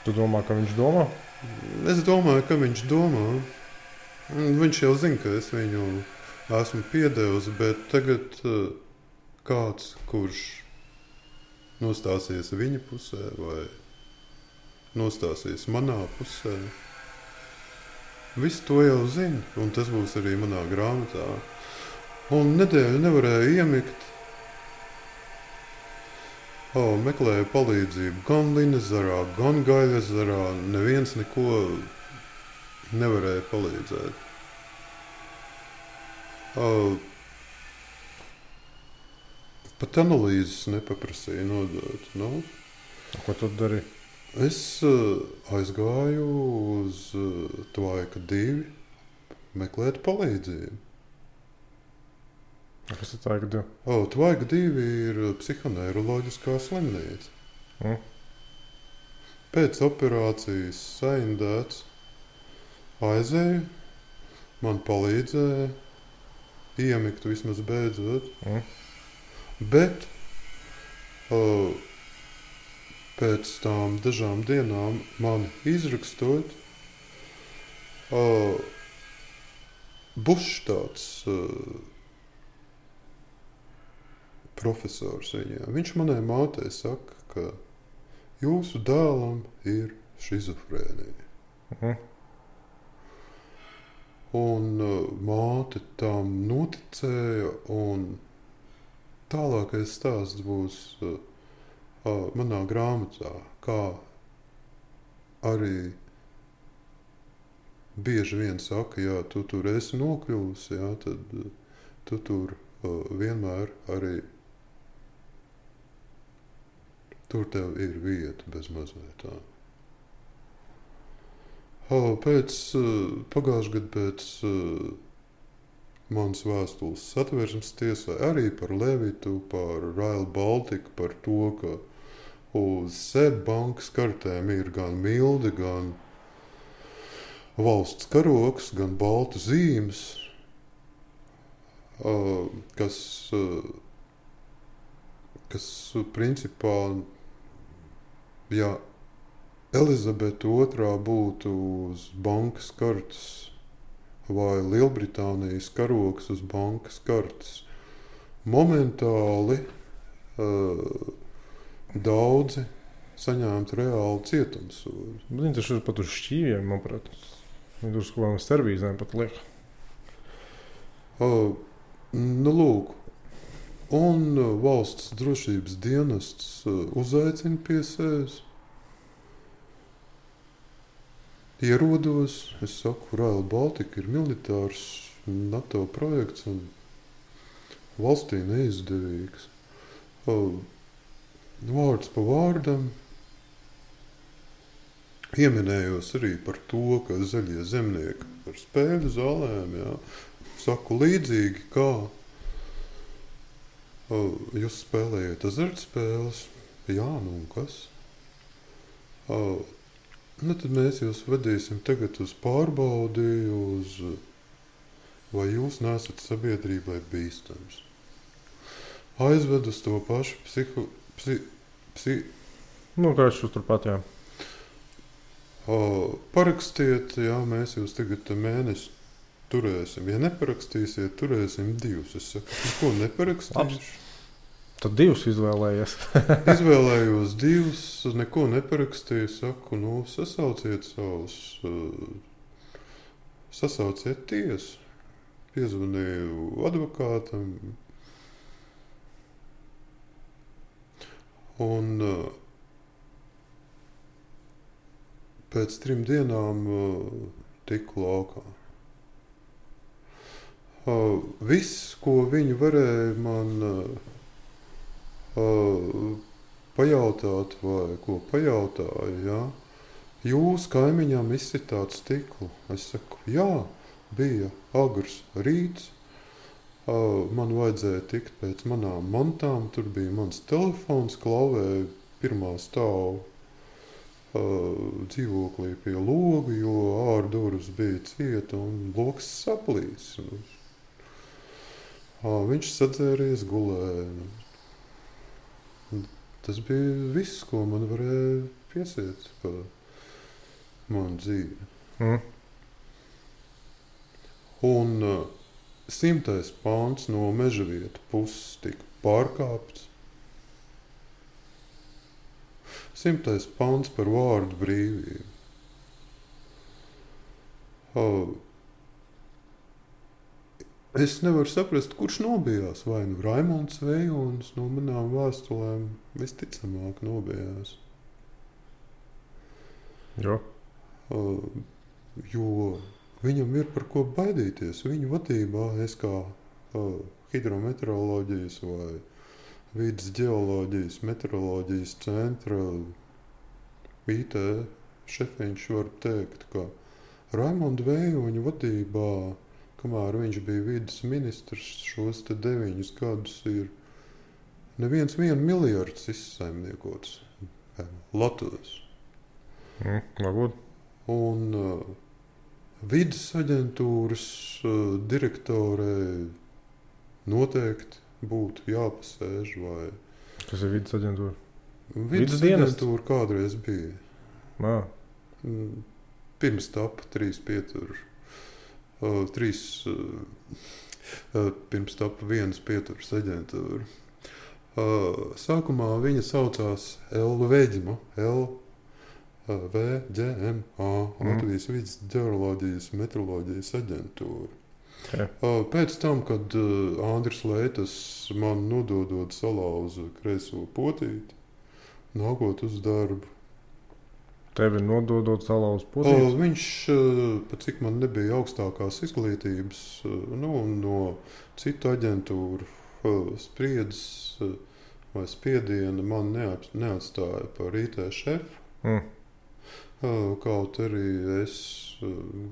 Tu domā, ka viņš domā? Es domāju, ka viņš domā. Viņš jau zina, ka es viņu esmu piedevis, bet tagad kāds, kurš nostāsies viņa pusē vai nostāsies manā pusē, visu to jau zina, un tas būs arī manā grāmatā. Un nedēļu nevarēju iemigt. Meklēju palīdzību gan Linezarā, gan Gaļezarā. Neviens neko nevarēja palīdzēt. Pat analīzes nepaprasīja nodot. Nu, Ko tu dari? es aizgāju uz Tvaika 2 meklēt palīdzību. Kas ir tā, ka tu? Tvaika 2 ir psihoneiroloģiskā slimnīca. Pēc operācijas saindēts, aizēju, man palīdzēja iemigt vismaz beidzot. Bet pēc tām dažām dienām mani izrakstot, Bušs tāds profesors viņā. Viņš manai mātei saka, ka jūsu dēlam ir šizofrēnija. Un māte tam noticēja, un tālākais stāsts būs manā grāmatā, kā arī bieži vien saka, ja tu tur esi nokļuvusi, jā, tad tu tur vienmēr arī tur tev ir vieta bez mazliet tā. Pagājušajā gadā pēc manas vēstules Satversmes tiesai arī par Levitu, par Rail Baltica, par to, ka uz SEB bankas kartēm ir gan mildi, gan valsts karoks, gan baltu zīmes, kas principā, ja Elizabete II būtu uz bankas kartes vai Lielbritānijas karoks uz bankas kartes, momentāli daudzi saņemtu reāli cietumsodu. Viņi taču ir pat uz šķīviem, manuprāt. Viņi tur uz kaut kādām servīzēm pat liek. Nu, lūk. Un valsts drošības dienests uzaicina pie sevis. Ierodos, es saku, Rail Baltica ir militārs NATO projekts un valstī neizdevīgs. Vārds pa vārdam. Pieminējos arī par to, ka zaļie zemnieki ar spēļu zālēm, jā, saku līdzīgi, kā jūs spēlējat azartspēles. Jā, nu un kas? Nu, tad mēs jūs vedīsim tagad uz pārbaudi, vai jūs neesat sabiedrībai bīstams. Aizved uz to pašu Nu, kāds šos turpat, jā. Parakstiet, jā, mēs jūs tagad mēnesi turēsim. Ja neparakstīsiet, turēsim 2. Es saku, ko neparakstīšu? Tad 2 izvēlējies. Izvēlējos 2, neko neparakstīju, saku, nu, sasauciet tiesu. Piezvanīju advokātam. Un pēc 3 dienām tiku laukā. Viss, ko viņi varēja man pajautāt, vai ko pajautāja, jā, jūs kaimiņām izsitāt stiklu. Es saku, jā, bija agrs rīts, man vajadzēja tikt pēc manām mantām, tur bija mans telefons, klauvēja pirmā stāva dzīvoklī pie loga, jo ārdurvis bija cieta un loks saplīs. Viņš sadzēries, gulēja. Tas bija viss, ko man varēja piesiet par manu dzīvi. Un 100. pāns no Mežavieta puses tika pārkāpts. 100. pāns par vārdu brīvību. Es nevaru saprast, kurš nobijās. Vai nu Raimonds Vejonis no manām vēstulēm visticamāk nobijās. Jo? Jo viņam ir par ko baidīties. Viņa vadībā es kā hidrometeoroloģijas vai vidas ģeoloģijas, meteoroloģijas centra IT šefiņš var teikt, ka Raimonda Vejoņa vadībā, kamēr viņš bija vidas ministrs, šos 9 gadus ir neviens 1 miljards izsaimniekots Latvijas. Varbūt. Un vidas aģentūras direktorei noteikti būtu jāpasēž vai... Kas ir vidas aģentūra? Vidas aģentūra kādreiz bija. Pirms tapa 3 pieturu. Pirms tapa 1 pieturas aģentūra. Sākumā viņa saucās LVģMA, LVģMA, Latvijas vidas ģeoloģijas meteoroloģijas aģentūra. Okay. Pēc tam, kad Andris Leitas man nododot salauza kreiso potīti, nākot uz darbu. Tevi nododot salauza potīti? Viņš, pat cik man nebija augstākās izglītības, no citu aģentūru spriedzes vai spiediena man neatstāja par IT šefu. Kaut arī es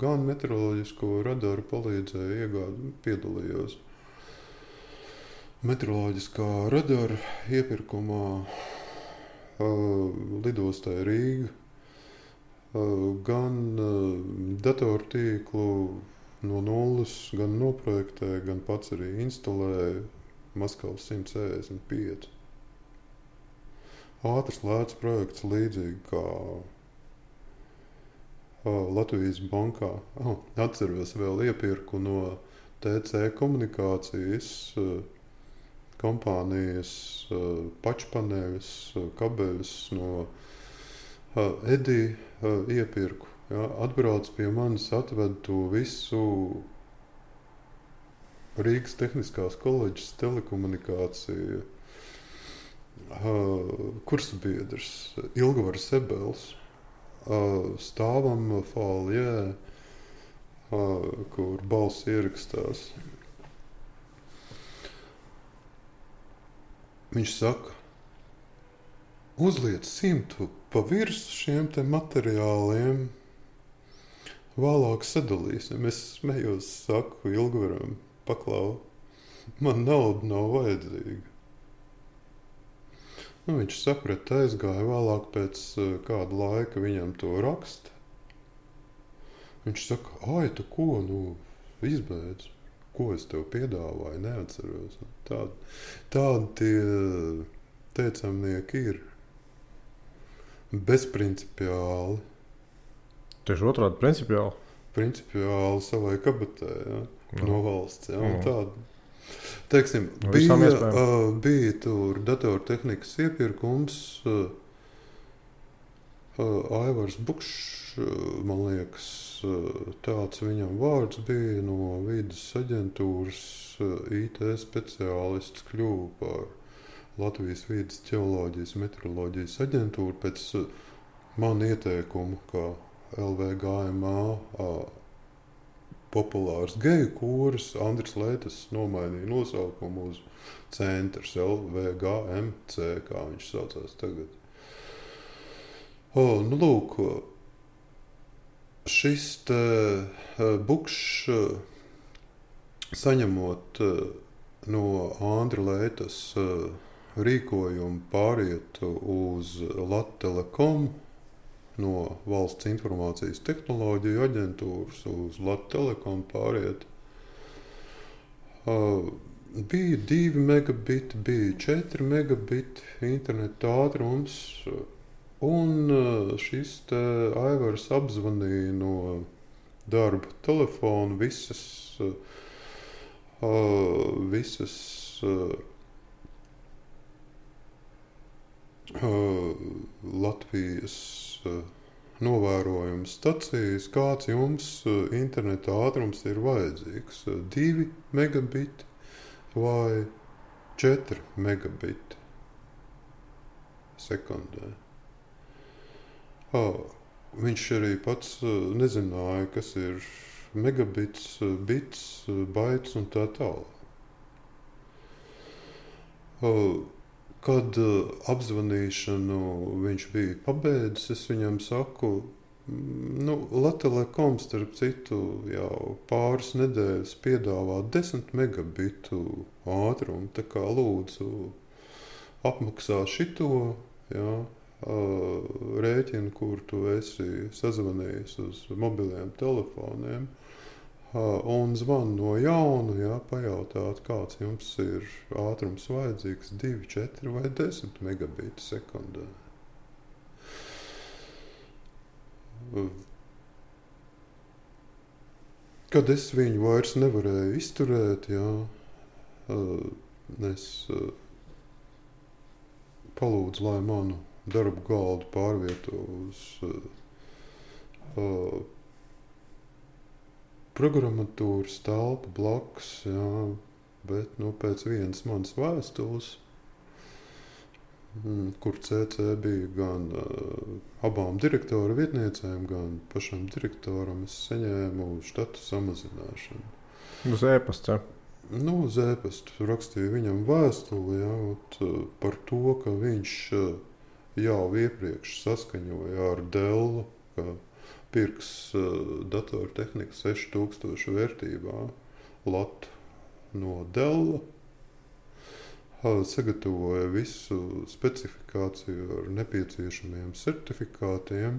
gan meteoroloģisko radaru palīdzēju iegādi, piedalījos meteoroloģiskā radara iepirkumā lidostai Rīga, gan datortīklu no nulles, gan noprojektēju, gan pats arī instalēju Maskavas 165. Ātrs lēts projekts līdzīgi kā Latvijas bankā. Atceros vēl iepirku no TC komunikācijas kompānijas pačpaneļus, kabeļus no Edī iepirku. Ja, atbrauc pie manis, atved to visu Rīgas Tehniskās koledžas telekomunikāciju kursabiedrs Ilgavars Ebels. Stāvam folijē, kur balss ierakstās. Viņš saka, uzliec 100 pa virsu šiem te materiāliem, vēlāk sadalīsim. Es smējos, saku Ilgvaram, paklau, man nauda nav vajadzīga. Viņš saprata, aizgāja vēlāk pēc kāda laika viņam to raksta. Viņš saka, ai, tu ko, izbeidz, ko es tev piedāvāju, neatceros. Tādi tie teicamnieki ir bezprincipiāli. Tieši otrādi principiāli? Principiāli savai kabatē, ja, no valsts, ja, un tādi. Teiksim, bija tur datortehnikas iepirkums, Aivars Bukšs, man liekas, tāds viņam vārds bija, no vidas aģentūras IT speciālists kļuva par Latvijas Vīdes ģeoloģijas meteoroloģijas aģentūra pēc man ieteikumu, kā LVGMA populārs geju kūris, Andris Leitas nomainīja nosaukumu uz centrs LVGMC, kā viņš saucās tagad. Nu lūk, šis te bukšs saņemot no Andra Leitas rīkojumu pāriet uz Lattelekom, no Valsts informācijas tehnoloģiju aģentūras uz Lattelekom pāriet. Bija 2 megabiti, bija 4 megabiti interneta ātrums, un šis te Aivars apzvanīja no darba telefona visas Latvijas novērojuma stacijas, kāds jums interneta ātrums ir vajadzīgs. 2 megabiti vai 4 megabiti sekundē. Viņš arī pats nezināja, kas ir megabits, bits, baits un tā tālāk. Kad apzvanīšanu viņš bija pabeidzis, es viņam saku, Lattelekom, starp citu, jau pāris nedēļas piedāvā 10 megabitu ātrumu, tā kā lūdzu apmaksā šito, jā, rēķinu, kur tu esi sazvanījis uz mobiliem telefoniem, un zvan no jauna, jā, pajautāt, kāds jums ir ātrums vajadzīgs, 2, 4 vai 10 megabītu sekundē. Kad es viņu vairs nevarēju izturēt, jā, es palūdzu, lai manu darbu galdu pārvieto uz programmatūras telpu blakus, jā, bet pēc vienas manas vēstules, kur CC bija gan abām direktora vietniecēm, gan pašam direktoram, es saņēmu štatu samazināšanu. Uz e-pasta? Uz e-pastu rakstīju viņam vēstuli, jā, par to, ka viņš jau iepriekš saskaņoja ar Dellu, ka pirks datortehnika 6000 vērtībā latu no Della, sagatavoja visu specifikāciju ar nepieciešamiem certifikātiem.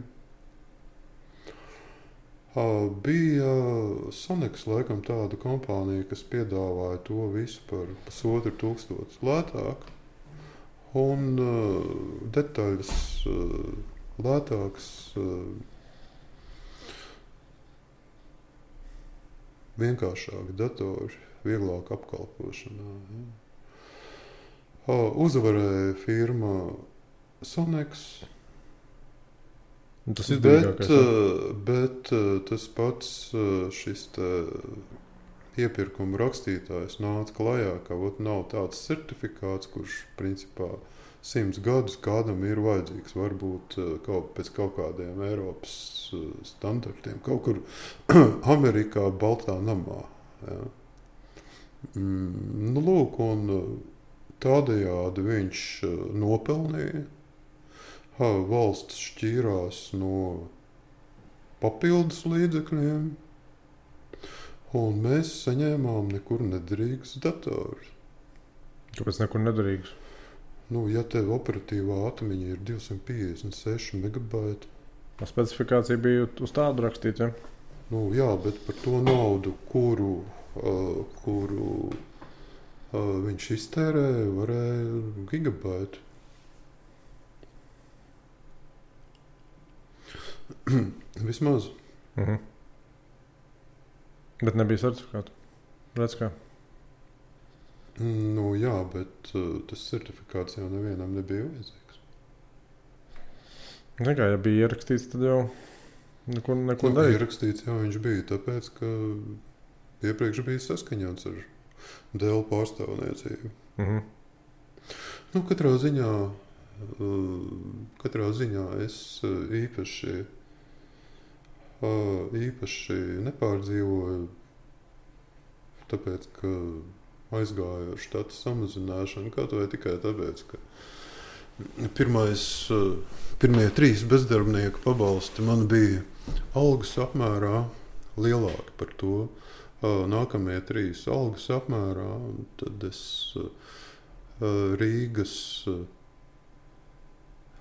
Bija Sonex, laikam, tāda kompānija, kas piedāvāja to visu par 1500 lētāk, un detaļas lētāks, vienkāršāki datori, vieglāk apkalpošanā. Ja. Uzvarēja firma Sonex, tas izdevīgākais, bet tas pats šis iepirkuma rakstītājs nāca klajā, ka nav tāds certifikāts, kurš principā 100 gadus kādam ir vajadzīgs, varbūt pēc kaut kādiem Eiropas standartiem, kaut kur Amerikā, Baltā namā. Ja. Lūk, un tādējādi viņš nopelnīja. Valsts šķīrās no papildus līdzekļiem, un mēs saņēmām nekur nederīgus datorus. Kāpēc nekur nederīgus? Ja tev operatīvā atmiņa ir 256 megabaiti. Specifikācija bija uz tādu rakstīta, ja? Jā, bet par to naudu, kuru viņš iztērēja, varēja gigabaitu. Vismaz. Bet nebija certifikātu. Redz kā? Jā, bet tas certifikāts jau nevienam nebija vajadzīgs. Nekā, ja bija ierakstīts, tad jau neko darīt. Ierakstīts jau viņš bija, tāpēc, ka iepriekš bija saskaņots ar Dell pārstāvniecību. Nu, katrā ziņā es īpaši nepārdzīvoju, tāpēc, ka aizgāju ar štatu samazināšanu, kaut vai tikai tāpēc, ka pirmie 3 bezdarbnieku pabalsti man bija algas apmērā lielāki par to. Nākamie 3 algas apmērā, un tad es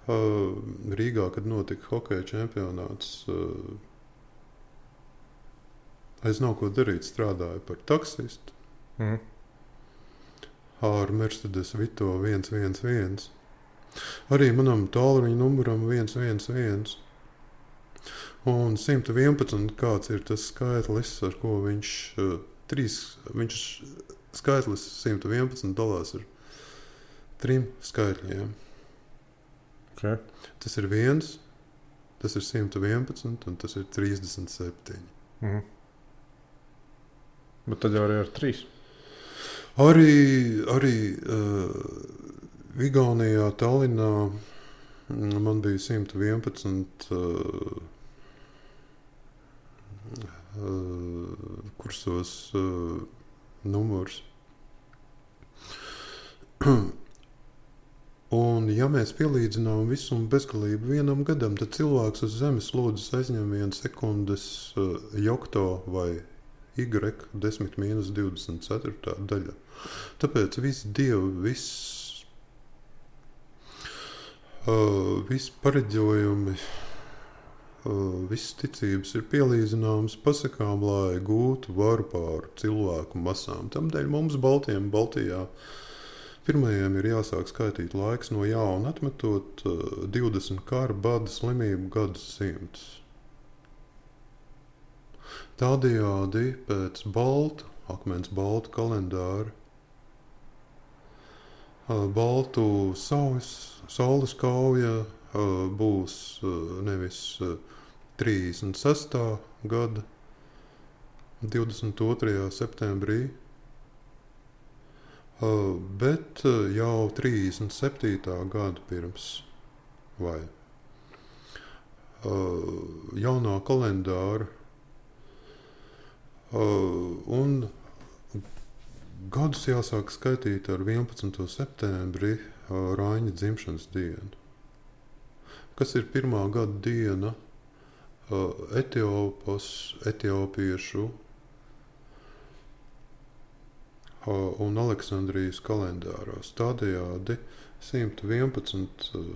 Rīgā, kad notika hokeja čempionāts, aiz nav ko darīt, strādāju par taksistu ar Mercedes Vito 111. Arī manam tālruņa numuram 111. Un 111, kāds ir tas skaitlis, ar ko viņš skaitlis 111 dalās ar 3 skaitļiem. Okay. Tas ir 1, tas ir 111 un tas ir 37. Bet tad jau arī ar 3. Arī Igaunijā, Tallinā man bija 111 kursos numurs. Un, ja mēs pielīdzinām visumu bezgalību vienam gadam, tad cilvēks uz zemes lodes aizņem 1 sekundes jokto vai y 10-24 daļa. Tāpēc visi dievi, visi pareģojumi, visas ticības ir pielīdzināmas pasakām, lai gūtu varu pār cilvēku masām. Tamdēļ mums Baltijā pirmajiem ir jāsāk skaitīt laiks no jauna, atmetot 20 karu, bada, slimību gadsimtus. Tādējādi pēc akmens baltu kalendāra, baltu saules kauja būs nevis 36. gada 22. septembrī, bet jau 37. gada pirms vai jaunā kalendāra. Un gadus jāsāk skaitīt ar 11. septembri Raiņa dzimšanas dienu. Kas ir pirmā gada diena etiopiešu un Aleksandrijas kalendāros. Tādējādi 111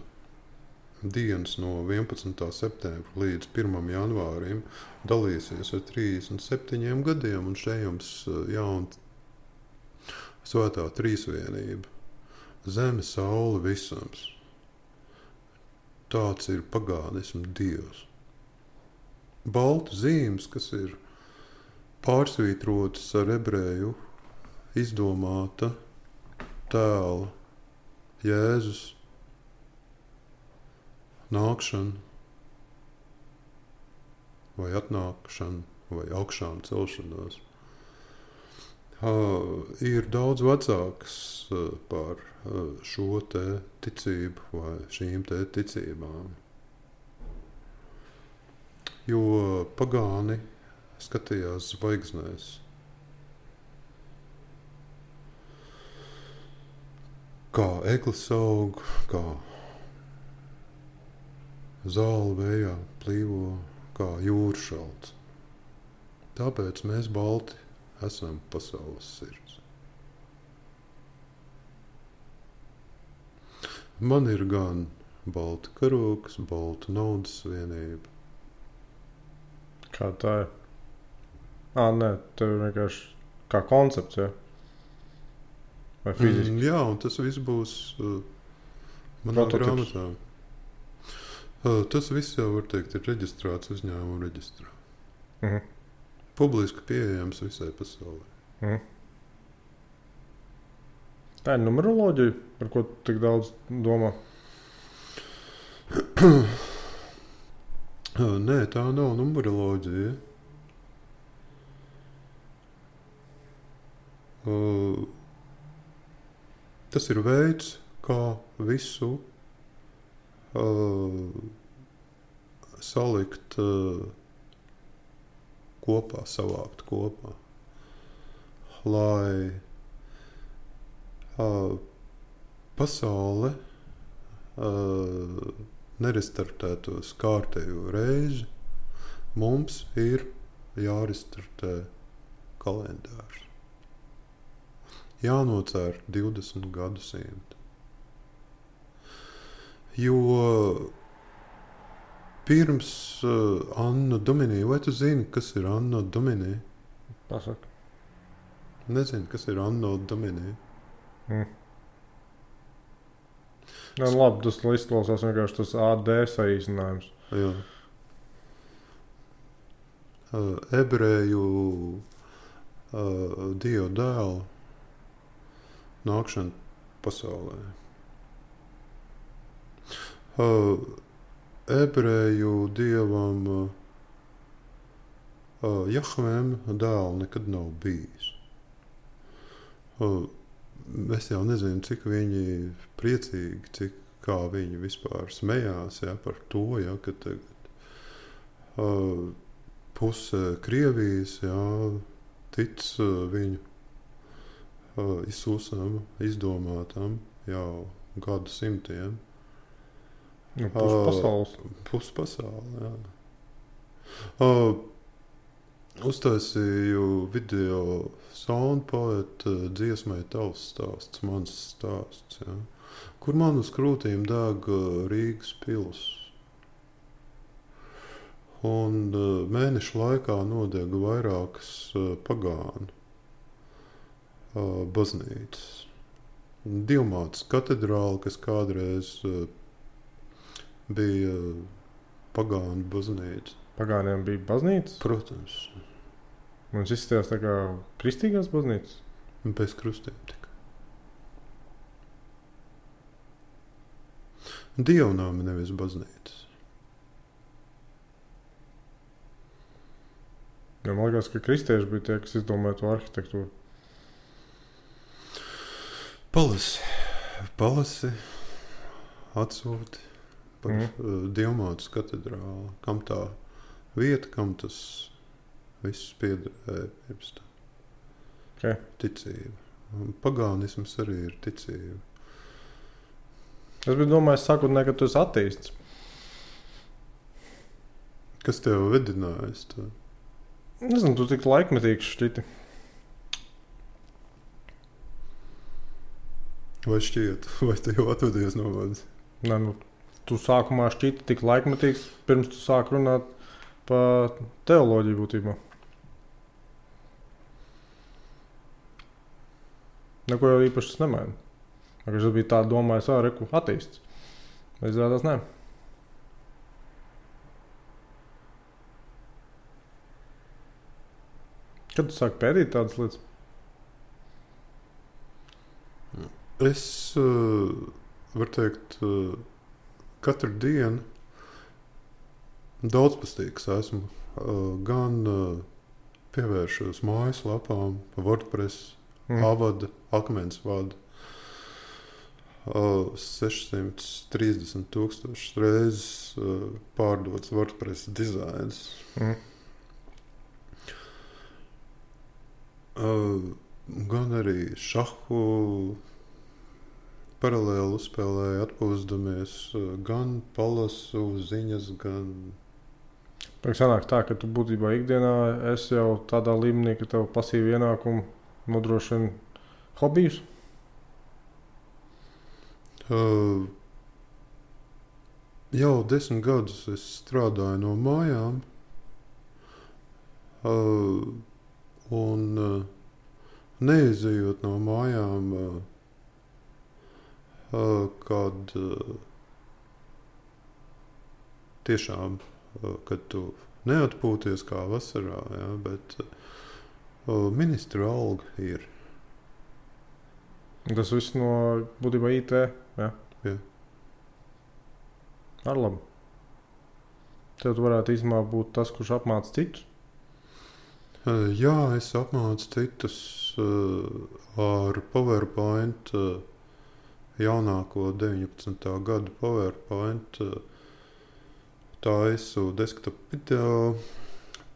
dienas no 11. septembra līdz 1. janvārim dalīsies ar 37 gadiem, un šeit jums jauna svētā trīsvienība. Zeme, saule, visums. Tāds ir pagānismu dievs. Baltu zīmes, kas ir pārsvītrotas ar ebreju izdomāta tēla Jēzus nākšana vai atnākšana vai augšām celšanās ir daudz vecāks par šo te ticību vai šīm te ticībām. Jo pagāni skatījās zvaigznēs. Kā eglis aug, kā zāle vējā plīvo, kā jūra šalts. Tāpēc mēs balti esam pasaules sirds. Man ir gan balta karoks, balta naudas vienība. Kā tā ir? Nē, tev ir vienkārši kā koncepts, ja? Vai fiziski? Jā, un tas viss būs manā grāmatā. Tas viss jau, var teikt, ir reģistrēts uzņēmuma reģistrā. Publiski pieejams visai pasaulē. Tā ir numeroloģija, par ko tik daudz domā? Nē, tā nav numeroloģija. Tas ir veids, kā visu salikt kopā, savākt kopā, lai pasaule nerestartētos kārtējo reizi. Mums ir jārestartē kalendārs. Jānocēr 20 gadsimti. Jo pirms Anno Domini, vai tu zini, kas ir Anno Domini? Pasaka. Nezinu, kas ir Anno Domini. Jā, labi, tas izklausās vienkārši tas AD saīsinājums. Jā. Ebreju Dieva dēla nākšana pasaulē. Ebreju dievam Jahvēm dēla nekad nav bijis. Es jau nezinu, cik viņi priecīgi, kā viņi vispār smējās par to, ka tagad puse Krievijas tic viņu izsūsam, izdomātam jau gadu simtiem. Pus pasaules, jā. Uztaisīju video soundpoeta dziesmai Tavs stāsts, mans stāsts, jā, kur man uz krūtīm deg Rīgas pils. Un mēnešu laikā nodega vairākas pagānu baznīcas. Dievmātes katedrāle, kas kādreiz bija pagānu baznīca. Pagāniem bija baznīcas? Protams. Mums izskatījās tā kā kristīgās baznīcas? Bez krustiem tikai. Dievnāmi, nevis baznīcas. Ja, man liekas, ka kristieši bija tie, kas izdomāja to arhitektūru. Palasi, atsūti par Dievmātes katedrāli. Kam tā vieta, kam tas viss piederēja pirms tā. Okay. Ticība. Pagānisms arī ir ticība. Es biju domājis sākotnēji, ka tu esi ateists. Kas tev vedinājis tā? Nezinu, tu tik laikmetīgs šķiti. Vai šķiet? Vai tu jau atvedies no manis? Nē, tu sākumā šķiti tik laikmetīgs, pirms tu sāk runāt par teoloģiju būtībā. Neko jau īpaši es nemainu. Es biju tā domājis, reku, ateists. Vai izrādās, nē. Kad tu sāki pētīt tādas lietas? Es varu teikt, katru dienu daudzpustīgs esmu. Gan pievēršos mājaslapām, WordPress, avada, akmens vada. 630,000 reizes pārdots WordPress dizains. Gan arī šahu paralēli uzspēlēju, atpūsdamies, gan palasu ziņas, gan... Sanāk tā, ka tu būtībā ikdienā esi jau tādā līmenī, ka tev pasīvi ienākumu nodrošina hobijus? Jau 10 gadus es strādāju no mājām. Un neizejot no mājām, kad tiešām, kad tu neatpūties kā vasarā, ja, bet ministra alga ir. Tas viss no būtībā IT, jā? Jā. Ar labu. Tev tu varētu īstenībā būt tas, kurš apmāca citus? Jā, es apmācu citus ar PowerPoint jaunāko 19. gada PowerPoint taisu desktop video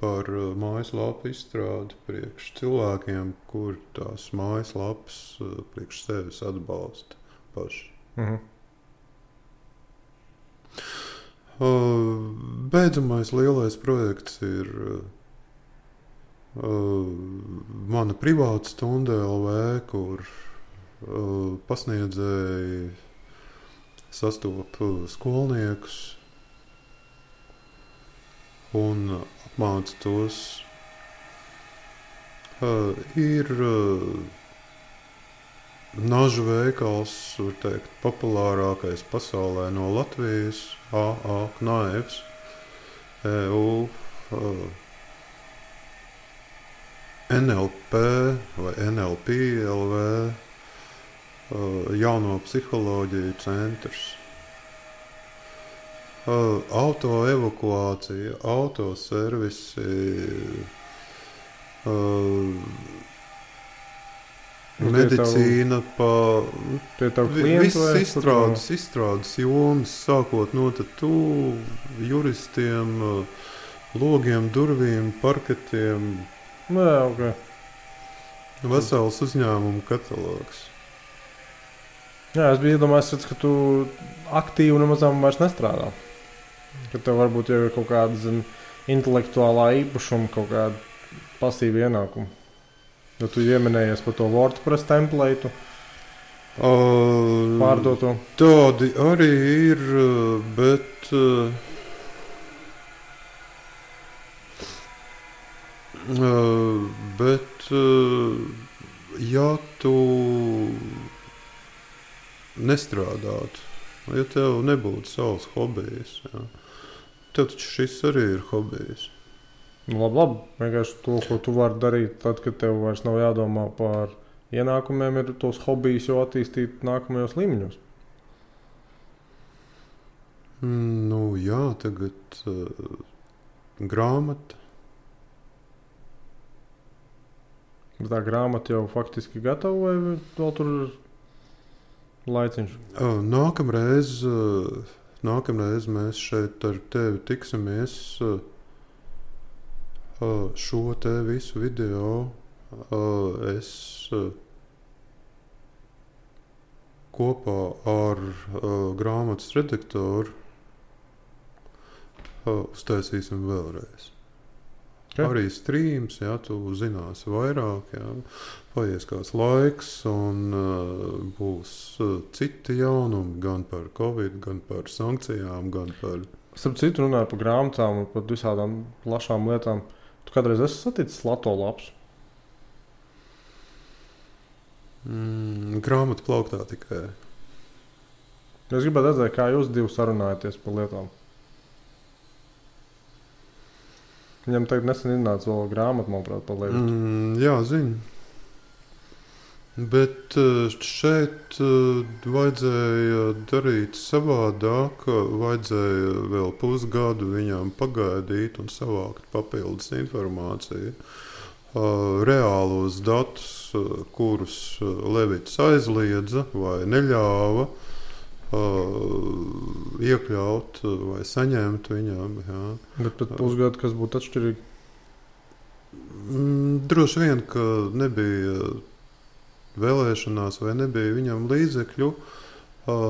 par mājaslapu izstrādi priekš cilvēkiem, kur tās mājaslapas priekš sevis atbalsta paši. Beidzamais lielais projekts ir mana privāta stunda LV, kur pasniedzēji sastop skolniekus un apmāca tos. Ir nažu veikals, var teikt, populārākais pasaulē no Latvijas, AA Knaivs, EU, NLP vai NLP LV, jauno psiholoģiju centrs. Autoevakuācija, autoservisi, medicīna, viss izstrādes jomas, sākot no tatu, juristiem, logiem, durvīm, parketiem. Okay. Vesels uzņēmumu katalogs. Jā, es biju iedomājies, ka tu aktīvi nemazām vairs nestrādā. Ka tev varbūt jau ir kaut kāda intelektuālā īpašuma, kaut kāda pasīva ienākuma. Jo tu ieminējies par to WordPress template, pārdoto. Tādi arī ir, bet ja tu nestrādātu, ja tev nebūtu savs hobijs, jā, tev taču šis arī ir hobijs. Labi. Vienkārši to, ko tu vari darīt, tad, kad tev vairs nav jādomā par ienākumiem, ir tos hobijus jau attīstīt nākamajos līmeņos. Jā, tagad grāmata. Tā grāmata jau faktiski gatava vai vēl tur ir laiciņš? Nākamreiz mēs šeit ar tevi tiksimies. Šo te visu video es kopā ar grāmatas redaktoru uztaisīsim vēlreiz. Okay. Arī streams, jā, tu zināsi vairāk, jā, paies kāds laiks un būs citi jaunumi gan par Covid, gan par sankcijām, gan par... Starp citu runāju par grāmatām un par visādām plašām lietām. Tu kādreiz esi saticis Lato lapsu? Grāmatu plauktā tikai. Es gribētu redzēt, kā jūs divi sarunājaties par lietām. Viņam tagad nesen iznāca vēl grāmata, manuprāt, par lietu. Jā, zinu. Bet šeit vajadzēja darīt savādāk, vajadzēja vēl pusgadu viņām pagaidīt un savākt papildus informāciju. Reālos datus, kurus Levits aizliedza vai neļāva iekļaut vai saņemt viņām. Jā. Bet pat pusgadu, kas būtu atšķirīgi? Droši vien, ka nebija vēlēšanās vai nebija viņam līdzekļu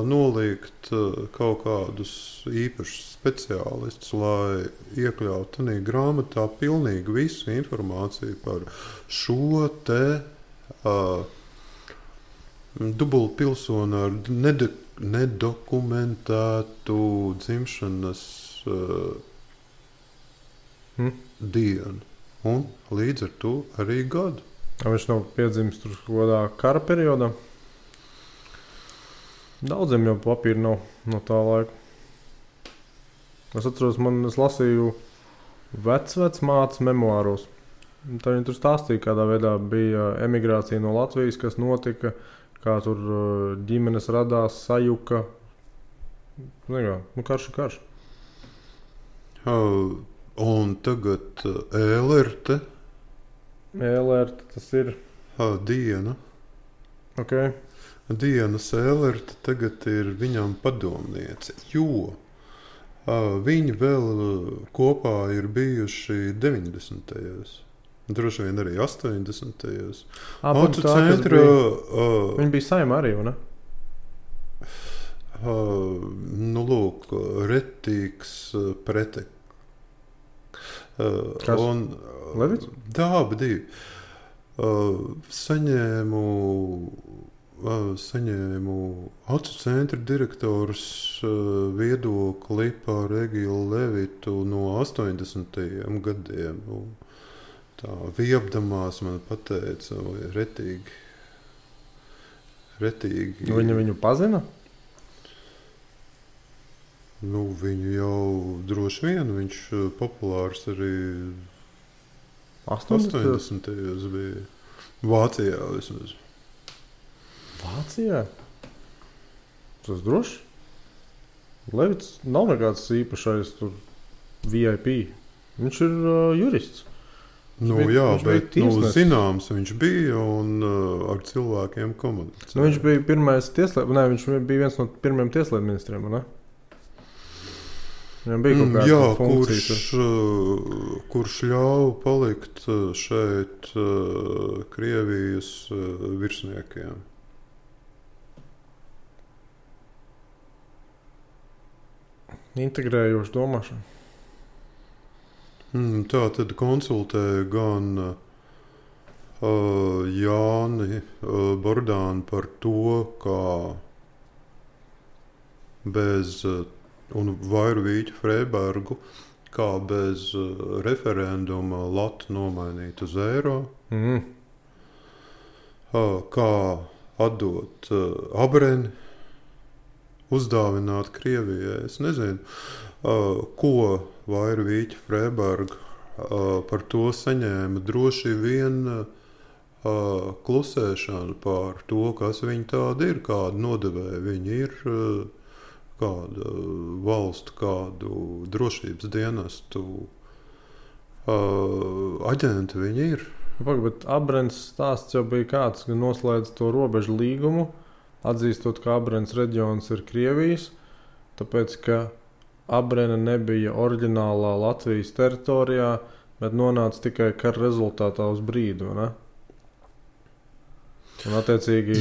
nolikt kaut kādus īpašus speciālistus, lai iekļautu tādā grāmatā pilnīgi visu informāciju par šo te dubultpilsoni ar nedokumentētu dzimšanas dienu un līdz ar to arī gadu. Viņš nav piedzimis tur kādā kara periodā. Daudziem jau papīra nav no tā laika. Es atceros, es lasīju vecmātes memoāros. Tā viņa tur stāstīja, kādā veidā bija emigrācija no Latvijas, kas notika, kā tur ģimenes radās, sajuka. Karš ir karš. Un tagad ēlerte. Ēlerte tas ir? Diena. Okay. Diana Sēlerte tagad ir viņam padomniece, jo viņi vēl kopā ir bijuši 90. Droši vien arī 80. Auto centra. Viņi bija Saimā arī, vai ne? Nu, lūk, retīgs pretek. Kas? Levits? Dāba divi. Saņēmu Auto centra direktors viedokli par Egilu Levitu no 80. gadiem. Tā viebdamās man pateica, vai retīgi. Viņa viņu pazina? Nu, viņu jau droši vien, viņš populārs arī 80. bija. Vācijā vismaz. Vācijā? Tas droši? Levits nav nekāds īpašais tur VIP. Viņš ir jurists. Nu, jā, bet zināms viņš bija un ar cilvēkiem komunicēja. Nu, viņš bija pirmais viņš bija viens no pirmiem tieslietu ministriem, ne? Viņam bija kaut kāda funkcija. Kurš ļauj palikt šeit Krievijas virsniekiem. Integrējoši domāšanu. Tā tad konsultēja gan Jāni Bordānu par to, kā bez, un Vairu Vīķu Freibergu, kā bez referenduma Latu nomainīt uz eiro, kā atdot Abreni, uzdāvināt Krievijai. Es nezinu, ko Vairu Vīķu Freiberga par to saņēma. Droši vien klusēšanu par to, kas viņi tādi ir, kādu nodevēju viņi ir, kādu valstu, kādu drošības dienestu aģenti viņi ir. Bet Abrens stāsts jau bija kāds, ka noslēdz to robežu līgumu, atzīstot, ka Abrens reģions ir Krievijas, tāpēc, ka Abrena nebija oriģinālā Latvijas teritorijā, bet nonāca tikai kara rezultātā uz brīdi, ne? Un attiecīgi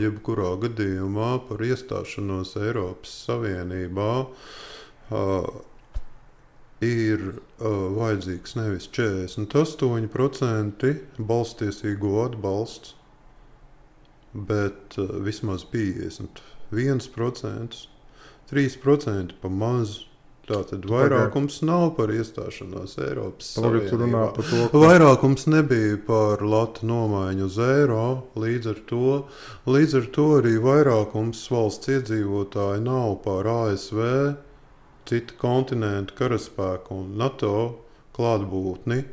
jebkurā gadījumā par iestāšanos Eiropas Savienībā ir vajadzīgs nevis 48% balstiesīgo atbalsts, bet vismaz 51%, 3% pa maz. Tātad vairākums nav par iestāšanos Eiropas Savienībā. Vairākums nebija par latu nomaiņu uz eiro, līdz ar to arī vairākums valsts iedzīvotāji nav par ASV, citu kontinentu karaspēku un NATO klātbūtni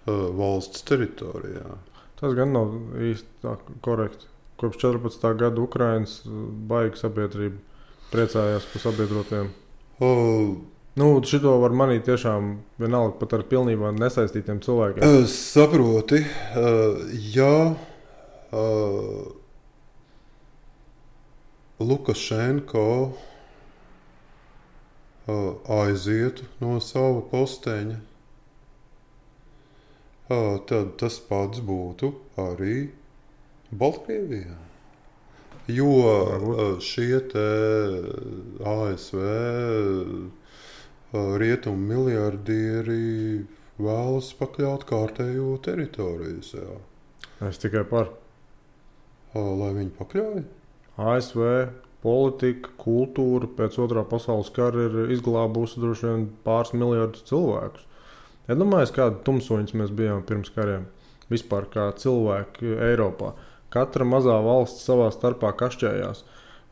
valsts teritorijā. Tas gan nav īsti tā korekti. Kopš 14. gada Ukrainas baigi sabiedrība priecājās par sabiedrotiem. Šito var manīt tiešām vienalga pat ar pilnībā nesaistītiem cilvēkiem. Saproti, ja Lukašenko aizietu no sava posteņa, tad tas pats būtu arī Baltkrievijā. Jo šie te ASV rietumu miliardieri vēlas pakļaut kārtējo teritoriju sev. Es tikai par. Lai viņi pakļauj? ASV politika, kultūra pēc otrā pasaules kara ir izglābusi droši vien pāris miljardus cilvēkus. Iedomājies, kādi tumsoņas mēs bijām pirms kariem. Vispār kā cilvēki Eiropā. Katra mazā valsts savā starpā kašķējās.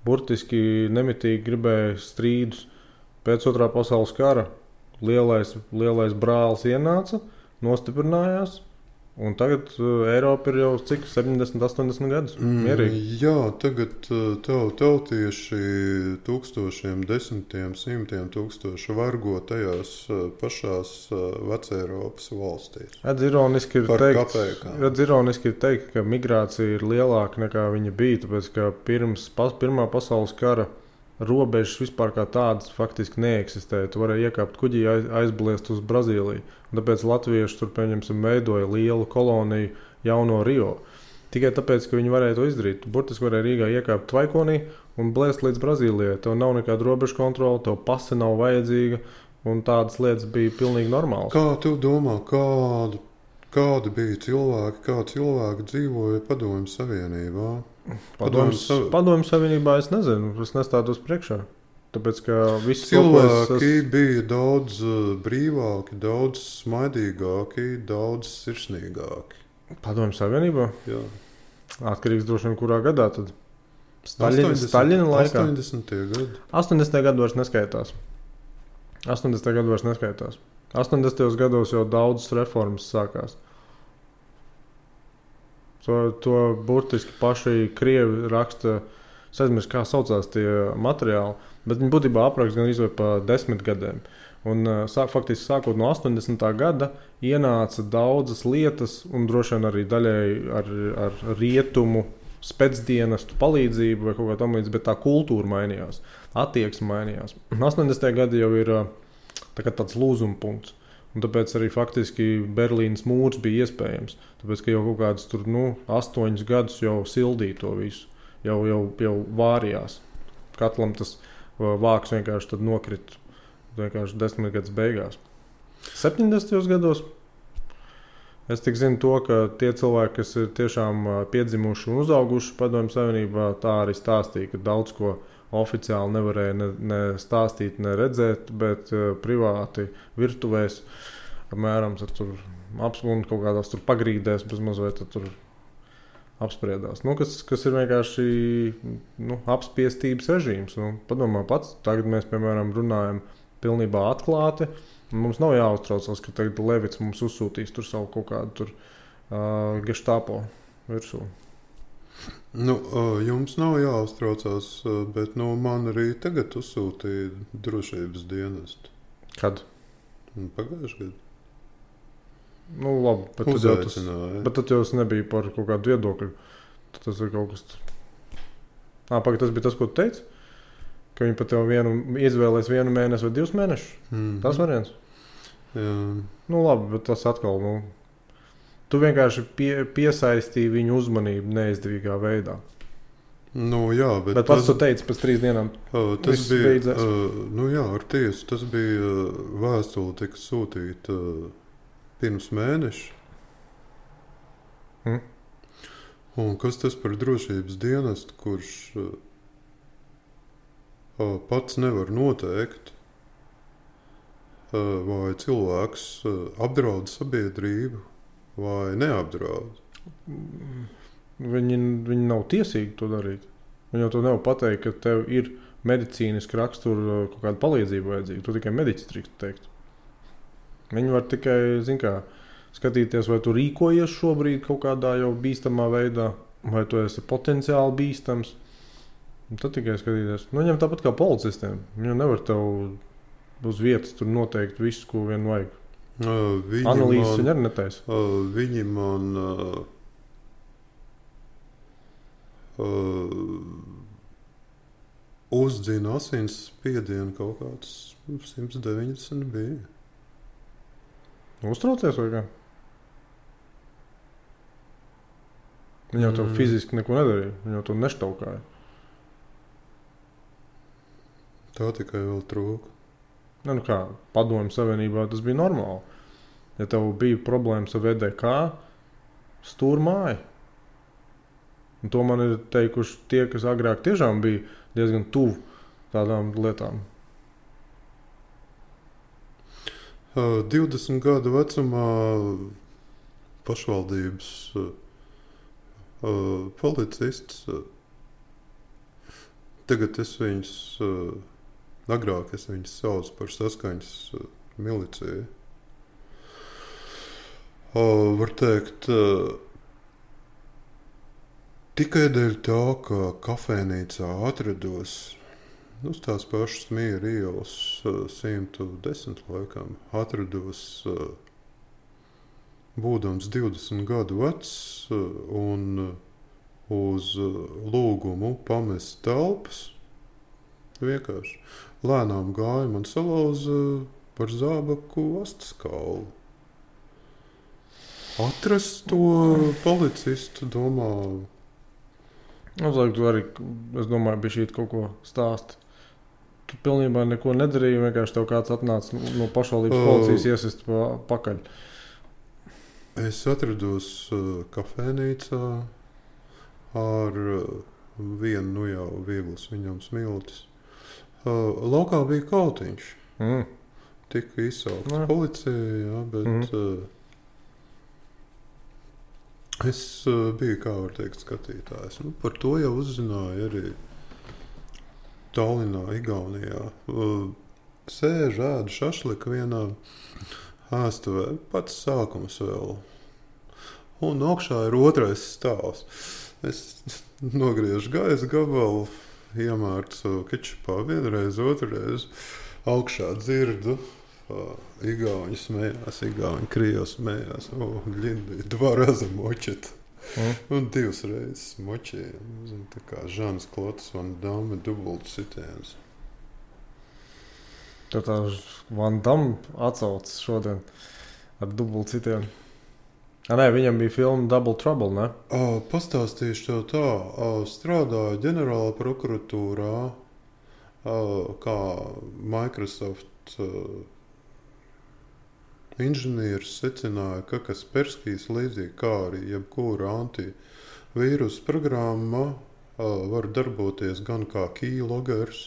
Burtiski nemitīgi gribēja strīdus. Pēc otrā pasaules kara lielais brālis ienāca, nostiprinājās Un tagad Eiropa ir jau cik 70, 80 gadus mierīgi. Jā, tagad tautieši tūkstošiem, desmitiem, simtiem tūkstoši vargo tajās pašās Veceiropas valstīs. Redz, ironiski ir teikt, ka migrācija ir lielāka nekā viņa bija, tāpēc, ka pirms Pirmā pasaules kara robežas vispār kā tādas faktiski neeksistēja. Tu varēji iekāpt kuģī, aizbliest uz Brazīliju. Un tāpēc latvieši tur, pieņemsim, veidoja lielu koloniju Jauno Rio. Tikai tāpēc, ka viņi varēja to izdarīt. Tu burtiski varēja Rīgā iekāpt tvaikonī un blēst līdz Brazīlijai. Tev nav nekāda robežu kontrola, tev pase nav vajadzīga, un tādas lietas bija pilnīgi normālas. Kā tu domā, kādi bija cilvēki, kā cilvēki dzīvoja Padomju Savienībā? Padomju Savienībā es nezinu, es nestādos priekšā. Tāpēc, ka visi cilvēki bija daudz brīvāki, daudz smaidīgāki, daudz sirsnīgāki. Padomju Savienībā? Jā. Atkarīgs droši vien kurā gadā tad? Staļina laikā? 80. gadi. 80. gadu vairs neskaitās. 80. gados jau daudzas reformas sākās. To burtiski paši krievi raksta, es aizmirsu, kā saucās tie materiāli, bet viņi būtībā apraksta gan izvēl pa 10 gadiem. Un faktiski sākot no 80. gada ienāca daudzas lietas, un droši vien arī daļai ar rietumu spēcdienestu palīdzību vai kaut kā tam līdz, bet tā kultūra mainījās, attieksme mainījās. 80. gadi jau ir tāds lūzuma punkts. Un tāpēc arī faktiski Berlīnas mūrs bija iespējams. Tāpēc, ka jau kaut kādus 8 gadus jau sildīja to visu. Jau vārījās. Katlam tas vāks vienkārši tad nokrita. Vienkārši 10 gadus beigās. 70. gados es tik zinu to, ka tie cilvēki, kas ir tiešām piedzimuši un uzauguši Padomju Savienībā, tā arī stāstīja, ka daudz ko oficiāli nevarēja ne stāstīt, ne redzēt, bet privāti virtuvēs apmēram tur apspriežot kaut kādās tur pagrīdēs, bez mazliet tur apspriedās. Kas ir vienkārši apspiestības režīms. Padomā pats, tagad mēs, piemēram, runājam pilnībā atklāti. Mums nav jāuztraucās, ka tagad Levits mums uzsūtīs tur savu kaut kādu geštāpo virsū. Jums nav jāuztraucās, bet man arī tagad uzsūtīja drošības dienestu. Kad? Pagājušajā gadā. Labi, bet tad jau tas nebija par kaut kādu viedokļu. Tad tas ir kaut kas... Tas bija tas, ko tu teici? Ka viņi pat tev izvēlēs 1 mēnesi vai 2 mēnešus? Tas variants? Jā. Labi, bet tas atkal... Tu vienkārši piesaistīji viņu uzmanību neizdevīgā veidā. Jā, bet pats tu teici, pēc 3 dienām tas bija beidzās. Ar tiesu. Tas bija vēstule, tika sūtīta pirms mēneša. Un kas tas par drošības dienestu, kurš pats nevar noteikt, vai cilvēks apdraud sabiedrību, vai neapdraud? Viņi nav tiesīgi to darīt. Viņi jau to nevar pateikt, ka tev ir medicīniski rakstura kaut kāda palīdzība vajadzīga. Tu tikai mediķis drīkst teikt. Viņi var tikai, skatīties, vai tu rīkojies šobrīd kaut kādā jau bīstamā veidā, vai tu esi potenciāli bīstams. Un tad tikai skatīties. Viņam tāpat kā policistiem. Viņi nevar tev uz vietas tur noteikt visu, ko vien vajag. Analīzes viņi arī netaisa. Viņi man uzdzina asins spiedienu kaut kāds 190 bija. Uztraucies vai kā? Viņi jau tev fiziski neko nedarīja. Viņi jau to neštaukāja. Tā tikai vēl trūka. Padomju Savienībā tas bija normāli. Ja tev bija problēmas ar VDK, stūr māja. Un to man ir teikuši tie, kas agrāk tiešām bija diezgan tuvu tādām lietām. 20 gadu vecumā pašvaldības policists. Tagad es viņus, agrāk es viņus saucu par saskaņas miliciju. Var teikt, tikai dēļ tā, ka kafejnīcā atrados uz tās pašas Miera ielas 110 laikam, atrados būdams 20 gadu vecs un uz lūgumu pamest telpas. Vienkārši lēnām gāja man salauza par zābaku astes kaulu. Atrast to policistu, domā. Uzliek, tu arī, es domāju, bija šī kaut ko stāst. Tu pilnībā neko nedarīji, vienkārši tev kāds atnāca no pašvaldības policijas iesist pakaļ. Es atrados kafejnīcā ar vienu jau vieglas viņam smiltis. Laukā bija kautiņš. Tika izsaukts policija, jā, bet es biju, kā var teikt, skatītājs. Par to jau uzzināju arī Tallinā, Igaunijā. Sēž ēdu šašliku vienā ēstuvē, pats sākums vēl. Un augšā ir otrais stāvs. Es nogriežu gaisa gabalu, iemārcu kečupā vienreiz, otrreiz. Augšā dzirdu. Igauņi smējās, Igauņi Krievs smējās. Ļindi, 2 raza močet. Un 2 reizes močēja. Tā kā Žanas Klotas Van Damme dubultu sitiens. Tad tā Van Damme atsaucas šodien ar dubultu sitienu. Nē, viņam bija filma Double Trouble, ne? Pastāstīšu tev tā. Strādāju ģenerāla prokuratūrā kā Microsoft inženieris secināja, ka Kasperskijs līdzīgi kā arī jebkura antivīrusu programma var darboties gan kā keylogers,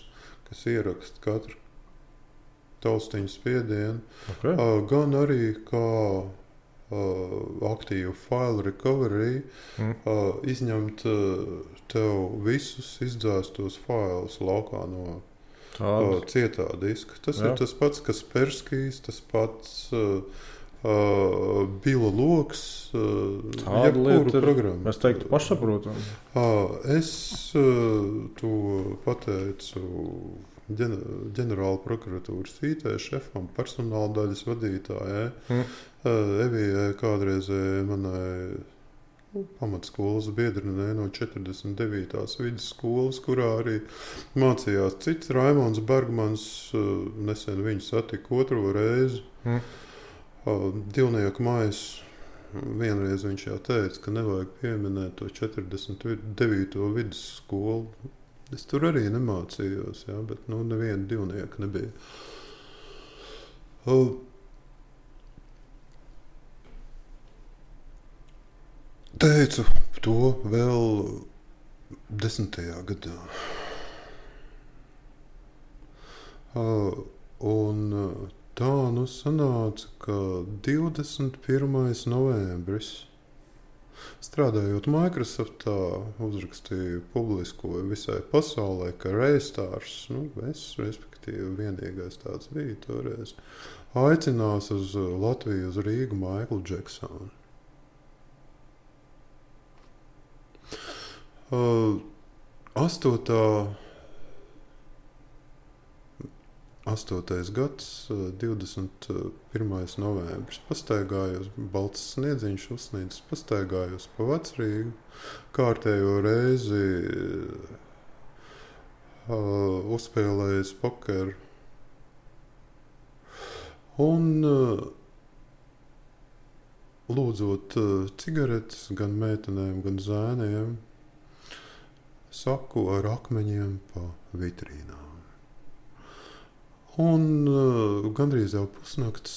kas ieraksta katru taustiņu spiedienu, gan arī kā aktīvu file recovery, izņemt tev visus izdzēstos failus laukā no cietā diska. Tas ir tas pats Kasperskijs, tas pats Bila Loks, jebkuru programmu. Es teiktu pašsaprotam. Es to pateicu ģenerāla prokuratūras IT šefam, personāla daļas vadītājai, Evijai kādreizēji manai pamatskolas biedrinē no 49. vidusskolas, kurā arī mācījās cits Raimonds Bergmans. Nesen viņu satika 2. reizi. Divnieku mājas. Vienreiz viņš jau teica, ka nevajag pieminēt to 49. vidusskolu. Es tur arī nemācījos, jā, bet neviena divnieka nebija. Teicu to vēl 10. gadā. Un tā sanāca, ka 21. novembris, strādājot Microsoftā, uzrakstīju, publiskoju visai pasaulē, ka Raystars, es, respektīvi, vienīgais tāds bija toreiz, aicinās uz Latviju, uz Rīgu Maiklu Džeksonu. 8. gads, 21. novembris. Pastaigājos, balts sniedziņš uzsnīdis, pastaigājos pa Vecrīgu, kārtējo reizi uzspēlējis pokeru. Un lūdzot cigaretes gan meitenēm, gan zēniem, saku ar akmeņiem pa vitrīnām. Un gandrīz jau pusnakts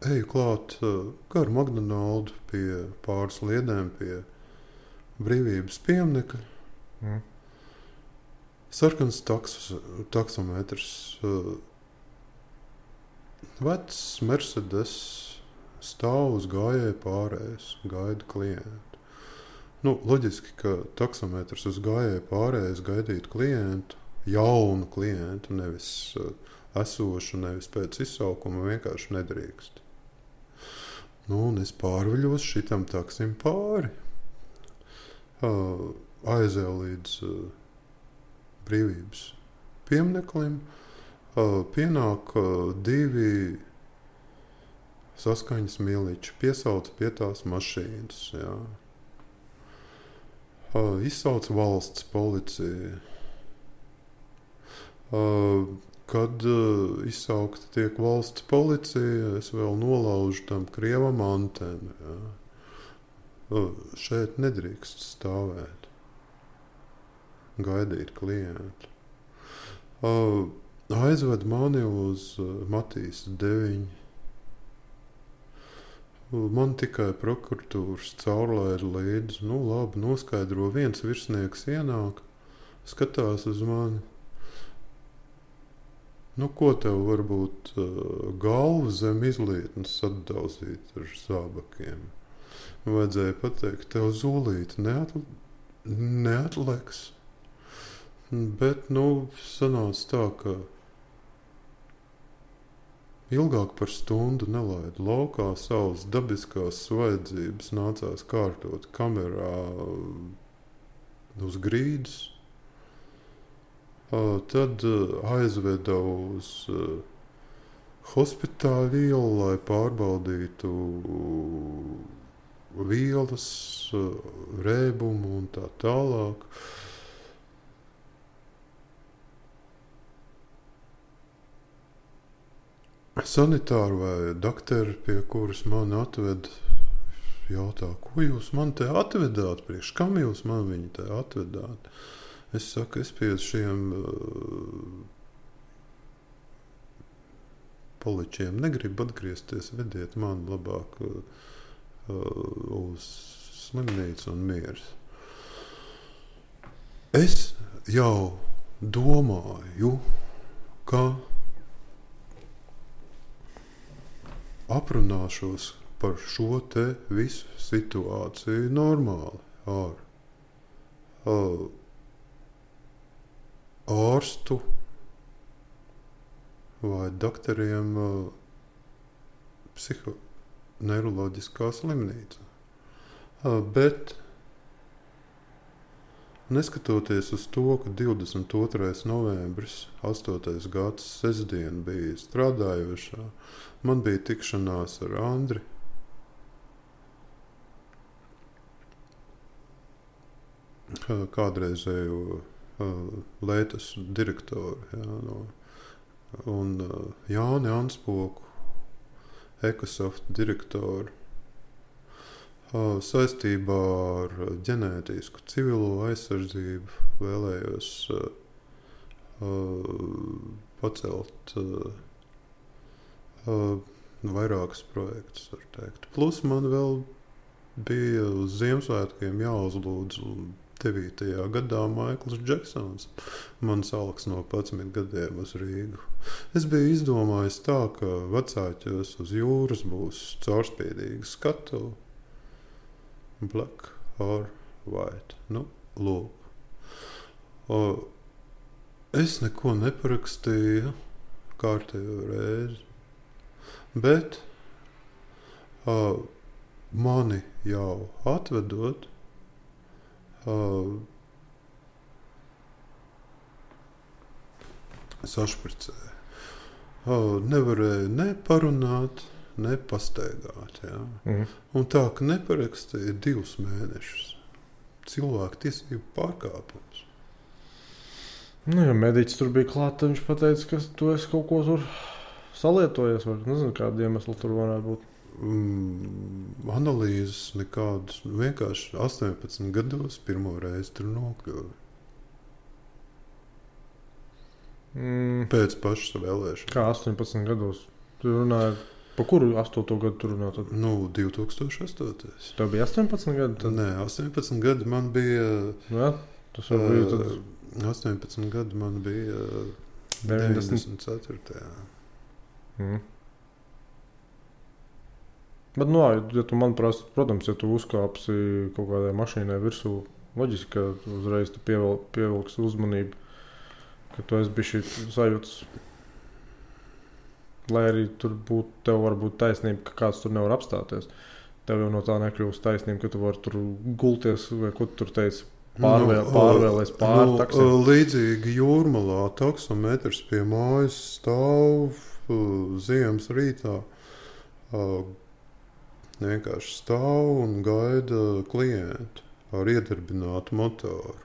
eju klāt gar McDonaldu pie pāris liedēm pie Brīvības pieminekļa. Sarkans taksometrs. Vecs Mercedes stāv uz gājēju pārējas, gaida klientu. Loģiski, ka taksometrs uz gājēju pārējas gaidītu klientu, jaunu klientu, nevis esošu, nevis pēc izsaukuma vienkārši nedrīkst. Nu, un es pārviļos šitam taksim pāri. Aizēju līdz brīvības piemineklim. Pienāk 2 saskaņas miliči, piesauca pie tās mašīnas. Jā. Izsauca valsts policija. Kad izsaukta tiek valsts policija, es vēl nolaužu tam krievam antenu. Jā. Šeit nedrīkst stāvēt, gaidīt klientu. Aizved mani uz Matīs 9. Man tikai prokuratūras caurlaida līdzi. Nu, labi, noskaidro, viens virsnieks ienāk, skatās uz mani. Nu, ko tev varbūt galvu zem izlietnes atdauzīt ar zābakiem? Vajadzēja pateikt, tev zūlīti neatliks. Bet, sanāca tā, ka ilgāk par stundu nelaidu laukā, savas dabiskās vajadzības nācās kārtot kamerā uz grīdas. Tad aizveda uz hospitāļu ielu, lai pārbaudītu vielas, rēbumu un tā tālāk. Sanitāri vai dakteri, pie kuras mani atved, jautā, ko jūs man te atvedāt, priekš kam jūs man viņu te atvedāt? Es saku, es pie šiem poličiem negribu atgriezties, vediet man labāk uz slimnīcu un mieras. Es jau domāju, ka aprunāšos par šo te visu situāciju normāli ar ārstu vai doktoriem psihoneiroloģiskā slimnīcā. Bet neskatoties uz to, ka 22. novembris, 8. gads, sestdien bija strādājošā, man bija tikšanās ar Andri. Kādreizējo Leitas direktoru, un Jāni Anspoku, Ekosoft direktoru, saistībā ar ģenētisku civilo aizsardzību vēlējos pacelt vairākus projektus, var teikt. Plus man vēl bija uz Ziemassvētkiem jāuzlūdz 9. gadā Maikls Džeksons. Man salks no 11 gadiem uz Rīgu. Es biju izdomājis tā, ka vecāķos uz jūras būs caurspīdīga skatuve. Black or white. Lūk. Es neko neparakstīju kārtējo reizi, bet mani jau atvedot, sašpricēja. Nevarēja ne parunāt, ne pastaigāt. Ja? Un tā, ka neparakstīja 2 mēnešus. Cilvēku tiesību pārkāpums. Ja mediķis tur bija klāt, viņš pateica, ka tu esi kaut ko tur salietojies, vai nezinu, kāda iemesla tur varētu būt. Analīzes nekādas, vienkārši 18 gados pirmo reizi tur nokļuvi. Pēc pašas vēlēšanas. Kā 18 gados? Tu runāji, pa kuru 8. gadu tu runā tad? 2008. Tev bija 18 gadi? Tad? Nē, 18 gadi man bija... Jā, tas jau bija tad... 18 gadi man bija 94. Bet, ja tu man prasa, protams, ja tu uzkāpsi kaut kādai mašīnai virsū, loģiski, ka uzreiz tu pievilksi uzmanību, ka tu esi bišķi sajūtas Lai arī tur būtu, tev var būt taisnība, ka kāds tur nevar apstāties. Tev jau no tā nekļūst taisnība, ka tu vari tur gulties, vai ko tu tur teici, pārvēlēs pāri taksim. Līdzīgi Jūrmalā taksometrs pie mājas stāv ziemas rītā. Vienkārši stāv un gaida klientu ar iedarbinātu motoru.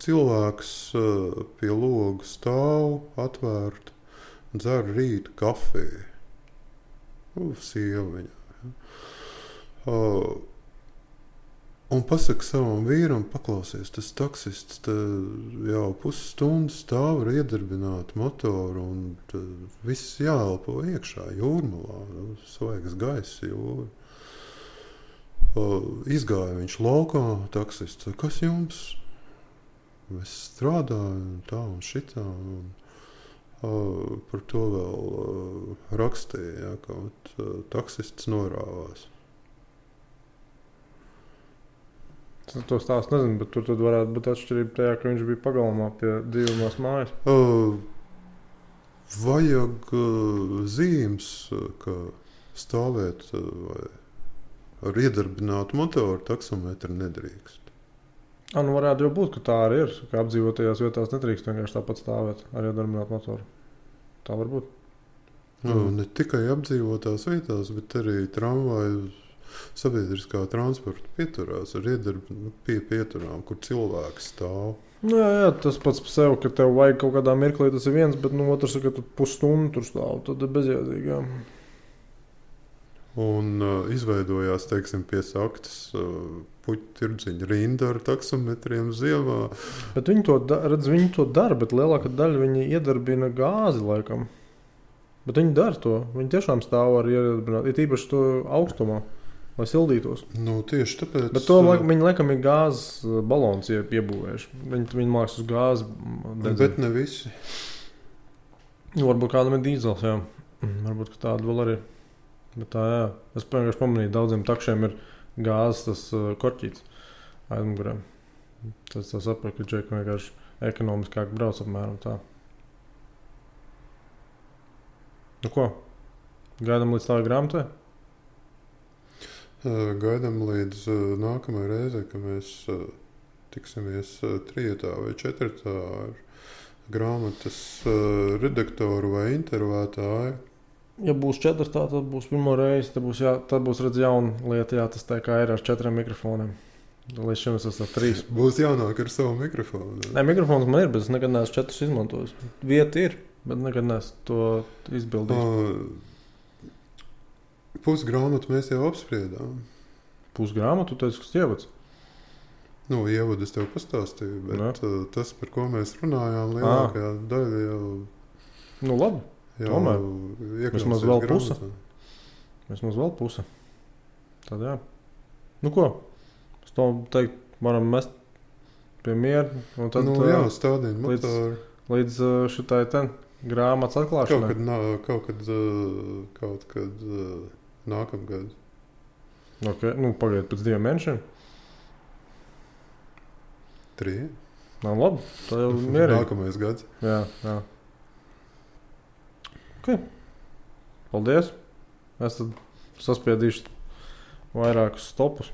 Cilvēks pie loga stāv, atvērt, dzer rīta kafiju. Sieva viņā. Un pasaka savam vīram, paklausies, tas taksists jau pusstundu stāv ar iedarbinātu motoru un viss jāelpo iekšā Jūrmalā. Svaigs gaiss jūra. Izgāja viņš laukā, taksists, kas jums? Es strādāju tā un šitā. Un par to vēl rakstīja, ka taksists norāvās. To stāstu nezinu, bet tur tad varētu būt atšķirība tajā, ka viņš bija pagalmā pie dzīvumās mājas. Vajag zīmes, ka stāvēt vai ar iedarbinātu motoru taksometru nedrīkst. Nu varētu jau būt, ka tā arī ir, ka apdzīvotajās vietās nedrīkst vienkārši tāpat stāvēt ar iedarbinātu motoru. Tā var būt. Ne tikai apdzīvotās vietās, bet arī tramvaju sabiedriskā transporta pieturās ar pie pieturām, kur cilvēki stāv. Jā, tas pats par sevi, ka tev vajag kaut kādā mirklī, tas ir viens, bet otrs, ka tu pusstundu tur stāv, tad ir bezjēdzīgi. Jā. Un izveidojās, teiksim, pie saktas puķu tirdziņa rinda ar taksometriem ziemā. Bet viņi to dara, bet lielākā daļa viņi iedarbina gāzi laikam. Bet viņi dara to. Viņi tiešām stāv ar iedarbinātu, ir īpaši to augstumā, lai sildītos. Tieši tāpēc. Bet to viņi laikam ir gāzes balons iebūvējuši. Viņi māks uz gāzi. Bet ne visi. Varbūt kādam ir dīzels, jā. Varbūt, ka tāda vēl arī. Bet tā, jā. Es vienkārši pamanīju, daudziem takšiem ir gāzes tas korķīts aizmugurē. Tas saprot, ka džeki vienkārši ekonomiskāk brauc apmēram tā. Ko? Gaidām līdz tādai grāmatai? Gaidām līdz nākamajai reizei, ka mēs tiksimies 3. vai 4. ar grāmatas redaktoru vai intervētāju. Ja būs 4, tad būs pirmo reizi. Tad būs redz jauna lieta, jā, tas tā kā ir ar 4 mikrofoniem. Līdz šim es esmu 3. Būs jānāk ar savu mikrofonu. Nē, mikrofons man ir, bet es nekad neesmu 4 izmantojis. Vieta ir, bet nekad neesmu to izbildījis. Pusgrāmatu mēs jau apspriedām. Pusgrāmatu, tu teici, kas ievads? Ievadu es tev pastāstīju, bet tas, par ko mēs runājām, lielākajā daļa jau... Labi. Tomēr. Vismaz vēl puse. Vismaz vēl puse. Tad jā. Ko? Es to teikt, varam mest pie miera. Un tad, stādīt motoru. Līdz šitai grāmatas atklāšanai. Kaut kad nākamgad. Okay. Pagaidiet pēc 2 mēnešiem. 3. Labi. Tā jau mierīgi. Nākamais gads. Jā. Okay. Paldies. Es tad saspiedīšu vairākus stopus.